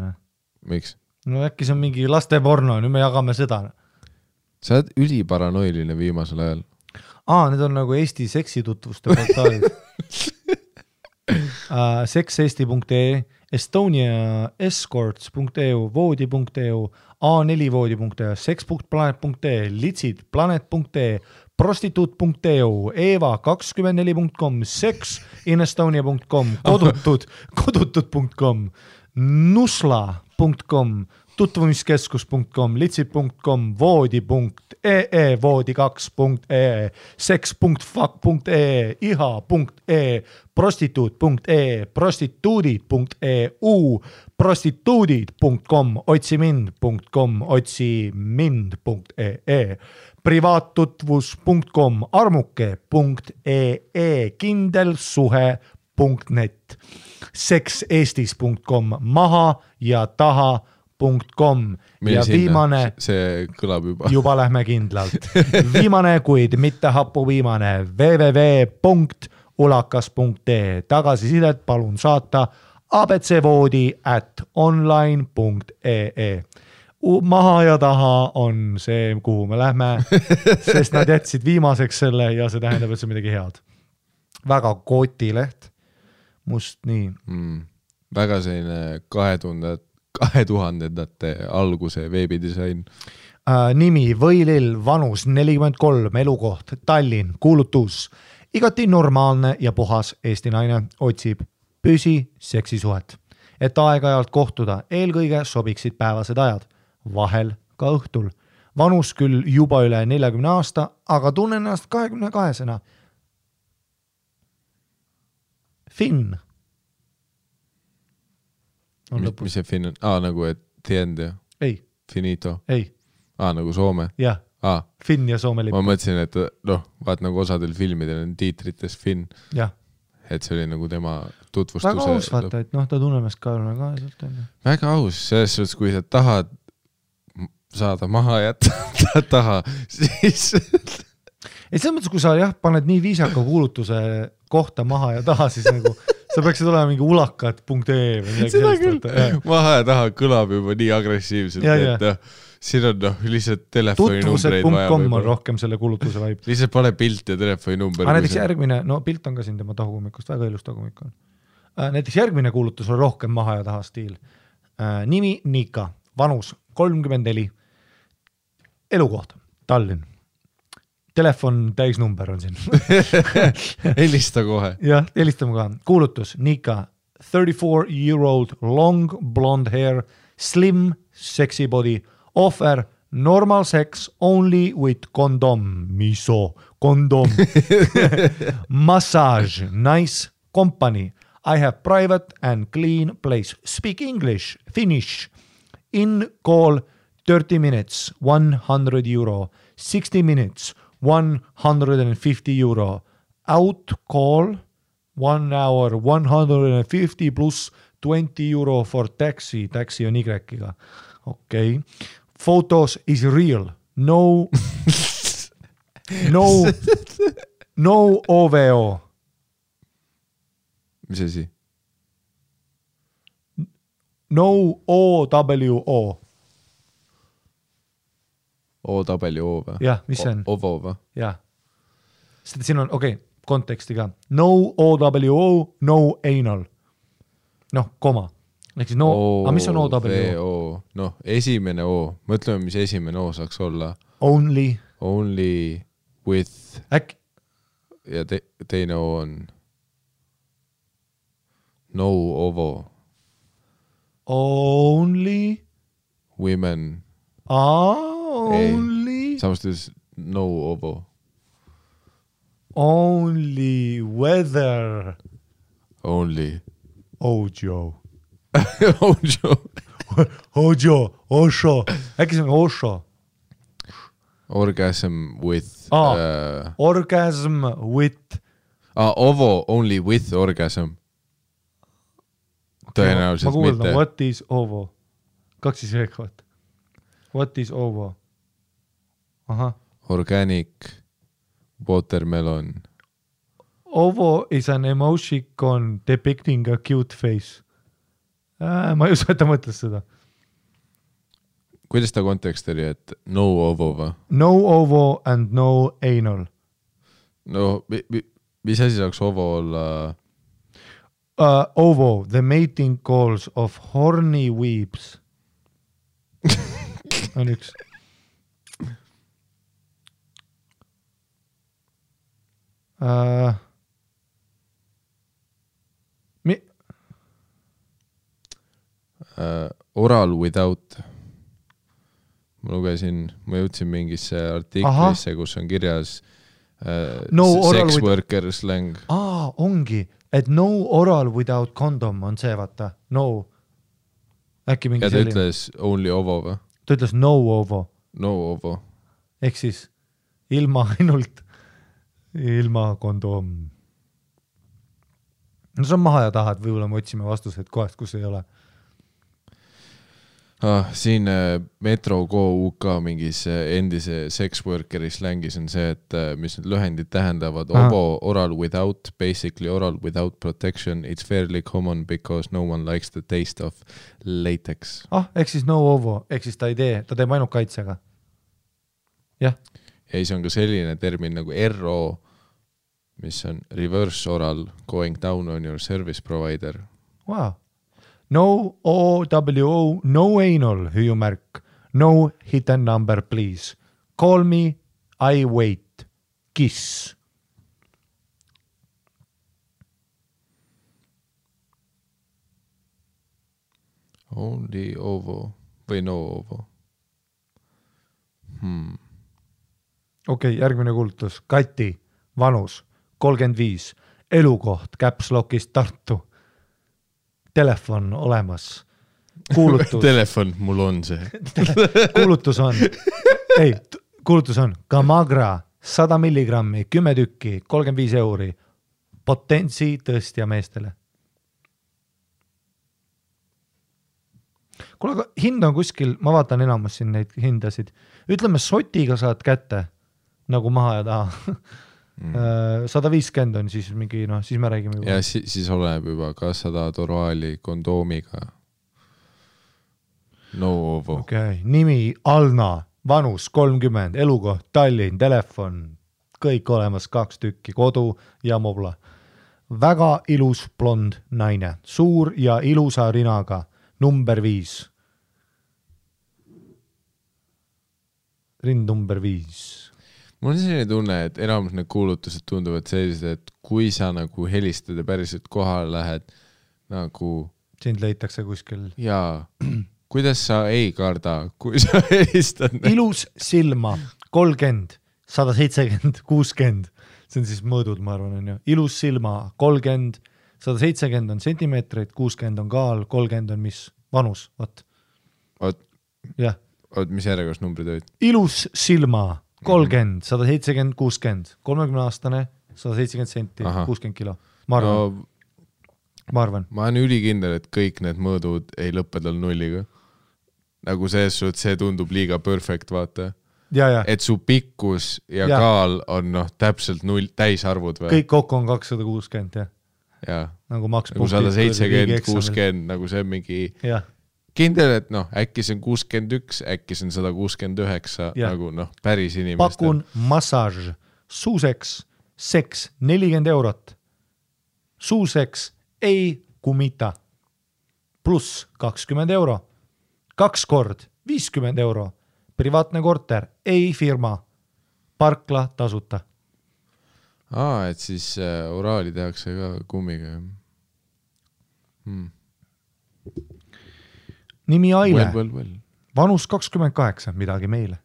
Speaker 1: Miks?
Speaker 2: No äkki see on mingi laste porno, nüüd me jagame seda.
Speaker 1: Sa oled üliparanoiline viimasel ajal.
Speaker 2: Need on nagu Eesti seksitutvuste portaalid. Sexeesti.ee, Estonia escorts.eu, voodi.eu, a4voodi.eu, sex.planet.ee, litsid.planet.ee, prostituut.eu, eva24.com, sexinestonia.com, kodutud.com, nusla.com, tutvumiskeskus.com, litsid.com, voodi.ee, voodi2.ee, sex.fuck.ee, iha.ee, prostituut.ee, prostituudid.eu, prostituudid.com, otsimind.com, otsimind.ee, privaattutvus.com, armuke.ee, kindelsuhe.net, sexeestis.com, maha ja taha.com ja viimane,
Speaker 1: see kõlab
Speaker 2: juba lähme kindlalt, viimane, kuid mitte hapu viimane, www.ulakas.ee, tagasisidet palun saata abcvoodi@online.ee. Maha ja taha on see, kuhu me lähme, sest nad jätsid viimaseks selle ja see tähendab, et see on midagi head. Väga kotileht, must nii.
Speaker 1: Väga selline 2000-ndate alguse veebidisain.
Speaker 2: Nimi Võilill, vanus 43, elukoht Tallinn, kuulutus. Igati normaalne ja puhas Eesti naine otsib püsi seksisuhet. Et aeg-ajalt kohtuda, eelkõige sobiksid päevased ajad, vahel ka õhtul. Vanus küll juba üle 40 aasta, aga tunnen ennast 22-sena. Finn.
Speaker 1: Mis see Finn on? Nagu et tiend ja?
Speaker 2: Ei.
Speaker 1: Finito?
Speaker 2: Ei.
Speaker 1: Nagu Soome?
Speaker 2: Jah. Finn ja Soome lipp.
Speaker 1: Ma mõtlesin, et vaat nagu osadel filmidel on tiitrites Finn.
Speaker 2: Jah.
Speaker 1: Et see oli nagu tema tutvustuse.
Speaker 2: Väga aus vaata, et ta tunneb ka sealt.
Speaker 1: Väga aus, selles suhtes, kui sa tahad saada maha jätta taha, siis...
Speaker 2: Et selles mõttes, kui sa paned nii viisaka kuulutuse kohta maha ja taha, siis nagu sa peaksid olema mingi ulakat.ee või midagi
Speaker 1: sellist. Maha ja taha kõlab juba nii agressiivselt, et siin on lihtsalt telefoninumbreid vaja.
Speaker 2: Tutvused.com on rohkem selle kuulutuse vaib.
Speaker 1: Lihtsalt pane pilt ja telefoninumber.
Speaker 2: Näiteks järgmine, pilt on ka siin tema tahukummikust, väga ilus tahukummik on. Näiteks järgmine kuulutus on rohkem maha ja taha stiil. Nimi Nika, vanus 34, elukoht Tallinn. Telefon täisnumber on siin.
Speaker 1: Helista kohe.
Speaker 2: Jah, helistame kohe. Kuulutus Nika, 34-year-old, long blonde hair, slim, sexy body, offer normal sex only with condom, condom, massage, nice company. I have private and clean place. Speak English, Finnish. In call 30 minutes, €100. 60 minutes, €150. Out call 1 hour, 150 plus €20 for taxi. Taxi on Y-ga. okei. Photos is real. No OVO.
Speaker 1: mis asi?
Speaker 2: No OWO.
Speaker 1: OWO või?
Speaker 2: Jah, mis see on?
Speaker 1: OVO või?
Speaker 2: Jah. Sest siin on, konteksti ka. No OWO, no anal. Noh, koma. Ehk siis mis on OWO?
Speaker 1: Noh, esimene O. Mõtleme, mis esimene O saaks olla.
Speaker 2: Only
Speaker 1: with
Speaker 2: äkki
Speaker 1: ja teine O on no OVO.
Speaker 2: Only
Speaker 1: Women.
Speaker 2: Only
Speaker 1: Samas tões no OVO.
Speaker 2: Only weather.
Speaker 1: Only
Speaker 2: Ojo.
Speaker 1: Ojo.
Speaker 2: Osho. Äkki see on Osho?
Speaker 1: Orgasm with
Speaker 2: Orgasm with
Speaker 1: OVO only with orgasm. Tõenäoliselt
Speaker 2: ma kuuldan,
Speaker 1: mitte.
Speaker 2: what is OVO? 2 siis veekavad. What is OVO? Aha.
Speaker 1: Organic watermelon.
Speaker 2: OVO is an emoticon depicting a cute face. Ma ei usu, et ta mõtles seda.
Speaker 1: Kuidas ta kontekst oli, et no OVO või?
Speaker 2: No OVO and no anal.
Speaker 1: No, mis asi saaks OVO olla?
Speaker 2: OVO, the mating calls of horny weeps. On üks.
Speaker 1: Oral without. Ma jõudsin mingisse artiklisse, kus on kirjas sex worker slang.
Speaker 2: Ongi, et no oral without condom on see, vaata. No. Äkki mingi
Speaker 1: selline. Ja ta ütles only OVO või?
Speaker 2: Ta ütles no OVO.
Speaker 1: No OVO.
Speaker 2: Ehk siis ilma kondom. No see on maha ja taha, et võib-olla me otsime vastused kohast, kus ei ole.
Speaker 1: Siin Metro Go UK mingis endise sex workeri slängis on see, et mis need lühendid tähendavad. OVO, oral without, basically oral without protection. It's fairly common because no one likes the taste of latex.
Speaker 2: Ehk siis no OVO, ehk siis ta teeb ainult kaitsega. Jah.
Speaker 1: Ja siis on ka selline termin nagu RO, mis on reverse oral going down on your service provider.
Speaker 2: Wow. No OWO, no anal, hüüumärk. No hidden number, please. Call me, I wait. Kiss.
Speaker 1: Only OVO või no OVO.
Speaker 2: Okei, järgmine kuulutus. Kati, vanus, 35, elukoht, Caps Lockist Tartu. Telefon olemas. Kuulutus.
Speaker 1: Telefon, mul on see.
Speaker 2: Kuulutus on Gamagra 100 milligrammi, 10 tükki, 35 €. Potentsi tõstja meestele. Kuule, aga hind on kuskil, ma vaatan enamus siin neid hindasid. Ütleme, sotiga saad kätte, nagu maha ja taha. 150 on siis mingi, siis me räägime juba.
Speaker 1: Ja siis oleneb juba, kas sa tahad oraali kondoomiga. No OVO.
Speaker 2: Nimi Alna, vanus 30, elukoht Tallinn, telefon, kõik olemas, 2 tükki, kodu ja mobla. Väga ilus blond naine, suur ja ilusa rinaga, number 5. Rind number 5.
Speaker 1: Mul on selline tunne, et enamus need kuulutused tunduvad sellised, et kui sa nagu helistad ja päriselt kohale lähed, nagu...
Speaker 2: Sind leitakse kuskil.
Speaker 1: Jaa, kuidas sa ei karda, kui sa helistad?
Speaker 2: Ilus silma, 30, 170, 60. See on siis mõõdud, ma arvan, on ju. Ilus silma, 30, 170 on sentimeetreid, 60 on kaal, 30 on mis? Vanus, vaat. Jah.
Speaker 1: Mis järjekorras numbrid olid?
Speaker 2: Ilus silma, 30, 170, 60, 30-aastane, 170 senti, 60 kilo. Ma arvan.
Speaker 1: Ma olen ülikindel, et kõik need mõõdud ei lõppe tal nulliga. nagu see tundub liiga perfect, vaata.
Speaker 2: ja.
Speaker 1: Et su pikkus ja kaal on täpselt 0 täisarvud või?
Speaker 2: Kõik kokku on 260, jah.
Speaker 1: Ja.
Speaker 2: Nagu maks
Speaker 1: nagu 170, 60, nagu see on mingi kindel, et äkki see on 61, äkki see on 169, nagu päris inimestel.
Speaker 2: Pakun massaaž, suuseks, seks 40 €. Suuseks ei kumita. Pluss 20 €. 2 kord 50 €. Privaatne korter, ei firma. Parkla tasuta.
Speaker 1: Et siis oraali tehakse ka kummiga.
Speaker 2: Nimi Aile.
Speaker 1: Well.
Speaker 2: Vanus 28, midagi meile.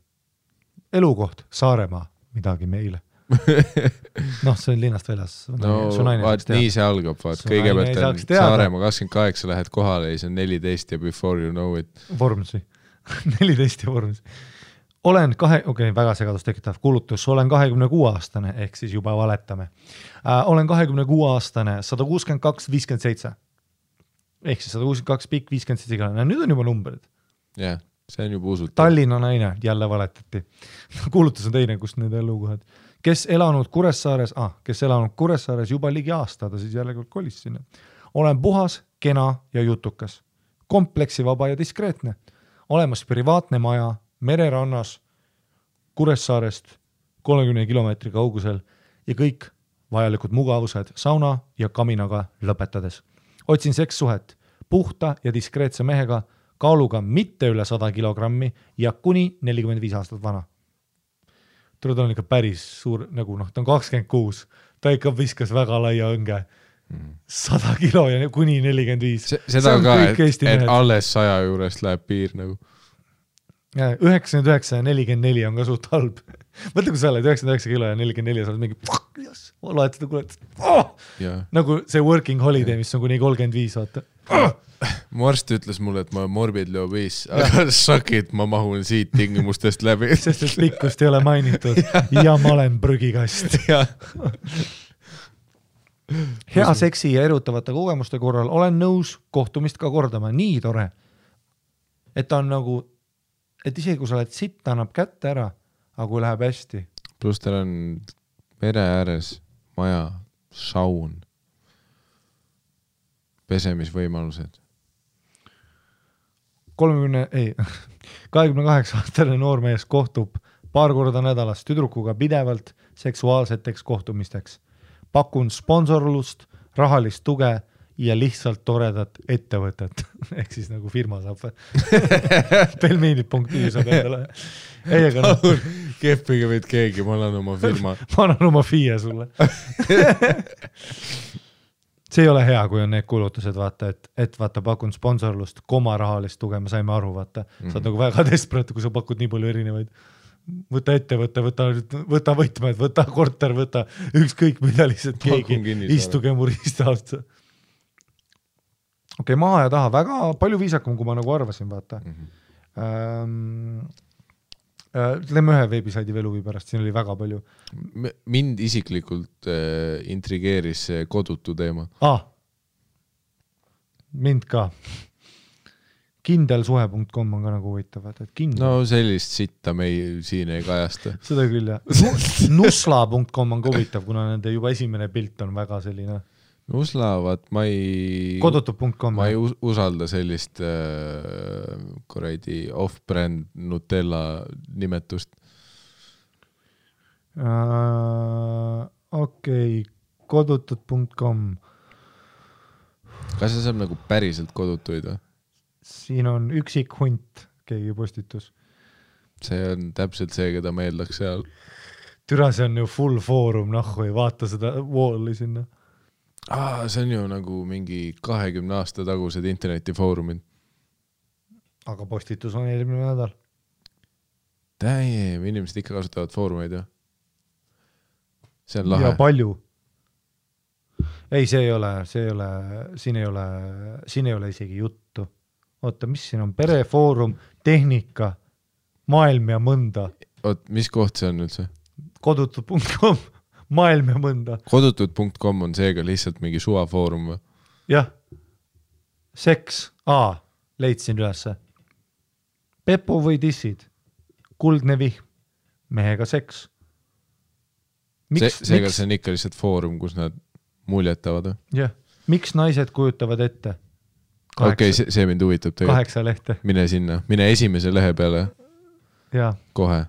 Speaker 2: Elukoht, Saaremaa, midagi meile. See on linnast väljas.
Speaker 1: Vaat nii see algab, vaat kõigepealt on Saaremaa 28, lähed kohale ja see on 14 ja before you know it.
Speaker 2: Vormsi. 14 ja vormsi. Olen väga segadust tekitav kuulutus, olen 26-aastane, ehk siis juba valetame. Olen 26-aastane, 162,57. Ehk siis 162 pikk, 57 igale. Nüüd on juba numbrid.
Speaker 1: Jah, see on juba usutav.
Speaker 2: Tallinna naine, jälle valetati. Kuulutus on teine, kust need elukohad. Kes elanud Kuressaares juba ligi aasta, ta siis jälle kolis sinna. Olen puhas, kena ja jutukas. Kompleksivaba ja diskreetne. Olemas privaatne maja, mererannas, Kuressaarest 30 kilomeetri kaugusel ja kõik vajalikud mugavused sauna ja kaminaga lõpetades. Otsin sekssuhet puhta ja diskreetse mehega, kaaluga mitte üle 100 kilogrammi ja kuni 45 aastat vana. Ta on ikka päris suur, nagu ta on 26, ta ikka viskas väga laia õnge. 100 kilo ja kuni 45.
Speaker 1: Seda ka, et alles 100 juurest läheb piir nagu.
Speaker 2: 99 ja 44 on ka suht halb. Mõtle, kui sa oled 99 kilo ja 44 sa oled mingi loed seda kuulet. Nagu see working holiday, mis on kuni 35, vaata.
Speaker 1: Mu arst ütles mulle, et ma olen morbidly obese, aga sakid, ma mahun siit tingimustest läbi.
Speaker 2: Sest et pikkust ei ole mainitud ja ma olen prügikast. Hea seksi ja erutavate kogemuste korral olen nõus kohtumist ka kordama. Nii tore. Et ta on nagu et isegi kui sa oled sitt, ta annab kätte ära, aga kui läheb hästi.
Speaker 1: Plus tal on mere ääres maja, saun, pesemisvõimalused.
Speaker 2: 28-aastane noormees kohtub paar korda nädalas tüdrukuga pidevalt seksuaalseteks kohtumisteks. Pakun sponsorlust, rahalist tuge ja lihtsalt toredat ettevõtet. Ehk siis nagu firma saab. Pelmeeni.ü saab endale.
Speaker 1: Keppige võid keegi, ma annan oma firma.
Speaker 2: Ma annan oma FIE sulle. See ei ole hea, kui on need kuulutused, vaata, et vaata, pakun sponsorlust, rahalist tuge, me saime aru, vaata. Sa oled nagu väga desperate, kui sa pakud nii palju erinevaid. Võta ettevõte, võta võtmed, võta korter, võta ükskõik mida lihtsalt keegi. Istuge mu ristaasta. Okei, maha ja taha, väga palju viisakam, kui ma nagu arvasin, vaata. Lähme ühe veebisaidi veluvi pärast, siin oli väga palju.
Speaker 1: Mind isiklikult intrigeeris see kodutu teema.
Speaker 2: Mind ka. Kindelsuhe.com on ka nagu huvitav.
Speaker 1: No sellist sitta me siin ei kajasta.
Speaker 2: Seda küll, jah. Nusla.com on ka huvitav, kuna nende juba esimene pilt on väga selline.
Speaker 1: Nusla, vaat ma ei usalda sellist off-brand Nutella nimetust. Okei,
Speaker 2: kodutud.com.
Speaker 1: Kas see saab nagu päriselt kodutuid või?
Speaker 2: Siin on üksik hunt, keegi postitus.
Speaker 1: See on täpselt see, keda ma eeldaks seal.
Speaker 2: Türa, see on ju full foorum, ei vaata seda walli sinna.
Speaker 1: See on ju nagu mingi 20 aasta tagused internetifoorumid.
Speaker 2: Aga postitus on eelmine nädal.
Speaker 1: Damn, inimesed ikka kasutavad foorumeid, jah? See on lahe.
Speaker 2: Ja palju. Ei, siin ei ole isegi juttu. Oota, mis siin on? Perefoorum, tehnika, maailm ja mõnda.
Speaker 1: Mis koht see on üldse?
Speaker 2: Kodutud.com. Maailm ja mõnda.
Speaker 1: Kodutud.com on seega lihtsalt mingi suvafoorum või?
Speaker 2: Jah. Seks. Leidsin ülesse. Pepu või dissid? Kuldne vihm, mehega seks.
Speaker 1: Seega see on ikka lihtsalt foorum, kus nad muljetavad.
Speaker 2: Jah, miks naised kujutavad ette?
Speaker 1: Okei, see mind huvitab tegelikult.
Speaker 2: 8 lehte.
Speaker 1: Mine sinna, mine esimese lehe peale.
Speaker 2: Ja.
Speaker 1: Kohe.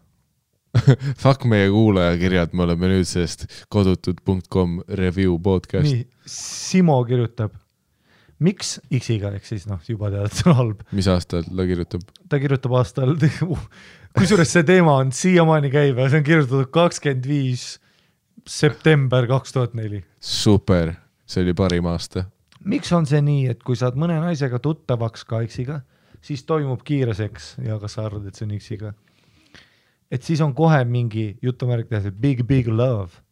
Speaker 1: Fuck meie kuulajakirjad, me oleme nüüd sellest kodutud.com review podcast.
Speaker 2: Nii, Simo kirjutab. Miks X-iga, ehk siis juba tead, et see on halb.
Speaker 1: Mis aastal ta kirjutab?
Speaker 2: Ta kirjutab aastal, kusjuures see teema on siiamaani käib ja see on kirjutatud 25 september 2004.
Speaker 1: Super, see oli parim aasta.
Speaker 2: Miks on see nii, et kui saad mõne naisega tuttavaks ka X-iga, siis toimub kiire seks ja kas sa arvad, et see on X-iga? Et siis on kohe mingi jutumärk big love.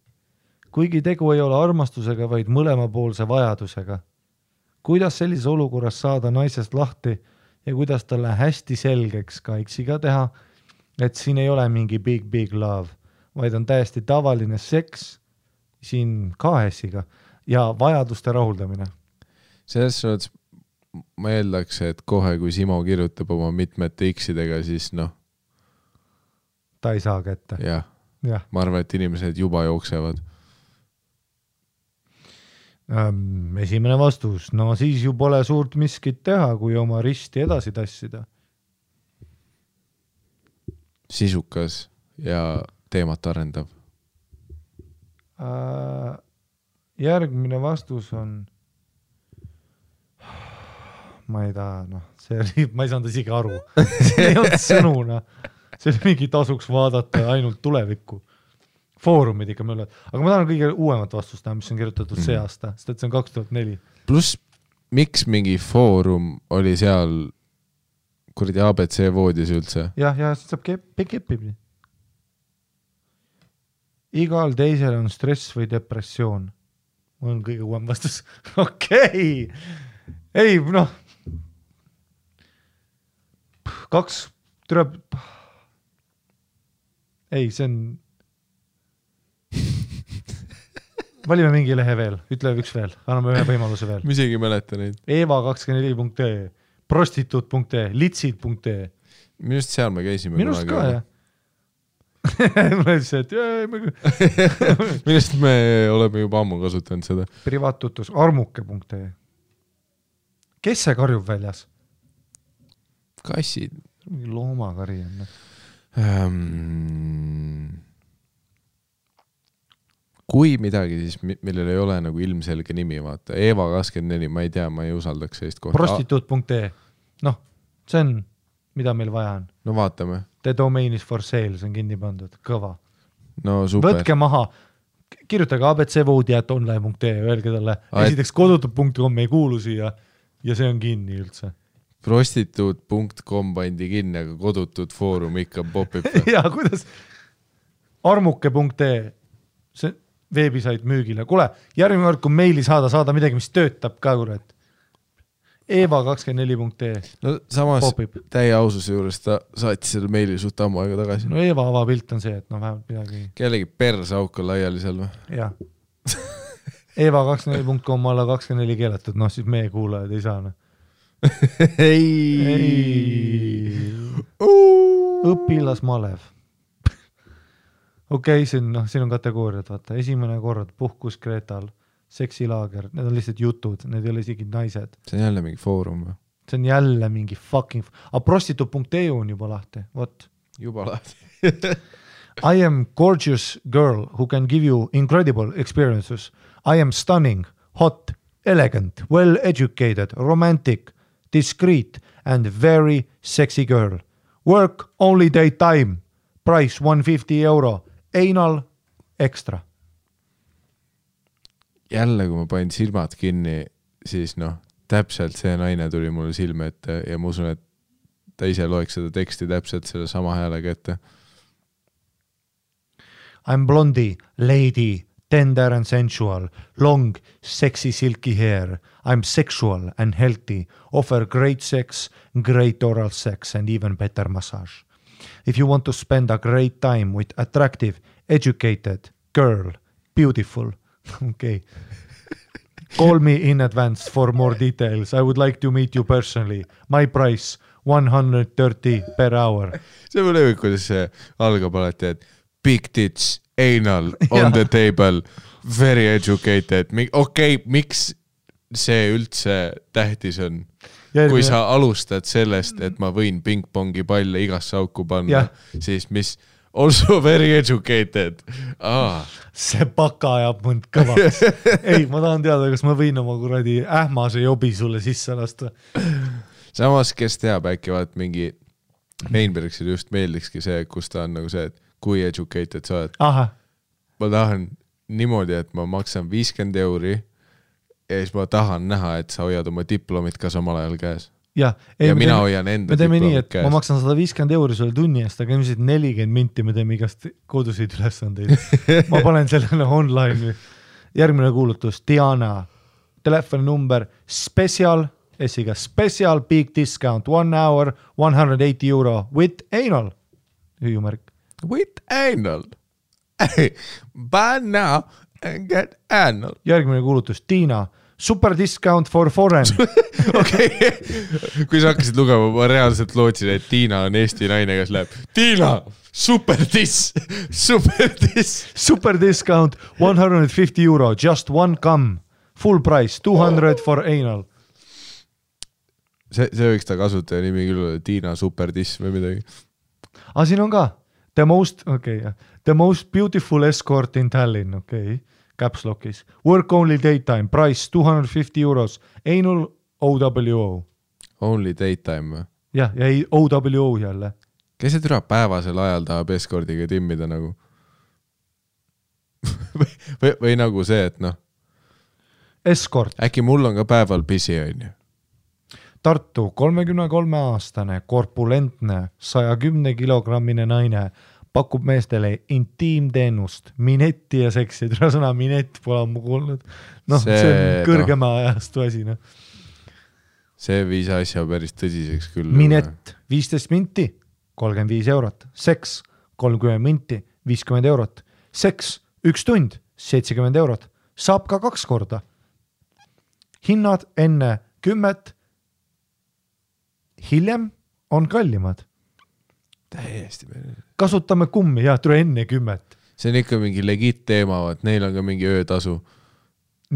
Speaker 2: Kuigi tegu ei ole armastusega, vaid mõlemapoolse vajadusega. Kuidas sellises olukorras saada naisest lahti ja kuidas talle hästi selgeks ka X-iga teha, et siin ei ole mingi big love, vaid on täiesti tavaline seks siin KS-iga ja vajaduste rahuldamine.
Speaker 1: Selles suhtes ma eeldaks, et kohe kui Simo kirjutab oma mitmete X-idega, siis
Speaker 2: ta ei saa kätte.
Speaker 1: Jah. Ma arvan, et inimesed juba jooksevad.
Speaker 2: Esimene vastus, siis ju pole suurt miskit teha, kui oma risti edasi tassida.
Speaker 1: Sisukas ja teemat arendav.
Speaker 2: Järgmine vastus on ma ei taha, ma ei saanud isegi aru. See ei olnud sõnuna. See oli mingi tasuks vaadata ainult tulevikku. Foorumid ikka mööle. Aga ma tahan kõige uuemat vastust näha, mis on kirjutatud see aasta, sest et see on 2004.
Speaker 1: Plus, miks mingi foorum oli seal kuradi ABC voodis üldse?
Speaker 2: Ja siis saab kepib. Igal teisel on stress või depressioon. Mul on kõige uuem vastus. Okei. Ei, Ei, see on valime mingi lehe veel, ütle üks veel, anname ühe võimaluse veel.
Speaker 1: Ma isegi mäleta neid.
Speaker 2: Eva24.ee, prostituut.ee, litsid.ee.
Speaker 1: Minust seal me käisime.
Speaker 2: Minust ka, jah. Ma ütlesin, et
Speaker 1: Minust me oleme juba ammu kasutanud seda.
Speaker 2: Privaattutus, armuke.ee. Kes see karjub väljas?
Speaker 1: Kassid.
Speaker 2: Loomakari on.
Speaker 1: Kui midagi, siis millel ei ole nagu ilmselge nimi, vaata. Eva24, ma ei tea, ma ei usaldaks sellist kohta.
Speaker 2: Prostituut.ee. See on, mida meil vaja on.
Speaker 1: No vaatame.
Speaker 2: The domain is for sale, see on kinni pandud. Kõva.
Speaker 1: No super.
Speaker 2: Võtke maha. Kirjutage abcvoodi@online.ee, öelge talle. Esiteks kodutud.com ei kuulu siia ja see on kinni üldse.
Speaker 1: Prostituut.com pandi kinni, aga kodutud foorum ikka popib.
Speaker 2: Ja kuidas? Armuke.ee. See veebisait müügile. Kule, järgmine kord, kui meili saada midagi, mis töötab ka, kurat. Eva24.ee.
Speaker 1: No samas
Speaker 2: popib.
Speaker 1: Täie aususe juures ta saatis selle meili suht ammu aega tagasi.
Speaker 2: No Eva avapilt on see, et vähemalt midagi.
Speaker 1: Kellegi persauk on laiali seal või?
Speaker 2: Jah. Eva24.com alla 24 keelatud, siis meie kuulajad ei saa.
Speaker 1: Ei.
Speaker 2: Õpilas Malev. Okei, siin on kategooriad, vaata. Esimene kord, puhkus Kreetal, seksilaager, need on lihtsalt jutud, need ei ole isegi naised.
Speaker 1: See on jälle mingi foorum või?
Speaker 2: See on jälle mingi fucking... prostituut.eu on juba lahti, what?
Speaker 1: Juba lahti.
Speaker 2: I am gorgeous girl who can give you incredible experiences. I am stunning, hot, elegant, well-educated, romantic, discreet and very sexy girl. Work only daytime. Price €150. Anal extra.
Speaker 1: Jälle, kui ma panin silmad kinni, siis täpselt see naine tuli mulle silme ette ja ma usun, et ta ise loeks seda teksti täpselt selle sama häälega ette.
Speaker 2: I'm blondie, lady, tender and sensual, long, sexy, silky hair. I'm sexual and healthy, offer great sex, great oral sex and even better massage. If you want to spend a great time with attractive, educated girl, beautiful, okay. Call me in advance for more details. I would like to meet you personally. My price, 130 per hour.
Speaker 1: See on lõvik, kuidas see algab alati, et big tits, anal, on the table, very educated. Okei, miks see üldse tähtis on? Kui sa alustad sellest, et ma võin pingpongi palle igasse auku panna, siis mis also very educated.
Speaker 2: See paka ajab mõnd kõvaks. Ei, ma tahan teada, kas ma võin oma kuradi ähmase jobi sulle sisse lasta.
Speaker 1: Samas, kes teab, äkki vaat mingi Mainbergsile just meeldikski see, kus ta on nagu see, et kui educated sa oled. Ma tahan niimoodi, et ma maksan 50 € ja siis ma tahan näha, et sa hoiad oma diplomit ka samal ajal käes. Ja mina hoian enda diplomit käes.
Speaker 2: Ma maksan 150 € sulle tunni eest, aga ilmselt 40 minti me teeme igast koduseid ülesandeid. Ma panen sellele online. Järgmine kuulutus, Diana, telefoninumber special, esiga special big discount, 1 hour, 180 € with anal. Hüüumärk.
Speaker 1: With anal. Buy now and get anal.
Speaker 2: Järgmine kuulutus, Tiina, super discount for foreign.
Speaker 1: Okei. Kui sa hakkasid lugema, ma reaalselt lootsin, et Tiina on Eesti naine, kes läheb. Tiina, super dis. Super
Speaker 2: discount, 150 €, just one cum. Full price, 200 for anal.
Speaker 1: See võiks ta kasutaja nimi küll, Tiina super dis või midagi.
Speaker 2: Siin on ka. The most beautiful escort in Tallinn, Caps Lockis. Work only daytime, price 250 €, anal OWO.
Speaker 1: Only daytime või?
Speaker 2: Ja ei OWO jälle.
Speaker 1: Kes see türa päevasel ajal tahab eskordiga timmida nagu? või nagu see, et noh.
Speaker 2: Escort.
Speaker 1: Äkki mul on ka päeval pisi, on ju?
Speaker 2: Tartu 33-aastane, korpulentne, 110 kilogrammine naine pakub meestele intiimteenust, minetti ja seksi. Tule sõna minett pole ammu kuulnud. See on kõrgema ajastu asi.
Speaker 1: See viis asja päris tõsiseks küll.
Speaker 2: Minett 15 minti, 35 €. Seks 30 minti, 50 €. Seks 1 tund, 70 €. Saab ka 2 korda. Hinnad enne 10, hiljem on kallimad.
Speaker 1: Täiesti meelde.
Speaker 2: Kasutame kummi, tule enne 10.
Speaker 1: See on ikka mingi legit teema, et neil on ka mingi öötasu.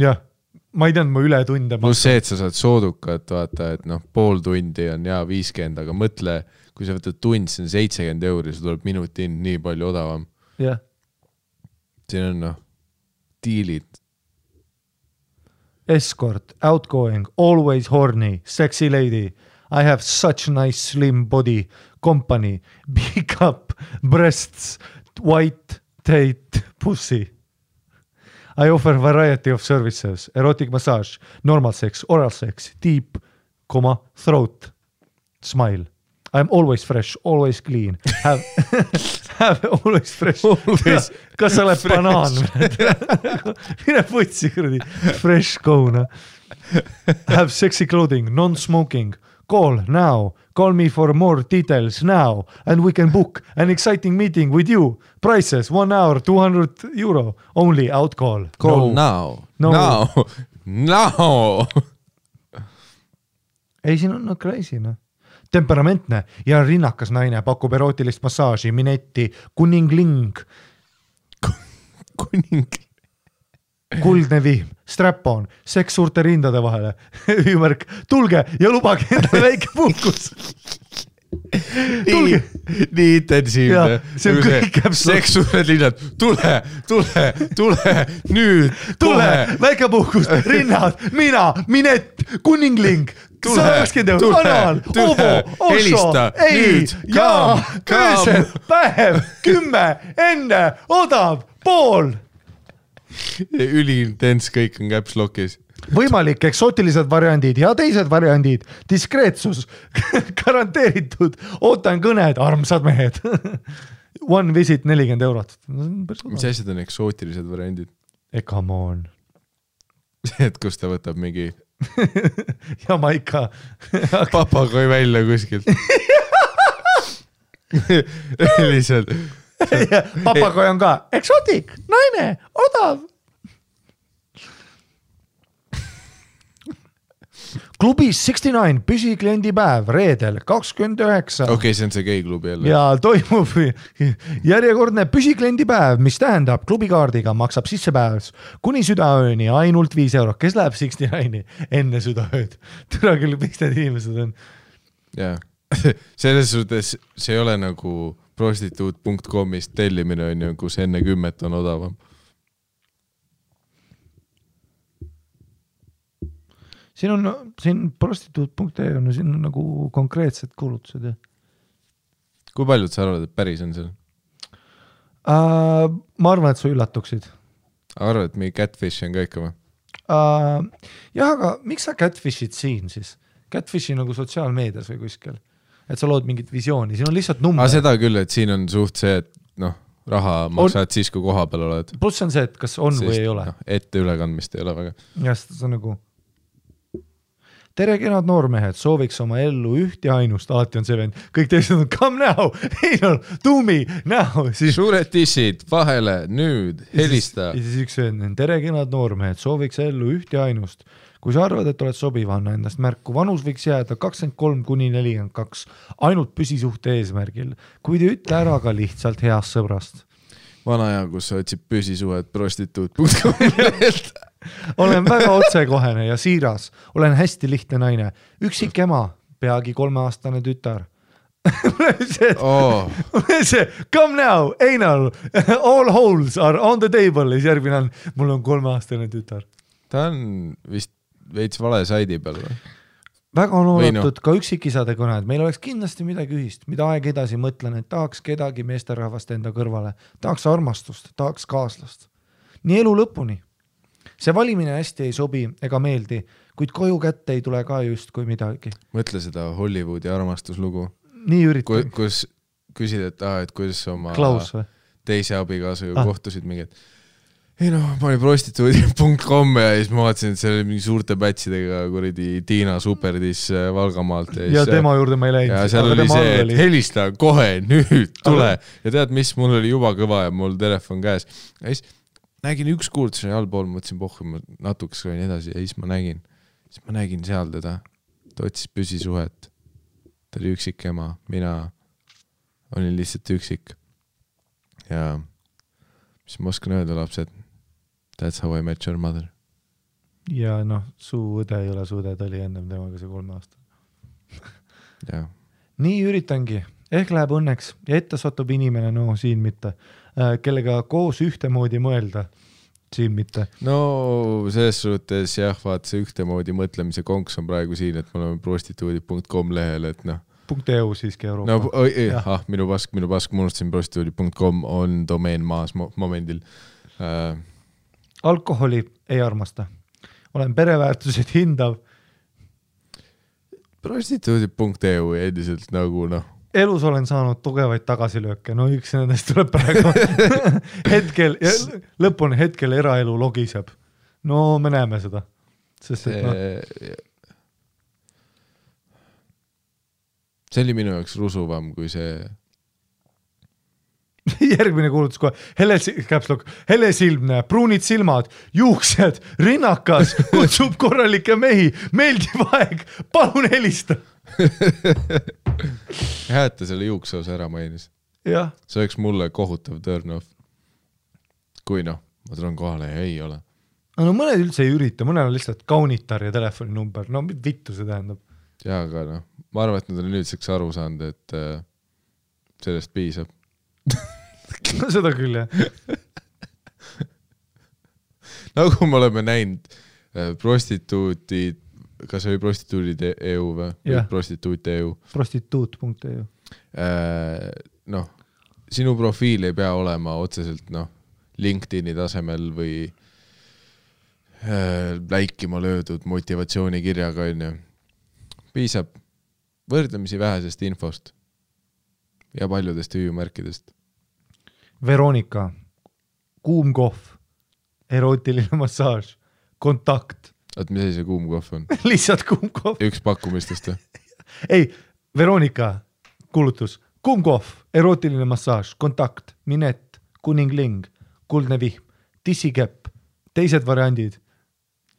Speaker 2: Jah, ma ei teadnud, ma üle tunde.
Speaker 1: Plus see, et sa saad soodukat, vaata, et pool tundi on 50, aga mõtle, kui sa võtad tund, see on 70 €, see tuleb minuti nii palju odavam.
Speaker 2: Jah.
Speaker 1: Siin on diilid.
Speaker 2: Escort, outgoing, always horny, sexy lady. I have such nice slim body, company, big up, breasts, white, tight, pussy. I offer variety of services, erotic massage, normal sex, oral sex, deep, throat, smile. I'm always fresh, always clean. Have always fresh. Kas sa oled banaan? Mine putsi, kuradi. Fresh go. Have sexy clothing, non-smoking. Call now. Call me for more details now. And we can book an exciting meeting with you. Prices, 1 hour, 200 €. Only out call.
Speaker 1: Call now.
Speaker 2: Ei, siin on crazy, Temperamentne ja rinnakas naine pakub erootilist massaaži, minetti, kuningling. Kuldne viim, strap-on, seks suurte rindade vahele. Hüüumärk, tulge ja lubage endale väike puhkus.
Speaker 1: Nii intensiivne.
Speaker 2: See on kõik
Speaker 1: seks suured linnad. Tule, nüüd.
Speaker 2: Tule, väike puhkus, rinnad, mina, minett, kuningling. 120 €, anal, ovo, osso, ei, jaa, öösel, päev, 10, enne, odav, pool.
Speaker 1: Üliintens kõik on Caps Lockis.
Speaker 2: Võimalik eksotilised variandid ja teised variandid, diskreetsus, garanteeritud, ootan kõned, armsad mehed. One visit 40 €.
Speaker 1: Mis asjad on eksootilised variandid?
Speaker 2: Come on.
Speaker 1: See, et kus ta võtab mingi
Speaker 2: Jamaika
Speaker 1: papagoi välja kuskilt. Lihtsalt
Speaker 2: papagoi on ka eksotik, naine, odav. klubis 69 püsikliendipäev reedel 29.
Speaker 1: Okei, see on see geiklubi jälle.
Speaker 2: Ja toimub järjekordne püsikliendipäev, mis tähendab klubikaardiga maksab sissepäevs kuni südaööni ainult 5 €. Kes läheb 69-i enne südaööd? Türa küll, miks need inimesed on?
Speaker 1: Jaa, selles suhtes see ei ole nagu prostituut.com'ist tellimine on ju, kus enne 10 on odavam.
Speaker 2: Siin prostituut.ee on, siin on nagu konkreetsed kuulutused. Ja.
Speaker 1: Kui paljud sa arvad, et päris on seal?
Speaker 2: Ma arvan, et sa üllatuksid.
Speaker 1: Arvad, et mingi catfish on ka ikka või?
Speaker 2: Jah, aga miks sa catfishid siin siis? Catfishi nagu sotsiaalmeedias või kuskil? Et sa lood mingit visiooni, siin on lihtsalt number.
Speaker 1: Seda küll, et siin on suht see, et raha maksad siis, kui koha peal oled.
Speaker 2: Pluss on see, et kas on või ei ole.
Speaker 1: Ette ülekandmist ei ole väga.
Speaker 2: Ja see on nagu... Tere kenad noormehed, sooviks oma ellu üht ja ainust, alati on see vend, kõik teised on come now, ei no, do me now.
Speaker 1: Suured tissid, vahele, nüüd, helista.
Speaker 2: Ja siis üks vend, tere kenad noormehed, sooviks ellu üht ja ainust. Kui sa arvad, et oled sobiv, anna endast märku, vanus võiks jääda 23 kuni 42, ainult püsisuhte eesmärgil, kuid ütle ära ka lihtsalt heast sõbrast.
Speaker 1: Vana aja, kus sa otsib püsisuhet prostituut.com.
Speaker 2: Olen väga otsekohene ja siiras, olen hästi lihtne naine, üksik ema, peagi 3-aastane tütar. See, come now, anal, all holes are on the table, ja järgmine on, mul on 3-aastane tütar.
Speaker 1: Ta on vist veits vale saidi peal või?
Speaker 2: Väga on oodatud ka üksikisade kõned, meil oleks kindlasti midagi ühist, mida aeg edasi mõtlen, et tahaks kedagi meesterahvast enda kõrvale, tahaks armastust, tahaks kaaslast. Nii elu lõpuni. See valimine hästi ei sobi ega meeldi, kuid koju kätte ei tule ka just kui midagi.
Speaker 1: Mõtle seda Hollywoodi armastuslugu.
Speaker 2: Nii üritan.
Speaker 1: Kus küsid, et kuidas oma
Speaker 2: Klaus või?
Speaker 1: Teise abikaasaga kohtusid mingi, et ei ma olin prostituudi.com ja siis ma vaatasin, et see oli mingi suurte pätsidega kuradi Tiina Superdis Valgamaalt.
Speaker 2: Ja tema juurde ma ei läinud.
Speaker 1: Ja seal oli see, et helista kohe, nüüd tule. Ja tead, mis, mul oli juba kõva ja mul telefon käes. Ja siis nägin üks kuultus allpool, mõtlesin pohhu, ma natukes kõin edasi ja siis ma nägin seal teda. Ta otsis püsisuhet. Ta oli üksik ema. Mina olin lihtsalt üksik. Ja mis ma oskan öelda, lapsed? That's how I met your mother.
Speaker 2: Ja su õde ei ole su õde, ta oli ennem temaga see 3 aasta.
Speaker 1: Ja.
Speaker 2: Nii üritangi. Ehk läheb õnneks ja ette satub inimene, siin mitte, kellega koos ühtemoodi mõelda, siin mitte.
Speaker 1: No selles suhtes jah, vaat see ühtemoodi mõtlemise konks on praegu siin, et me oleme prostituudi.com lehel, et
Speaker 2: .eu siiski Euroopa.
Speaker 1: Minu pask, ma unustasin prostituudi.com on domeen maas momendil.
Speaker 2: Alkoholi ei armasta. Olen pereväärtused hindav.
Speaker 1: Prostituudi.eu endiselt nagu
Speaker 2: Elus olen saanud tugevaid tagasilööke, üks nendest tuleb praegu hetkel, lõpuni hetkel eraelu logiseb. Me näeme seda. Sest,
Speaker 1: see oli minu jaoks rusuvam kui see
Speaker 2: järgmine kuulutus kohe, helesilmne, pruunid silmad, juuksed, rinnakas, kutsub korralikke mehi, meeldiv aeg, palun helista.
Speaker 1: Hääta selle juukseosa ära mainis.
Speaker 2: Jah.
Speaker 1: See oleks mulle kohutav turn off. Kui ma tulen kohale ja ei ole.
Speaker 2: Mõned üldse ei ürita, mõned on lihtsalt kaunitar ja telefoninumber. Vittu see tähendab.
Speaker 1: Ja, aga ma arvan, et nad on nüüdseks aru saanud, et sellest piisab.
Speaker 2: Seda küll, jah.
Speaker 1: Nagu me oleme näinud prostituutid, kas oli prostituudid.eu või? Prostituut.eu.
Speaker 2: Prostituut.eu.
Speaker 1: Sinu profiil ei pea olema otseselt LinkedIni tasemel või läikima löödud motivatsioonikirjaga. Piisab võrdlemisi vähesest infost ja paljudest hüüumärkidest.
Speaker 2: Veronika, kuum kohv, erootiline massaaž, kontakt.
Speaker 1: Mis see kuum kohv on?
Speaker 2: Lihtsalt kuum kohv.
Speaker 1: Üks pakkumistest või?
Speaker 2: Ei, Veronika, kuulutus, kuum kohv, erootiline massaaž, kontakt, minet, kuningling, kuldne vihm, tissikepp, teised variandid,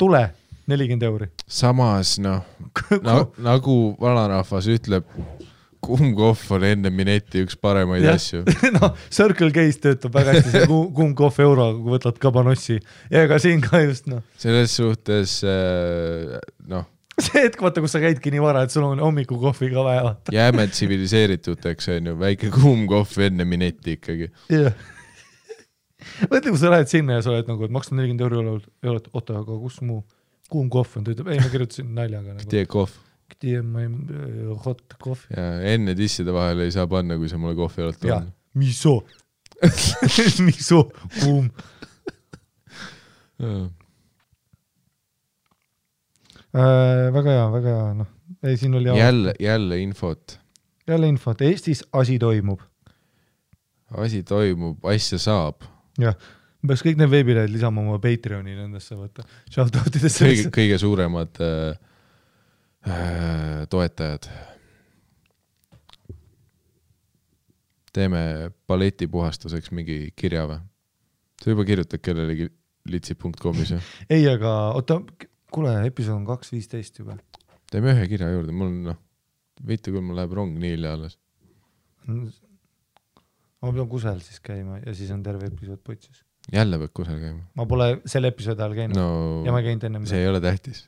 Speaker 2: tule, 40 €.
Speaker 1: samas nagu vanarahvas ütleb, kuumkohv on enne mineti üks paremaid asju.
Speaker 2: No, Circle K-s töötab väga hästi see kuumkohv euroga, kui võtad kabanossi. Ja ega siin ka just,
Speaker 1: Selles suhtes,
Speaker 2: see hetk, vaata, kus sa käidki nii vara, et sul on hommikukohvi ka vaja.
Speaker 1: Jääme tsiviliseerituteks, on ju, väike kuumkohv enne mineti ikkagi.
Speaker 2: Jah. Mõtle, kui sa lähed sinna ja sa oled nagu, et maksad 40 €, oota, aga kus mu kuumkohv on? Ta ütleb, ei, ma kirjutasin naljaga.
Speaker 1: Tee kohv.
Speaker 2: Tee hot kohv.
Speaker 1: Ja enne tisside vahele ei saa panna, kui sa mulle kohvi oled
Speaker 2: toonud. Miso. Miso, kuum. Väga hea, Ei, siin oli
Speaker 1: jälle infot.
Speaker 2: Jälle infot. Eestis asi toimub.
Speaker 1: Asi toimub, asja saab.
Speaker 2: Jah, peaks kõik need veebilehed lisama oma Patreoni nendesse võtta. Shoutoutidesse.
Speaker 1: Kõige suuremad toetajad. Teeme balletipuhastuseks mingi kirja või? Sa juba kirjutad kellelegi litsi.comis või?
Speaker 2: Ei, aga oota, kuule, episood on 2.15 juba.
Speaker 1: Teeme ühe kirja juurde, mul viite, kui mul läheb rong nii hilja alles.
Speaker 2: Ma pean kusel siis käima ja siis on terve episood putsis.
Speaker 1: Jälle peab kusel käima?
Speaker 2: Ma pole selle episoodi ajal käinud ja ma ei käinud enne.
Speaker 1: See ei ole tähtis.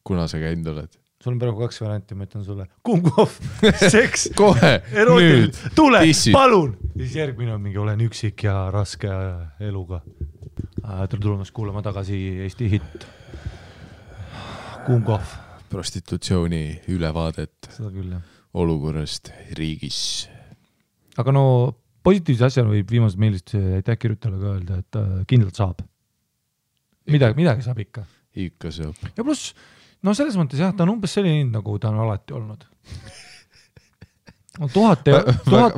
Speaker 1: Kuna sa käinud oled?
Speaker 2: Sul on praegu 2 varianti, ma ütlen sulle. Kuumkohv, seks,
Speaker 1: kohe,
Speaker 2: erotil, tule,
Speaker 1: tissid.
Speaker 2: Palun! Siis järgmine on mingi olen üksik ja raske eluga. Tere tulemast kuulama tagasi Eesti hitt. Kuumkohv.
Speaker 1: Prostitutsiooni ülevaadet.
Speaker 2: Seda küll, jah.
Speaker 1: Olukorrast riigis.
Speaker 2: Aga positiivse asjana võib viimased meilist aitäh kirjutajale ka öelda, et kindlalt saab. Midagi saab ikka.
Speaker 1: Ikka saab.
Speaker 2: Ja pluss, selles mõttes jah, ta on umbes selline, nagu ta on alati olnud. 1000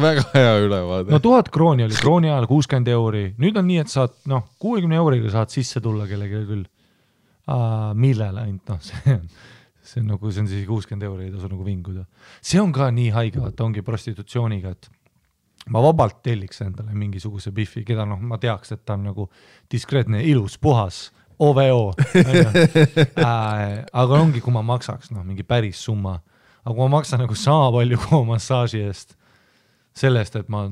Speaker 1: väga hea ülevaade.
Speaker 2: 1000 krooni oli krooni ajal 60 €. Nüüd on nii, et saad 60 € saad sisse tulla kellegi küll. Millele ainult, see on siis 60 € ei tasu nagu vinguda. See on ka nii haige, vaata ongi prostitutsiooniga, et ma vabalt telliks endale mingisuguse biffi, keda ma teaks, et ta on nagu diskreetne, ilus, puhas, OVO. Aga ongi, kui ma maksaks mingi päris summa. Aga kui ma maksan nagu sama palju kui massaaži eest, sellest, et ma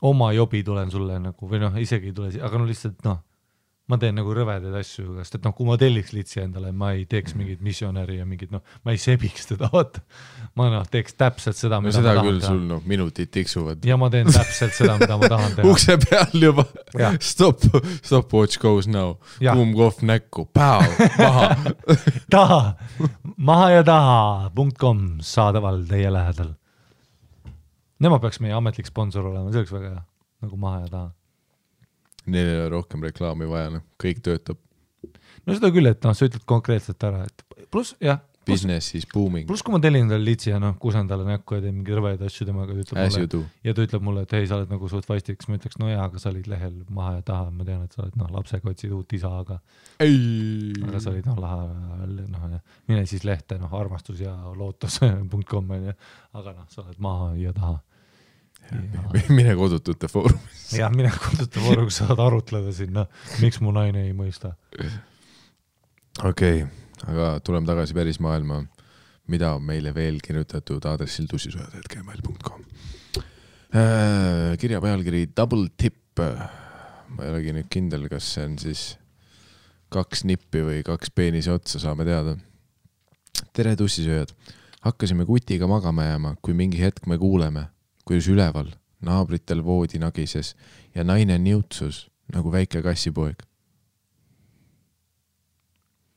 Speaker 2: oma jobi tulen sulle nagu, või isegi ei tule, aga lihtsalt ma teen nagu rõvedaid asju, sest et kui ma telliks litsi endale, ma ei teeks mingit missionäri ja mingit, ma ei sebiks teda, vaata. Ma teeks täpselt seda, mida
Speaker 1: seda
Speaker 2: ma tahan
Speaker 1: küll
Speaker 2: teha.
Speaker 1: Sul minutid tiksuvad.
Speaker 2: Ja ma teen täpselt seda, mida ma tahan teha.
Speaker 1: Ukse peal juba. Stopwatch goes now. Kuumkohv näkku. Päo, maha. Maha ja taha.com saadaval teie lähedal. Nemad peaks meie ametlik sponsor olema, see oleks väga hea. Nagu maha ja taha. Neil ei ole rohkem reklaami vaja, kõik töötab.
Speaker 2: Seda küll, et sa ütled konkreetselt ära, et pluss, jah.
Speaker 1: Business is booming.
Speaker 2: Pluss, kui ma tellin endale litsi ja kusen talle näkku ja teen mingi rõveid asju temaga, ja ta ütleb mulle, et hei, sa oled nagu suht vastiks, ma ütleks, aga sa olid lehel maha ja taha, ma tean, et sa oled lapsega otsid uut isa, aga sa olid laha, mine siis lehte, armastus ja lootus.com, aga sa oled maha ja taha.
Speaker 1: Mine kodutute foorumis.
Speaker 2: Jah, mine kodutute foorumis saad arutleda sinna, miks mu naine ei mõista.
Speaker 1: Okei, aga tuleme tagasi päris maailma, mida on meile veel kirjutatud aadressil tussisojad.gmail.com. Kirja pealkiri Double Tip. Ma ei olegi nüüd kindel, kas see on siis 2 nippi või 2 peenise otsa, saame teada. Tere tussisööjad. Hakkasime kutiga magama jääma, kui mingi hetk me kuuleme, kuidas üleval naabritel voodi nagises ja naine niutsus nagu väike kassipoeg.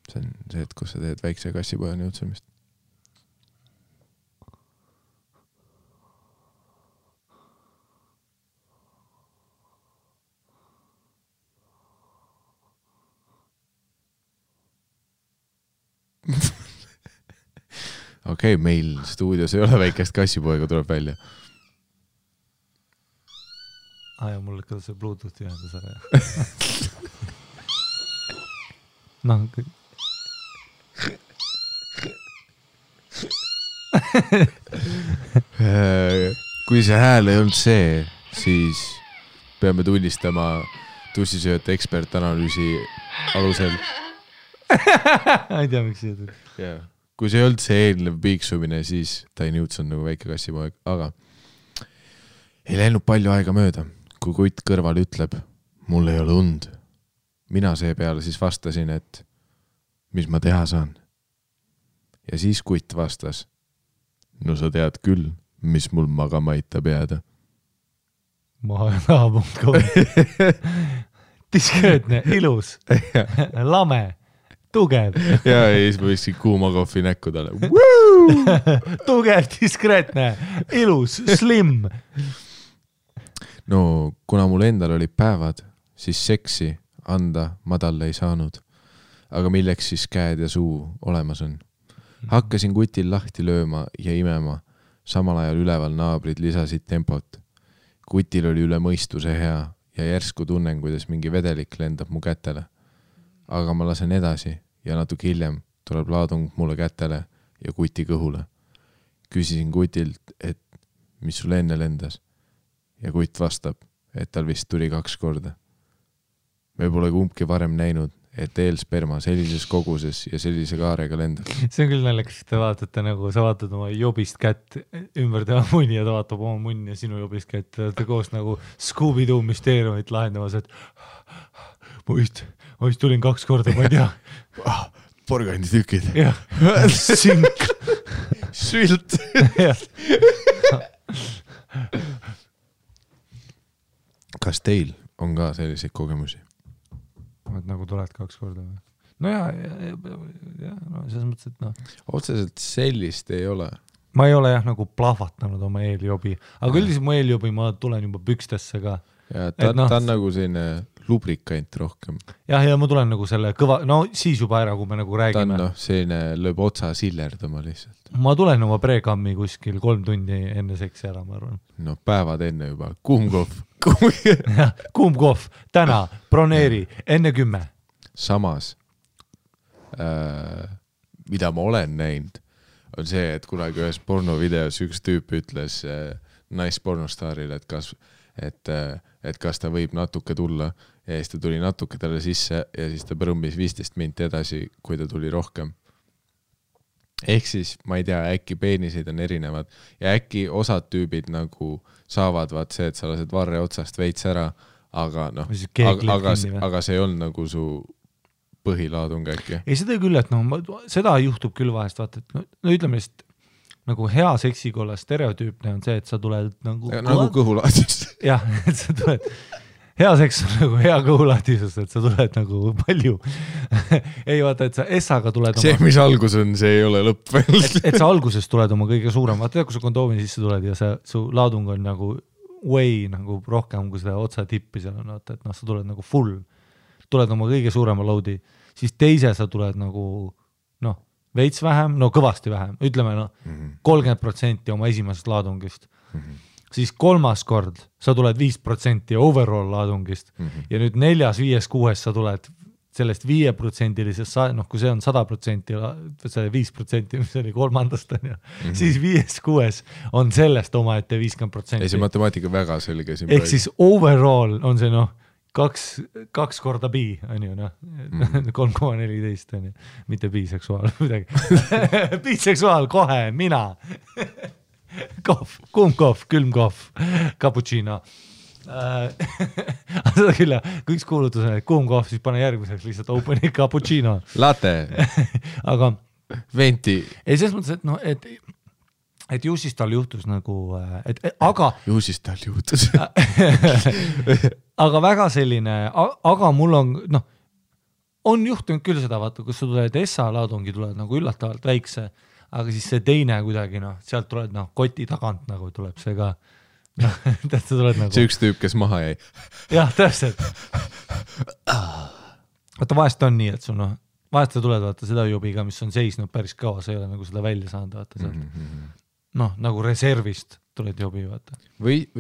Speaker 1: See on see, et kus sa teed väikse kassipoja niutsemist. Okei, meil stuudios ei ole väikest kassipoega, tuleb välja.
Speaker 2: Ja mul ikka see Bluetoothi ühendas ära. Kui see hääl ei olnud see, siis peame tunnistama tussisööjate ekspertanalüüsi alusel, ei tea, miks see tuli.
Speaker 1: Yeah. Kui see ei olnud see eelnev piiksumine, siis Tiny Newton nagu väike kassipoeg, aga ei läinud palju aega mööda, kui kutt kõrval ütleb, mul ei ole und. Mina seepeale siis vastasin, et mis ma teha saan. Ja siis kutt vastas, no sa tead küll, mis mul magama aitab jääda.
Speaker 2: Maha.com diskreetne, ilus, lame, tugev.
Speaker 1: Ja siis ma võiksin kuuma kohvi näkku talle.
Speaker 2: Tugev, diskreetne, ilus, slim.
Speaker 1: No, kuna mul endal olid päevad, siis seksi anda ma talle ei saanud. Aga milleks siis käed ja suu olemas on? Hakkasin kutil lahti lööma ja imema. Samal ajal üleval naabrid lisasid tempot. Kutil oli üle mõistuse hea ja järsku tunnen, kuidas mingi vedelik lendab mu kätele. Aga ma lasen edasi ja natuke hiljem tuleb laadung mulle kätele ja kuti kõhule. Küsisin kutilt, et mis sul enne lendas. Ja kutt vastab, et tal vist tuli 2 korda. Me pole kumbki varem näinud, et eelsperma sellises koguses ja sellise kaarega lendab.
Speaker 2: See on küll naljakas, et te vaatate nagu, sa vaatad oma jobist kätt ümber tema munni ja ta vaatab oma munni ja sinu jobist kätt. Te olete koos nagu Scooby-Doo müsteeriumit lahendamas, et ma vist tulin 2 korda, ma ei tea.
Speaker 1: Porganditükid.
Speaker 2: Jah, sink.
Speaker 1: Sült. Kas teil on ka selliseid kogemusi?
Speaker 2: Et nagu tuled 2 korda või? No ja no selles mõttes, et noh.
Speaker 1: Otseselt sellist ei ole.
Speaker 2: Ma ei ole jah nagu plahvatanud oma eeljobi, aga üldiselt mu eeljobi ma tulen juba pükstesse ka.
Speaker 1: Ja ta on nagu selline lubrikant rohkem.
Speaker 2: Ja ma tulen nagu selle kõva, no siis juba ära, kui me nagu räägime.
Speaker 1: Ta on selline lööb otsa sillerdama lihtsalt.
Speaker 2: Ma tulen oma prekammi kuskil 3 tundi enne seksi ära, ma arvan.
Speaker 1: No päevad enne juba, kuumkohv.
Speaker 2: Kuumkohv, täna, broneeri, enne 10.
Speaker 1: Samas, mida ma olen näinud, on see, et kunagi ühes pornovideos üks tüüp ütles naispornostaarile, et kas ta võib natuke tulla ja siis ta tuli natuke talle sisse ja siis ta põrummis 15 minti edasi, kui ta tuli rohkem. Ehk siis, ma ei tea, äkki peeniseid on erinevad ja äkki osad tüübid nagu saavad vaat see, et sa lased varre otsast veits ära, aga noh, aga see on nagu su põhilaadung äkki.
Speaker 2: Ei, seda küll, et seda juhtub küll vahest, vaata, et no ütleme lihtsalt, nagu hea seksikolla stereotüüpne on see, et sa tuled nagu
Speaker 1: kõhulaadis.
Speaker 2: Jah, et sa tuled, hea seks on nagu hea kõhulaadisus, et sa tuled nagu palju. Ei vaata, et sa essaga tuled
Speaker 1: see, mis algus on, see ei ole lõpp veel.
Speaker 2: et sa alguses tuled oma kõige suurem, vaata, kui sa kondoomi sisse tuled ja su laadung on nagu way nagu rohkem kui seda otsa tippi seal on, vaata, et sa tuled nagu full, tuled oma kõige suurema loadi, siis teise sa tuled nagu veits vähem, kõvasti vähem, ütleme 30% oma esimesest laadungist. Siis 3. kord sa tuled 5% overall laadungist ja nüüd 4., 5., 6. sa tuled sellest 5%-lisest, kui see on 100%, see 5%, mis oli 3. siis 5., 6. on sellest omaette 50%.
Speaker 1: Ei, see matemaatika väga selge.
Speaker 2: Ehk siis overall on see 2 korda bi, on ju, 3,14 on ju, mitte biseksuaal, midagi. Biseksuaal kohe, mina. Kohv, kuumkohv, külmkohv, cappuccino. Seda küll, kui üks kuulutus on, et kuumkohv, siis pane järgmiseks lihtsalt openi cappuccino.
Speaker 1: Latte.
Speaker 2: Aga
Speaker 1: venti.
Speaker 2: Ei, selles mõttes, et ju siis tal juhtus nagu, aga
Speaker 1: ju siis tal juhtus.
Speaker 2: aga väga selline, aga mul on juhtunud küll seda, vaata, kus sa tuled SA-laadungi, tuled nagu üllatavalt väikse, aga siis see teine kuidagi, sealt tuled koti tagant nagu tuleb see ka. Sa tuled nagu...
Speaker 1: See üks tüüp, kes maha jäi.
Speaker 2: Jah, täpselt. Vaata, vahest on nii, et sul vahest sa tuled, vaata, seda jobiga, mis on seisnud päris kaua, sa ei ole nagu seda välja saanud, vaata sealt. Nagu reservist tuled jobi, vaata.
Speaker 1: Või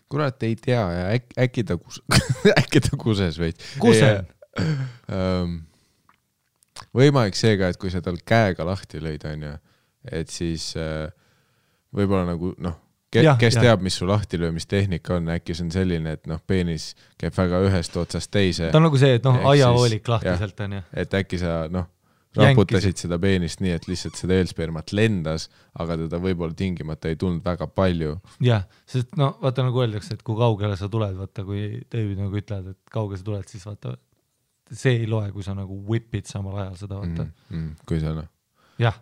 Speaker 1: kurat ei tea ja äkki ta kuses veid.
Speaker 2: Kusen?
Speaker 1: Võimalik seega, et kui sa tal käega lahti lõid, on ju, et siis võib-olla nagu, kes teab, mis su lahtilöömistehnika on, äkki see on selline, et noh, peenis käib väga ühest otsast teise.
Speaker 2: Ta on nagu see, et noh, aiahoolik lahtiselt on.
Speaker 1: Et äkki sa noh, raputasid seda peenist nii, et lihtsalt seda eelspermat lendas, aga teda võib-olla tingimata ei tulnud väga palju.
Speaker 2: Jah, sest no vaata nagu öeldakse, et kui kaugele sa tuled, vaata kui David nagu ütled, et kaugele sa tuled, siis vaata see ei loe, kui sa nagu whipid samal ajal seda, vaata.
Speaker 1: Kui sa noh,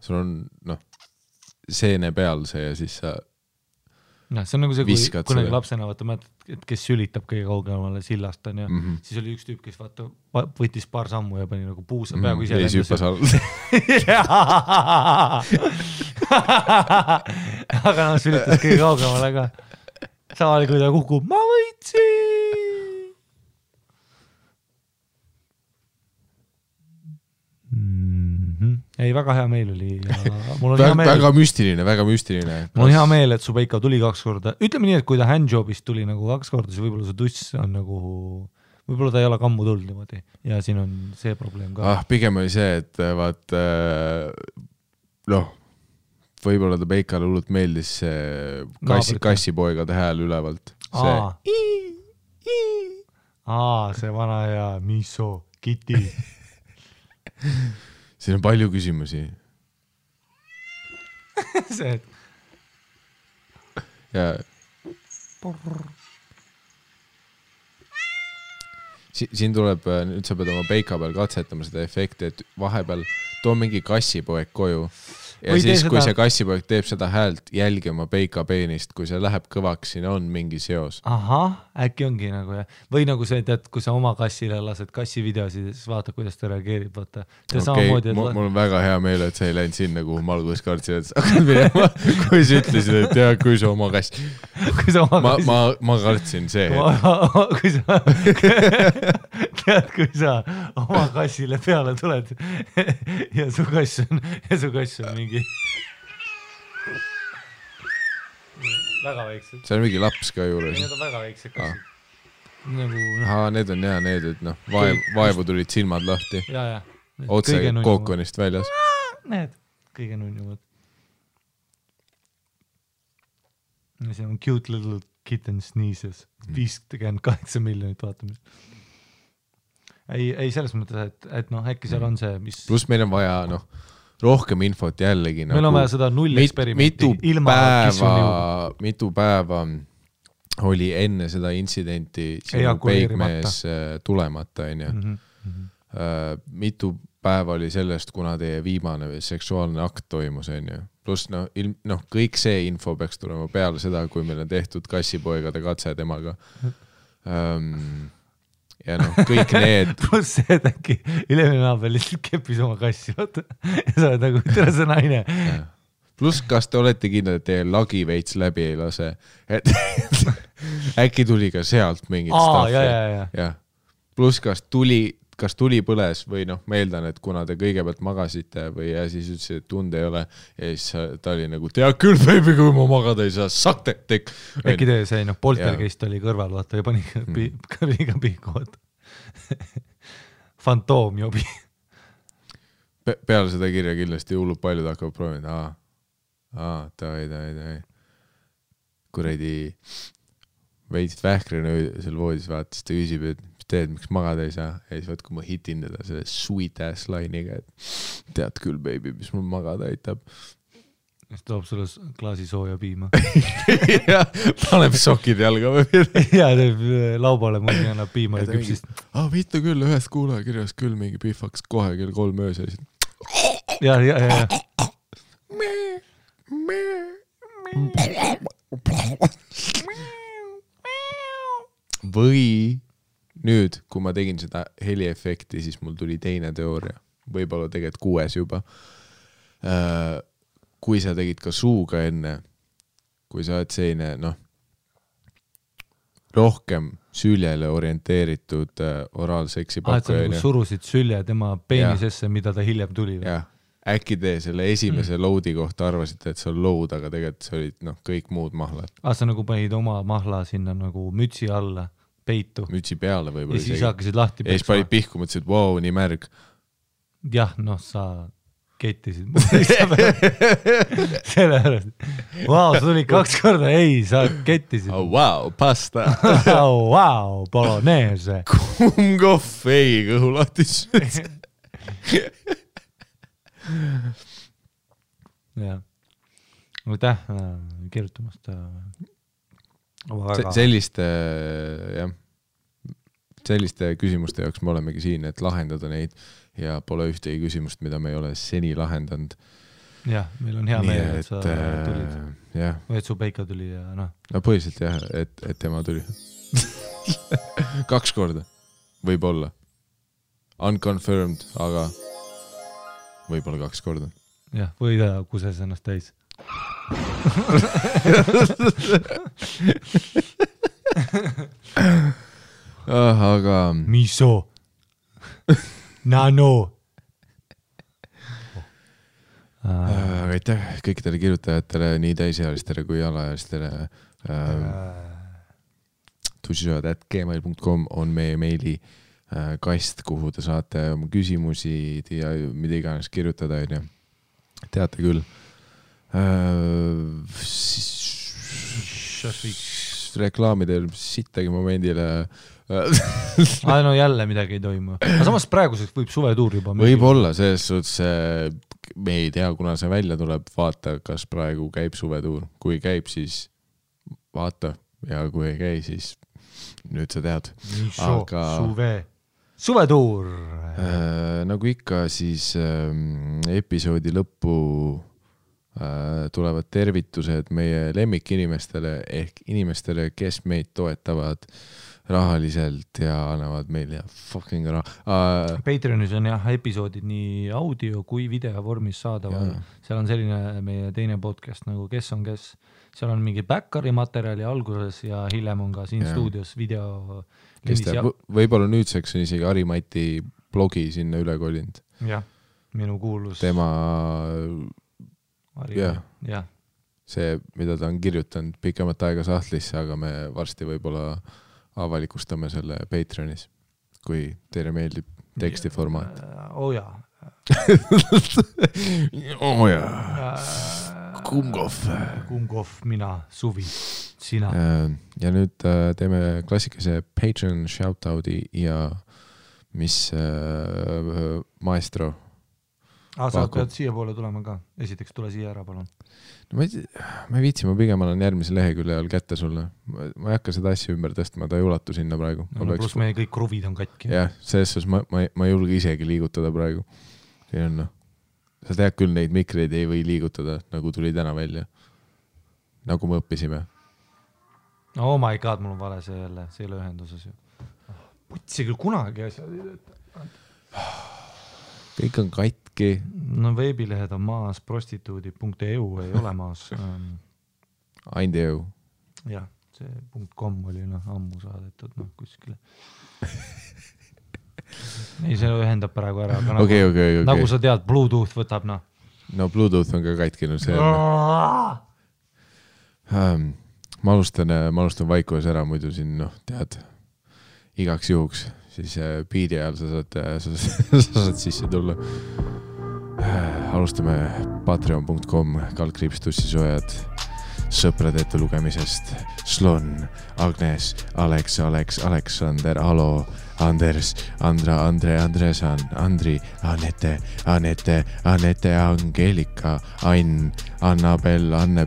Speaker 2: sul
Speaker 1: on noh, seene peal see ja siis sa
Speaker 2: see on nagu see, kui kunagi lapsena vaata mõtled, et kes sülitab kõige kaugemale sillast on ja siis oli üks tüüp, kes vaata võttis paar sammu ja pani nagu puusa peaaegu ise aga noh, sülitas kõige kaugemale ka samal kui ta kukub, ma võitsin. Ei, väga hea meel oli ja mul on hea meel.
Speaker 1: Väga müstiline.
Speaker 2: Mul on hea meel, et su Peika tuli 2 korda. Ütleme nii, et kui ta handjobist tuli nagu 2 korda, siis võib-olla su tuss on nagu, võib-olla ta ei ole kammu tulnud niimoodi ja siin on see probleem ka.
Speaker 1: Pigem oli see, et vaat noh, võib-olla ta Peikale hullult meeldis see kassipoegade hääl ülevalt.
Speaker 2: See vana hea miso, kiti.
Speaker 1: Siin on palju küsimusi.
Speaker 2: See, et...
Speaker 1: Ja... Siin tuleb, nüüd sa pead oma Peika peal katsetama seda efekti, et vahepeal too mingi kassipoeg koju ja või siis, kui see kassipoeg teeb seda häält, jälgi oma Peika peenist, kui see läheb kõvaks, siin on mingi seos.
Speaker 2: Äkki ongi nagu ja. Või nagu see, et kui sa oma kassile lased kassivideosid, siis vaata, kuidas ta reageerib. Vaata.
Speaker 1: Mul on väga hea meel, et sa ei läinud sinna, kuhu ma alguses kartsin, et sa hakkad minema, kui sa ütlesid, et jah, kui sa oma kass. Ma kartsin see. Kui sa oma kassile peale tuled ja su kass on mingi väga väiksed. See on mingi laps ka juures. Need on väga väiksed kassid. Need on jah, need, et noh, vaevu tulid silmad lahti. Otse kookonist väljas. Need, kõige nunnumad. See on cute little kitten sneezes. 58 miljonit vaatamist. Ei selles mõttes, et noh, äkki seal on see, mis... Plus meil on vaja, noh, rohkem infot jällegi.
Speaker 2: Meil on vaja seda 0 eksperimenti.
Speaker 1: Mitu päeva oli enne seda intsidenti sinu peigmees tulemata, mitu päeva oli sellest, kuna teie viimane seksuaalne akt toimus, Plus kõik see info peaks tulema peale seda, kui meil on tehtud kassipoegade katse temaga. Ja noh, kõik need... Plus see, et äkki ülemine naabel lihtsalt keppis oma kassi, vaata. Ja sa oled nagu, tere see naine. Plus kas te olete kindlad, et teie lagi veits läbi ei lase? Äkki tuli ka sealt mingit staffi. Plus kas tuli põles või noh, meeldan, et kuna te kõigepealt magasite või ja siis ütlesid, et tund ei ole ja siis ta oli nagu, tea küll, baby, kui ma magada ei saa, sakte, tek. Äkki te see, poltergeist oli kõrval, vaata, ja pani kõrviga pihku, vaata. Fantoomjobi. Peale seda kirja kindlasti hullub paljud hakkavad proovida, davai. Kuredi veidsid vähkrina seal voodis vaatas, ta küsib, et teed, miks magada ei saa. Ja siis vaat, kui ma hitin teda selle sweet ass line'iga, et tead küll, baby, mis mul magada aitab. Siis toob sulle klaasi sooja piima. Ja, paneb sokid jalga või mida. Ja, teeb laubale mõni annab piima ja küpsist. Viita küll, ühest kuulaja kirjas küll mingi pihvaks kohe kell 3 öös. Ja. Või nüüd, kui ma tegin seda heliefekti, siis mul tuli teine teooria. Võib-olla tegelikult 6 juba. Kui sa tegid ka suuga enne, kui sa oled selline, noh, rohkem süljele orienteeritud oraalseksi pakkuja.
Speaker 2: Sa surusid sülje tema peenisesse, mida ta hiljem tuli.
Speaker 1: Jah, äkki te selle esimese loadi kohta arvasite, et see on load, aga tegelikult see olid kõik muud mahlad.
Speaker 2: Sa nagu panid oma mahla sinna nagu mütsi alla. Peitu.
Speaker 1: Mütsi peale võib-olla.
Speaker 2: Ja siis hakkasid lahti
Speaker 1: peksma. Ja siis panid pihku, mõtlesid, wow, nii märg.
Speaker 2: Jah, noh, sa kettisid selle pärast. Vau, sa tulid 2 korda, ei, sa kettisid.
Speaker 1: Oh, wow, pasta.
Speaker 2: Oh, wow, bolognese.
Speaker 1: Kummkohv, ei, kõhulatis.
Speaker 2: jah. Aitäh kirjutamast.
Speaker 1: Selliste küsimuste jaoks me olemegi siin, et lahendada neid ja pole ühtegi küsimust, mida me ei ole seni lahendanud.
Speaker 2: Jah, meil on hea meel, et sa tulid. Või et su Peika tuli ja noh.
Speaker 1: No põhiliselt jah, et tema tuli. 2 korda. Võib-olla. Unconfirmed, aga võib-olla 2 korda.
Speaker 2: Jah, või ta kuses ennast täis.
Speaker 1: Aga
Speaker 2: miso. Nano.
Speaker 1: Aitäh kõikidele kirjutajatele, nii täisealistele kui alaealistele. tussisojad@gmail.com on meie meili kast, kuhu te saate oma küsimusi ja mida iganes kirjutada. Teate küll. Reklaamidel sittagi momendile
Speaker 2: no jälle midagi ei toimu. Aga samas praeguseks võib suvetuur juba
Speaker 1: võib-olla, selles suhtes me ei tea, kuna see välja tuleb, vaata, kas praegu käib suvetuur. Kui käib, siis vaata, ja kui ei käi, siis nüüd sa tead.
Speaker 2: Aga suvetuur
Speaker 1: nagu ikka, siis episoodi lõppu tulevad tervitused meie lemmikinimestele ehk inimestele, kes meid toetavad rahaliselt ja annavad meile fucking raha.
Speaker 2: Patreonis on jah episoodid nii audio kui video vormis saadaval. Seal on selline meie teine podcast nagu Kes on kes. Seal on mingi backari materjali alguses ja hiljem on ka siin stuudios video.
Speaker 1: Võib-olla nüüdseks on isegi Harimati blogi sinna üle kolinud.
Speaker 2: Jah, minu kuulus.
Speaker 1: Tema
Speaker 2: jah.
Speaker 1: See, mida ta on kirjutanud pikemat aega sahtlisse, aga me varsti võib-olla avalikustame selle Patreonis, kui teile meeldib tekstiformaat.
Speaker 2: Jaa. Kummkohv, mina, Suvi, sina.
Speaker 1: Ja nüüd teeme klassikese Patreon shoutout'i ja mis maestro.
Speaker 2: Sa pead siia poole tulema ka. Esiteks tule siia ära, palun.
Speaker 1: Ma ei viitsi, ma pigem olen järgmise lehekülje all kätte sulle. Ma ei hakka seda asja ümber tõstma, ta ei ulatu sinna praegu.
Speaker 2: Pluss meie kõik kruvid on katki.
Speaker 1: Jah, selles ma ei julge isegi liigutada praegu. Sa tead küll, neid mikreid ei või liigutada, nagu tuli täna välja. Nagu me õppisime.
Speaker 2: Oh my god, mul on vale see jälle, see ei ole ühenduses ju. Putsi küll kunagi asjad ei tööta.
Speaker 1: Kõik on katki.
Speaker 2: No veebilehed on maas, prostituudi.eu ei ole maas.
Speaker 1: Aindeeu.
Speaker 2: Jah, see .com oli ammu saadetud kuskile. Ei, see ühendab praegu ära.
Speaker 1: Okay.
Speaker 2: Nagu sa tead, Bluetooth võtab.
Speaker 1: No Bluetooth on ka katkinud. Ma alustan vaikuves ära, muidu siin, tead, igaks juhuks. Siis biidi ajal sa saad sisse tulla. Alustame patreon.com /tussisojad sõprade ette lugemisest. Slon, Agnes, Alex, Aleksander, Alo, Anders, Andra, Andre, Andresan, Andri, Anette, Angelika, Ain, Annabel, Anne,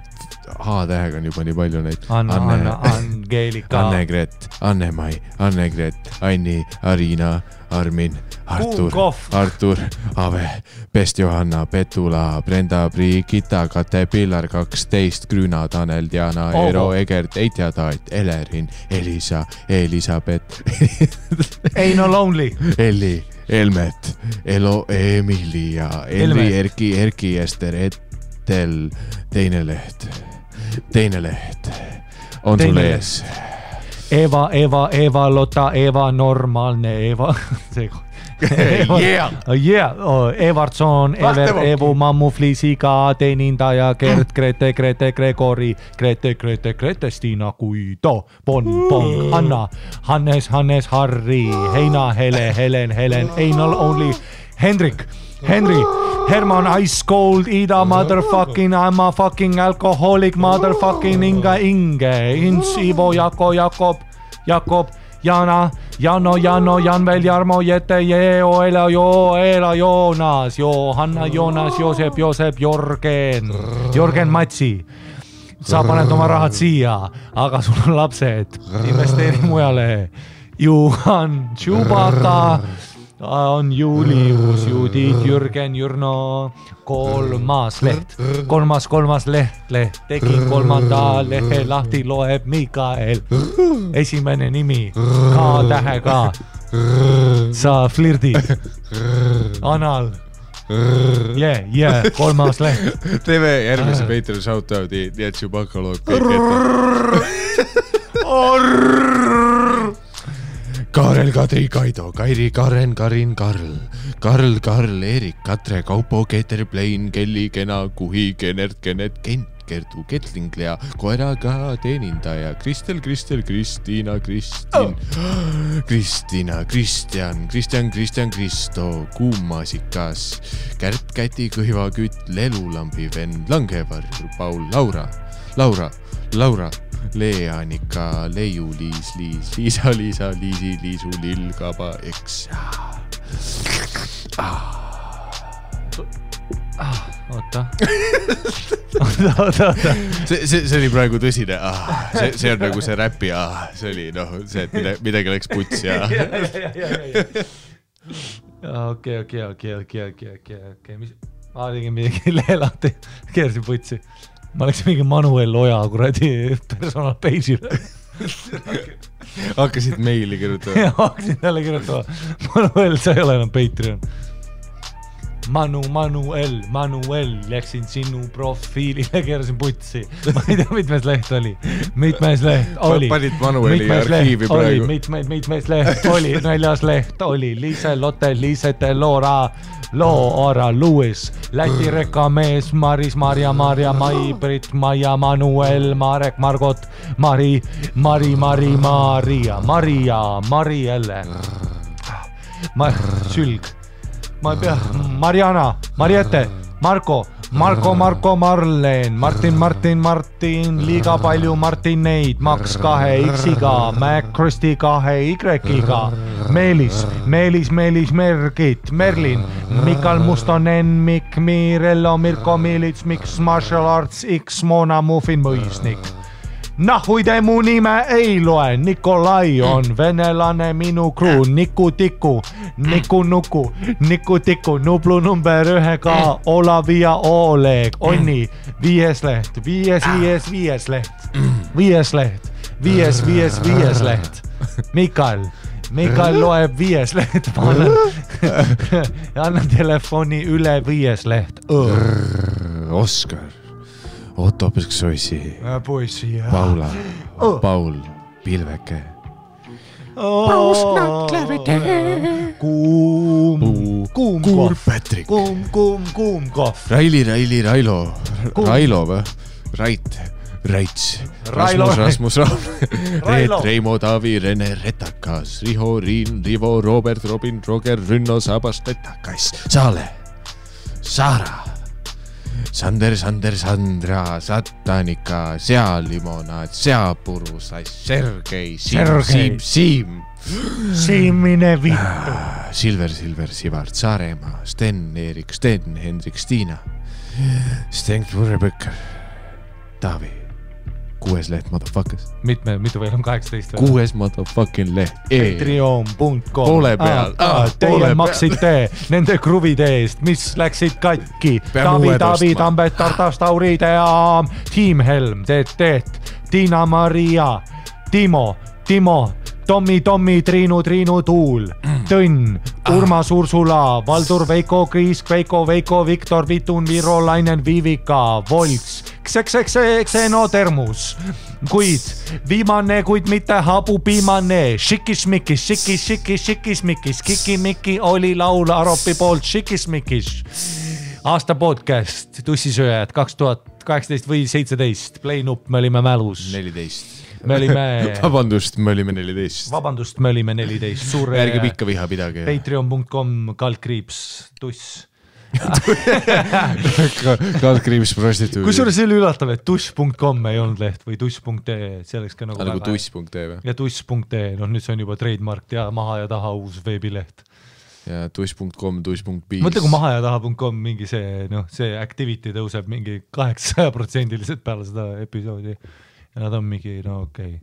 Speaker 1: H-tähega on juba nii palju neid.
Speaker 2: Angelika.
Speaker 1: Annegret, Annemai, Annegret, Anni, Arina, Armin, Artur, Ave, Pest Johanna, Petula, Brenda, Brigitta, Kate, Pillar 12, Grüna, Tanel, Diana, Eero, Egert, Eitja, Taat, Elerin, Elisa, Elisabeth,
Speaker 2: Eino Lonely,
Speaker 1: Elli, Elmet, Elo, Emilia, Elri, Erki, Ester, Etel, teine leht on sul ees.
Speaker 2: Eva, Lotta, Eva, normaalne Eva. Evertson, Ever, Evu, Mammu, Fliisiga, teenindaja, Gert, Grete, Gregori, Grete, Stina, Guido, Bon, Anna, Hannes, Harri, Heina, Helen, Einal, Only, Hendrik, Henry, Herman, Ice Cold, Ida, motherfucking, I'm a fucking alcoholic, motherfucking Inge, Ins, Ivo, Jakob, Jana, Jano, Janvel, Jarmo, Jette, Joela, Joonas, Johanna, Joonas, Joosep, Jörgen Matsi. Sa paned oma rahad siia, aga sul on lapsed, investeeri mujale. Juhan, Chewbacca, on Julius, Judith, Jürgen, Jürno, kolmas leht, tegin kolmanda lehe lahti, loeb Mikael, esimene nimi, K-tähega, sa flirdid, Anal, kolmas leht.
Speaker 1: Teeme järgmise Patreon shoutout'i, nii et Chewbacca loeb kõik ette. Kaarel, Kadri, Kaido, Kairi, Karen, Karin, Karl, Erik, Katre, Kaupo, Keeter, Plein, Kelly, Kena, Kuhi, Kenert, Kent, Kertu, Ketlinglia, koeraga teenindaja, Kristel, Kristiina, Kristjan, Kristo, Kuummaasikas, Kärt, Käti, Kõhivakütt, Lelulambi vend, Langevarr, Paul, Laura, Leanika, Leiu, Liisa, Liisu, Lill, Kaba, Eks.
Speaker 2: Oota.
Speaker 1: See oli praegu tõsine. See on nagu see räpi. See oli see, et midagi läks puts ja...
Speaker 2: Okei. Ma tegin midagi leelahti, keersin putsi. Ma läksin mingi Manuel Oja kuradi personal page'ile.
Speaker 1: Hakkasid meili kirjutama.
Speaker 2: Hakkasin jälle kirjutama. Manuel, sa ei ole enam Patreon. Manuel, läksin sinu profiilile, keerasin putsi. Ma ei tea, mitmes leht oli.
Speaker 1: Panid Manueli arhiivi praegu.
Speaker 2: Mitmes leht oli, 4. leht oli. Liise, Lotte, Liisete, Loora, Louis, Läti rekamees, Maris, Marja, Mai, Brit, Maia, Manuel, Marek, Margot, Marielle, Sülg, ma ei pea, Mariana, Mariette, Marko, Marleen, Martin, liiga palju Martineid, Max 2 X-iga, Mac Kristi 2 Y-iga, Meelis, Mergit, Merlin, Mikal Mustonen, Mikk, Mirello, Mirko Milits, Miks Martial Arts X, Mona Muffin, Mõisnik. Nahui te mu nime ei loe, Nikolai on venelane minu kruu, Niku Tiku, Nublu number 1-ga, Olav ja Oleg, Onni, 5 leht, 5 leht, Mikael loeb 5 leht, ma annan telefoni üle 5 leht.
Speaker 1: Oskar. Otto Põsksoisi,
Speaker 2: poissi,
Speaker 1: Paul, Pilveke, Kuum Patrik,
Speaker 2: Kuum Kohv,
Speaker 1: Railo või? Raits, Rasmus, Reet, Reimo, Taavi, Rene, Retakas, Riho, Riin, Rivo, Robert, Robin, Roger, Rünno, Sabas, Retakas, Saale, Saara, Sander, Sandra, Satanika, Sealimonaad, Seapurusas, Sergei, Siim.
Speaker 2: Siimine vittu.
Speaker 1: Silver, Sivart, Saaremaa, Sten, Erik, Hendrik, Stiina, Sten, Purrebõkker, Taavi. 6 leht, motherfuckers.
Speaker 2: Mitu veel on 18?
Speaker 1: 6 motherfucking leht.
Speaker 2: Patreon.com.
Speaker 1: Poole peal.
Speaker 2: Teie maksite nende kruvide eest, mis läksid katki. Tavi, Tambet, Tartas, Tauride ja Team Helm, Tiina Maria, Timo, Tommi, Triinu, Tuul, Tõnn, Urmas Ursula, Valdur, Veiko, Kriis, Veiko, Viktor, Vitun, Viro, Lainen, Vivika, Volts, Xenotermus, kuid viimane, kuid mitte habupiimane, Šikismikis, Kikimiki oli laul Aropi poolt Šikismikis. Aasta podcast, tussisööjad 2018 või 17, Playnup, me olime mälus.
Speaker 1: 14.
Speaker 2: Me olime...
Speaker 1: Vabandust, me olime 14.
Speaker 2: Vabandust, me olime 14. Suure...
Speaker 1: Ärge pikka viha pidage.
Speaker 2: Patreon.com, /tuss.
Speaker 1: Kaldkriips prostituudi.
Speaker 2: Kusjuures see oli üllatav, et tuss.com ei olnud leht või tuss.ee, see oleks ka nagu
Speaker 1: tuss.ee või?
Speaker 2: Ja tuss.ee, nüüd see on juba trademark ja maha ja taha uus veebileht.
Speaker 1: Ja tuss.com, tuss.biz.
Speaker 2: Mõtle, kui maha ja taha.com mingi see activity tõuseb mingi 800% peale seda episoodi ja nad on mingi, okei.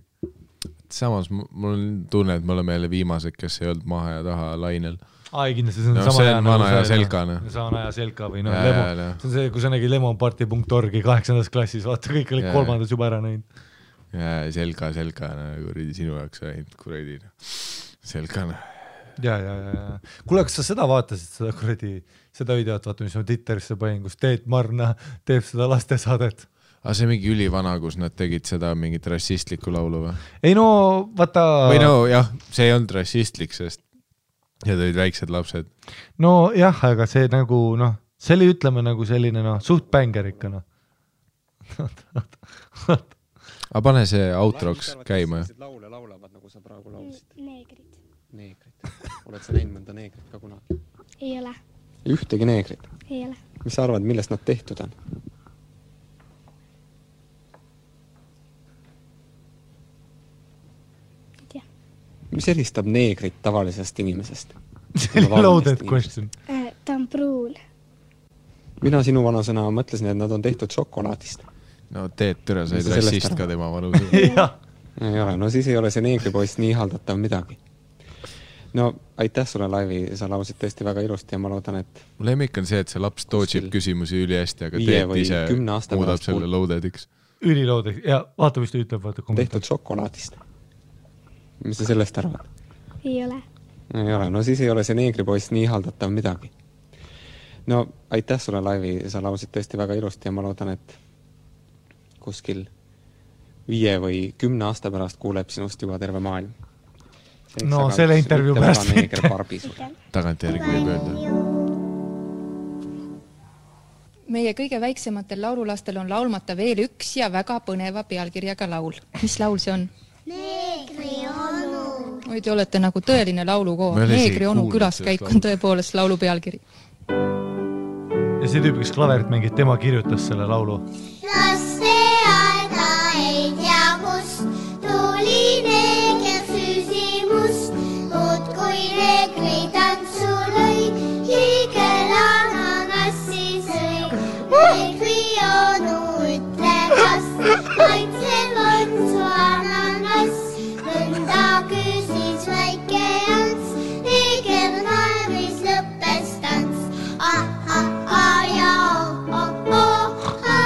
Speaker 1: Samas mul on tunne, et me oleme jälle viimased, kes ei olnud maha ja taha lainel.
Speaker 2: Ai, kindlasti see on
Speaker 1: sama see on vana ja selkane.
Speaker 2: Vana ja selka või Lemo. See on see, kui sa nägid lemonparty.orgi 8. klassis, vaata kõik olid 3. juba ära näinud.
Speaker 1: Ja selka, kuradi sinu jaoks ainult kuradi selkane.
Speaker 2: Ja. Kuule, kas sa seda vaatasid, seda videot, vaata, mis ma Twitterisse panin, kus Teet Marna teeb seda lastesaadet?
Speaker 1: Aga see mingi ülivana, kus nad tegid seda mingit rassistlikku laulu või?
Speaker 2: Ei no, vaata...
Speaker 1: Või no jah, see ei olnud rassistlik, sest ja tõid väiksed lapsed.
Speaker 2: No jah, aga see nagu, see oli ütleme nagu selline, suht bänger ikka,
Speaker 1: Aga pane see outroks käima.
Speaker 4: Laule laulavad, nagu sa praegu laulsid.
Speaker 5: Neegrid.
Speaker 4: Oled sa näinud mõnda neegrit ka kunagi?
Speaker 5: Ei ole.
Speaker 4: Ühtegi neegrit?
Speaker 5: Ei ole.
Speaker 4: Mis sa arvad, millest nad tehtud on? Mis eristab neegrit tavalisest inimesest?
Speaker 2: Loaded question.
Speaker 5: Ta on pruun.
Speaker 4: Mina sinu vanusena mõtlesin, et nad on tehtud šokolaadist.
Speaker 1: No Teet Türa said rassist ka tema vanusena.
Speaker 4: Ei ole, no siis ei ole see neegripoist nii haldatav midagi. No aitäh sulle laivi, sa lausid tõesti väga ilusti ja ma loodan, et...
Speaker 1: Mul lemmik on see, et see laps tootšib küsimusi üli hästi, aga Teet ise muudab selle loadediks.
Speaker 2: Üliloadediks, ja vaata, mis ta ütleb, vaata.
Speaker 4: Tehtud šokolaadist. Mis sa sellest arvad?
Speaker 5: Ei ole.
Speaker 4: Ei ole, no siis ei ole see neegripoist nii haldatav midagi. No aitäh sulle laivi, sa lausid tõesti väga ilusti ja ma loodan, et kuskil 5 või 10 aasta pärast kuuleb sinust juba terve maailm.
Speaker 2: No selle intervjuu pärast
Speaker 1: tagantjärgi võib öelda.
Speaker 6: Meie kõige väiksematel laululastel on laulmata veel üks ja väga põneva pealkirjaga laul. Mis laul see on?
Speaker 5: Neegri onu.
Speaker 6: Või te olete nagu tõeline laulukoor. Neegri onu külaskäik on tõepoolest laulu pealkiri.
Speaker 2: Ja see tüüp, kes klaverit mängib, tema kirjutas selle laulu.
Speaker 5: Laste aeda ei tea kust, tuli neeger süsimust, muud kui neegri tantsu lõi, hiigel ananassi sõi. Neegri onu ütle kas, maitsev on su ananas, mõnda küsis väike jants, neeger naeris lõppes tants. Ja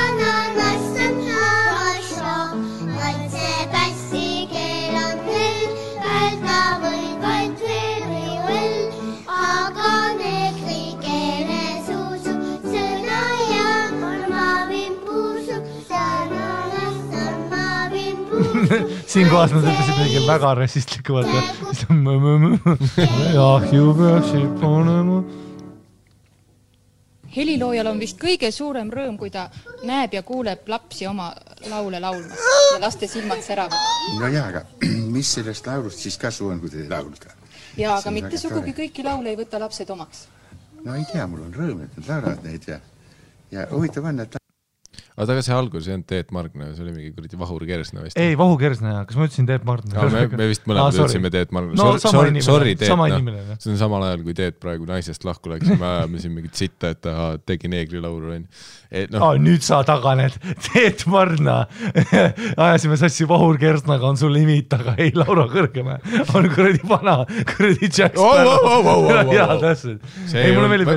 Speaker 5: ananas on asja, maitse pässi keel on veel, välda võib vaid veel, aga neegri keele suusub sõna ja ma vimpuusub, ananas on ma vimpuusub.
Speaker 2: Siin kohas nad ütlesid midagi väga rassistlikku, vaata. Ahju peaksid panema.
Speaker 6: Heliloojal on vist kõige suurem rõõm, kui ta näeb ja kuuleb lapsi oma laule laulmas ja laste silmad säravad.
Speaker 7: No jaa, aga mis sellest laulust siis kasu on, kui te laulda?
Speaker 6: Ja aga mitte sugugi kõiki laule ei võta lapsed omaks.
Speaker 7: No ei tea, mul on rõõm, et nad laulavad neid ja huvitav on, et...
Speaker 1: Aga see algus ei olnud Teet Margna, see oli mingi kuradi Vahur Kersna vist.
Speaker 2: Ei, Vahur Kersna, kas ma ütlesin Teet Margna?
Speaker 1: Me vist mõlemad ütlesime Teet Margna.
Speaker 2: No
Speaker 1: sorry Teet,
Speaker 2: see
Speaker 1: on samal ajal, kui Teet praegu naisest lahku läks, me ajame siin mingit sitta, et ta tegi neegri laulu.
Speaker 2: Nüüd sa taganed, Teet Margna. Ajasime sassi Vahur Kersnaga, on sul limit, aga ei Laura Kõrgeme. On kuradi vana, kuradi Jack Sparrow. Jaa, täpselt.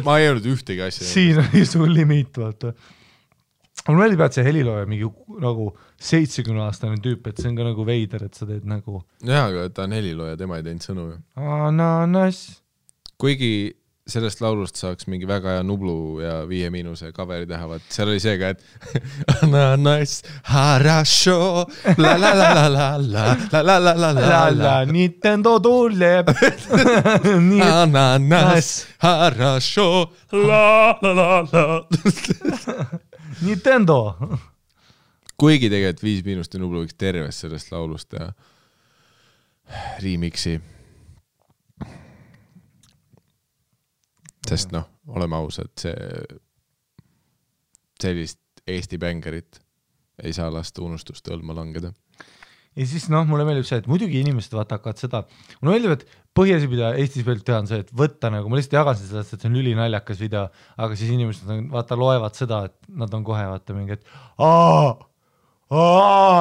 Speaker 1: Ma ei olnud ühtegi asja.
Speaker 2: Siin oli sul limit, vaata. mul meeldib, et see helilooja mingi nagu 70-aastane tüüp, et see on ka nagu veider, et sa teed nagu
Speaker 1: jaa, aga ta on helilooja, tema ei teinud sõnu ju.
Speaker 2: ananas.
Speaker 1: Kuigi sellest laulust saaks mingi väga hea Nublu ja 5 coveri teha, vaat seal oli see ka, et ananas, harasho, la la la la la la la la la la la
Speaker 2: Nintendo tuleb.
Speaker 1: ananas, harasho, la la la la
Speaker 2: Nintendo.
Speaker 1: Kuigi tegelikult 5 ja Nublu võiks tervest sellest laulust teha remixi. Sest noh, oleme ausad, sellist Eesti bängerit ei saa lasta unustuste õlma langeda.
Speaker 2: Ja siis mulle meeldib see, et muidugi inimesed hakkavad seda, mulle meeldib, et põhjasi, mida Eestis veel teha on see, et võtta nagu, ma lihtsalt jagan sellest, et see on ülinaljakas video, aga siis inimesed loevad seda, et nad on kohe mingi, et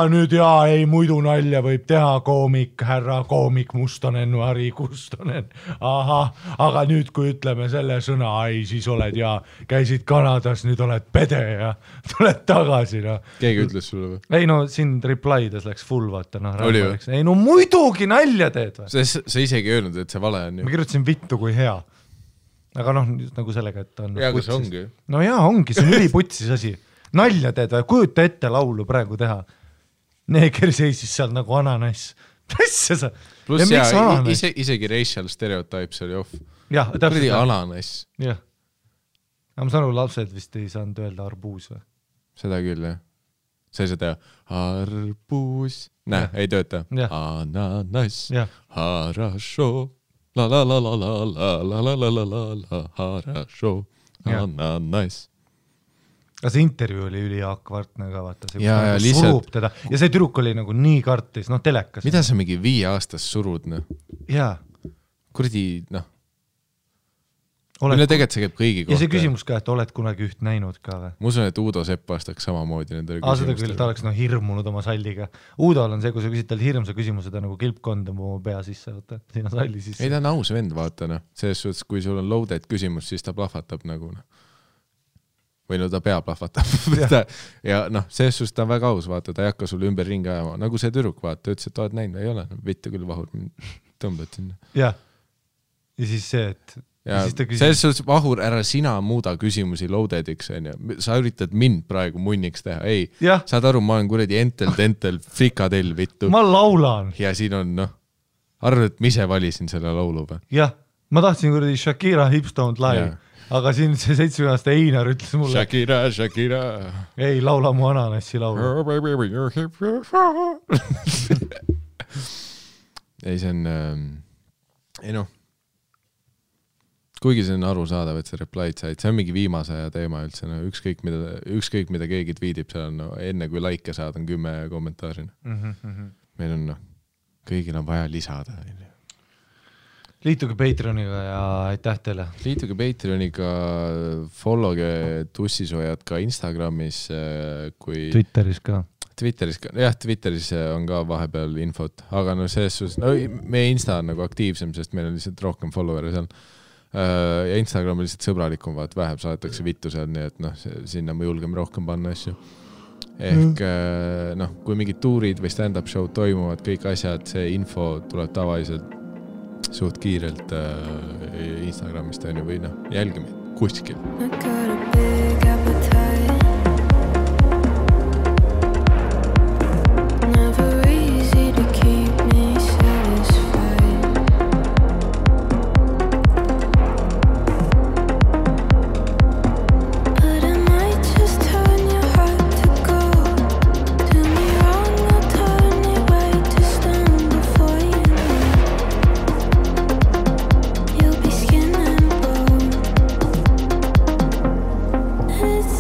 Speaker 2: nüüd jaa, ei muidu nalja võib teha koomik, härra koomik Mustonen, Ari Kustonen, aga nüüd kui ütleme selle sõna, siis oled jaa, käisid Kanadas, nüüd oled pede ja tuled tagasi.
Speaker 1: Keegi ütles sulle või?
Speaker 2: Ei siin replides läks full vaata.
Speaker 1: Oli või?
Speaker 2: Ei muidugi nalja teed või?
Speaker 1: Sa isegi öelnud, et see vale on ju.
Speaker 2: Ma kirjutasin vittu kui hea. Aga nagu sellega, et on
Speaker 1: jaa, aga see ongi.
Speaker 2: No jaa, ongi, see on üliputsis asi. Nalja teed või, kujuta ette laulu praegu teha. Neeger seisis seal nagu ananas. Presse sa.
Speaker 1: Plus isegi racial stereotypes oli off.
Speaker 2: Jah, täpselt.
Speaker 1: Ananas.
Speaker 2: Jah. Aga ma saan lapsed vist ei saanud öelda arbuus või?
Speaker 1: Seda küll, jah. Sa ei saa teha arbuus. Näe, ei tööta. Ananas. Harasho. La la la la la la la la la la la harasho. Ananas.
Speaker 2: Aga see intervjuu oli üliakvartne ka, vaata, see
Speaker 1: surub
Speaker 2: teda. Ja see tüdruk oli nagu nii kartis, telekas.
Speaker 1: Mida sa mingi 5 aastas surud,
Speaker 2: Jaa.
Speaker 1: Kuradi, Mille tegelikult see käib kõigi kohta.
Speaker 2: Ja see küsimus ka, et oled kunagi üht näinud ka või?
Speaker 1: Ma usun, et Uudo Sepp vastaks samamoodi nendele küsimustele.
Speaker 2: Seda küll, ta oleks hirmunud oma salliga. Uudol on see, kui sa küsid tal hirmsa küsimuse, ta nagu kilpkond oma pea sisse, vaata, sinna salli sisse.
Speaker 1: Ei, ta on aus vend, vaata, Selles suhtes, kui sul on loaded küsimus, siis ta plahvatab nagu, või ta pea plahvatab. ja selles suhtes ta on väga aus, vaata, ta ei hakka sulle ümber ringi ajama. Nagu see tüdruk, vaata, ütles, et oled näinud, ei ole, vittu küll vahur, tõmbad sinna.
Speaker 2: Ja siis see, et
Speaker 1: ja selles suhtes vahur, ära sina muuda küsimusi loadediks, sa üritad mind praegu munniks teha, ei, saad aru, ma olen kuradi entel, frikadell, vittu.
Speaker 2: Ma laulan.
Speaker 1: Ja siin on, arvad, et ma ise valisin selle laulu või?
Speaker 2: Jah, ma tahtsin kuradi Shakira Hips Don't Lie, aga siin see 7-aastane Einar ütles mulle
Speaker 1: Shakira
Speaker 2: ei, laula mu ananassi laulu.
Speaker 1: Ei, see on kuigi see on arusaadav, et see replied said, see on mingi viimase aja teema üldse, ükskõik mida keegi tweetib, seal on enne kui like saad, on 10 kommentaari. Meil on kõigil on vaja lisada.
Speaker 2: Liituge Patreoniga ja aitäh teile.
Speaker 1: Liituge Patreoniga, followge Tussisoojad ka Instagramis, kui
Speaker 2: Twitteris ka.
Speaker 1: Jah, Twitteris on ka vahepeal infot, aga selles suhtes, meie Insta on nagu aktiivsem, sest meil on lihtsalt rohkem follower'e seal. Ja Instagram on lihtsalt sõbralikum, vaat vähem saadetakse vittu seal, nii et sinna me julgeme rohkem panna asju. Ehk kui mingid tuurid või stand-up show toimuvad, kõik asjad, see info tuleb tavaliselt suht kiirelt Instagramist või jälgime kuskil.
Speaker 5: It's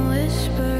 Speaker 8: whisper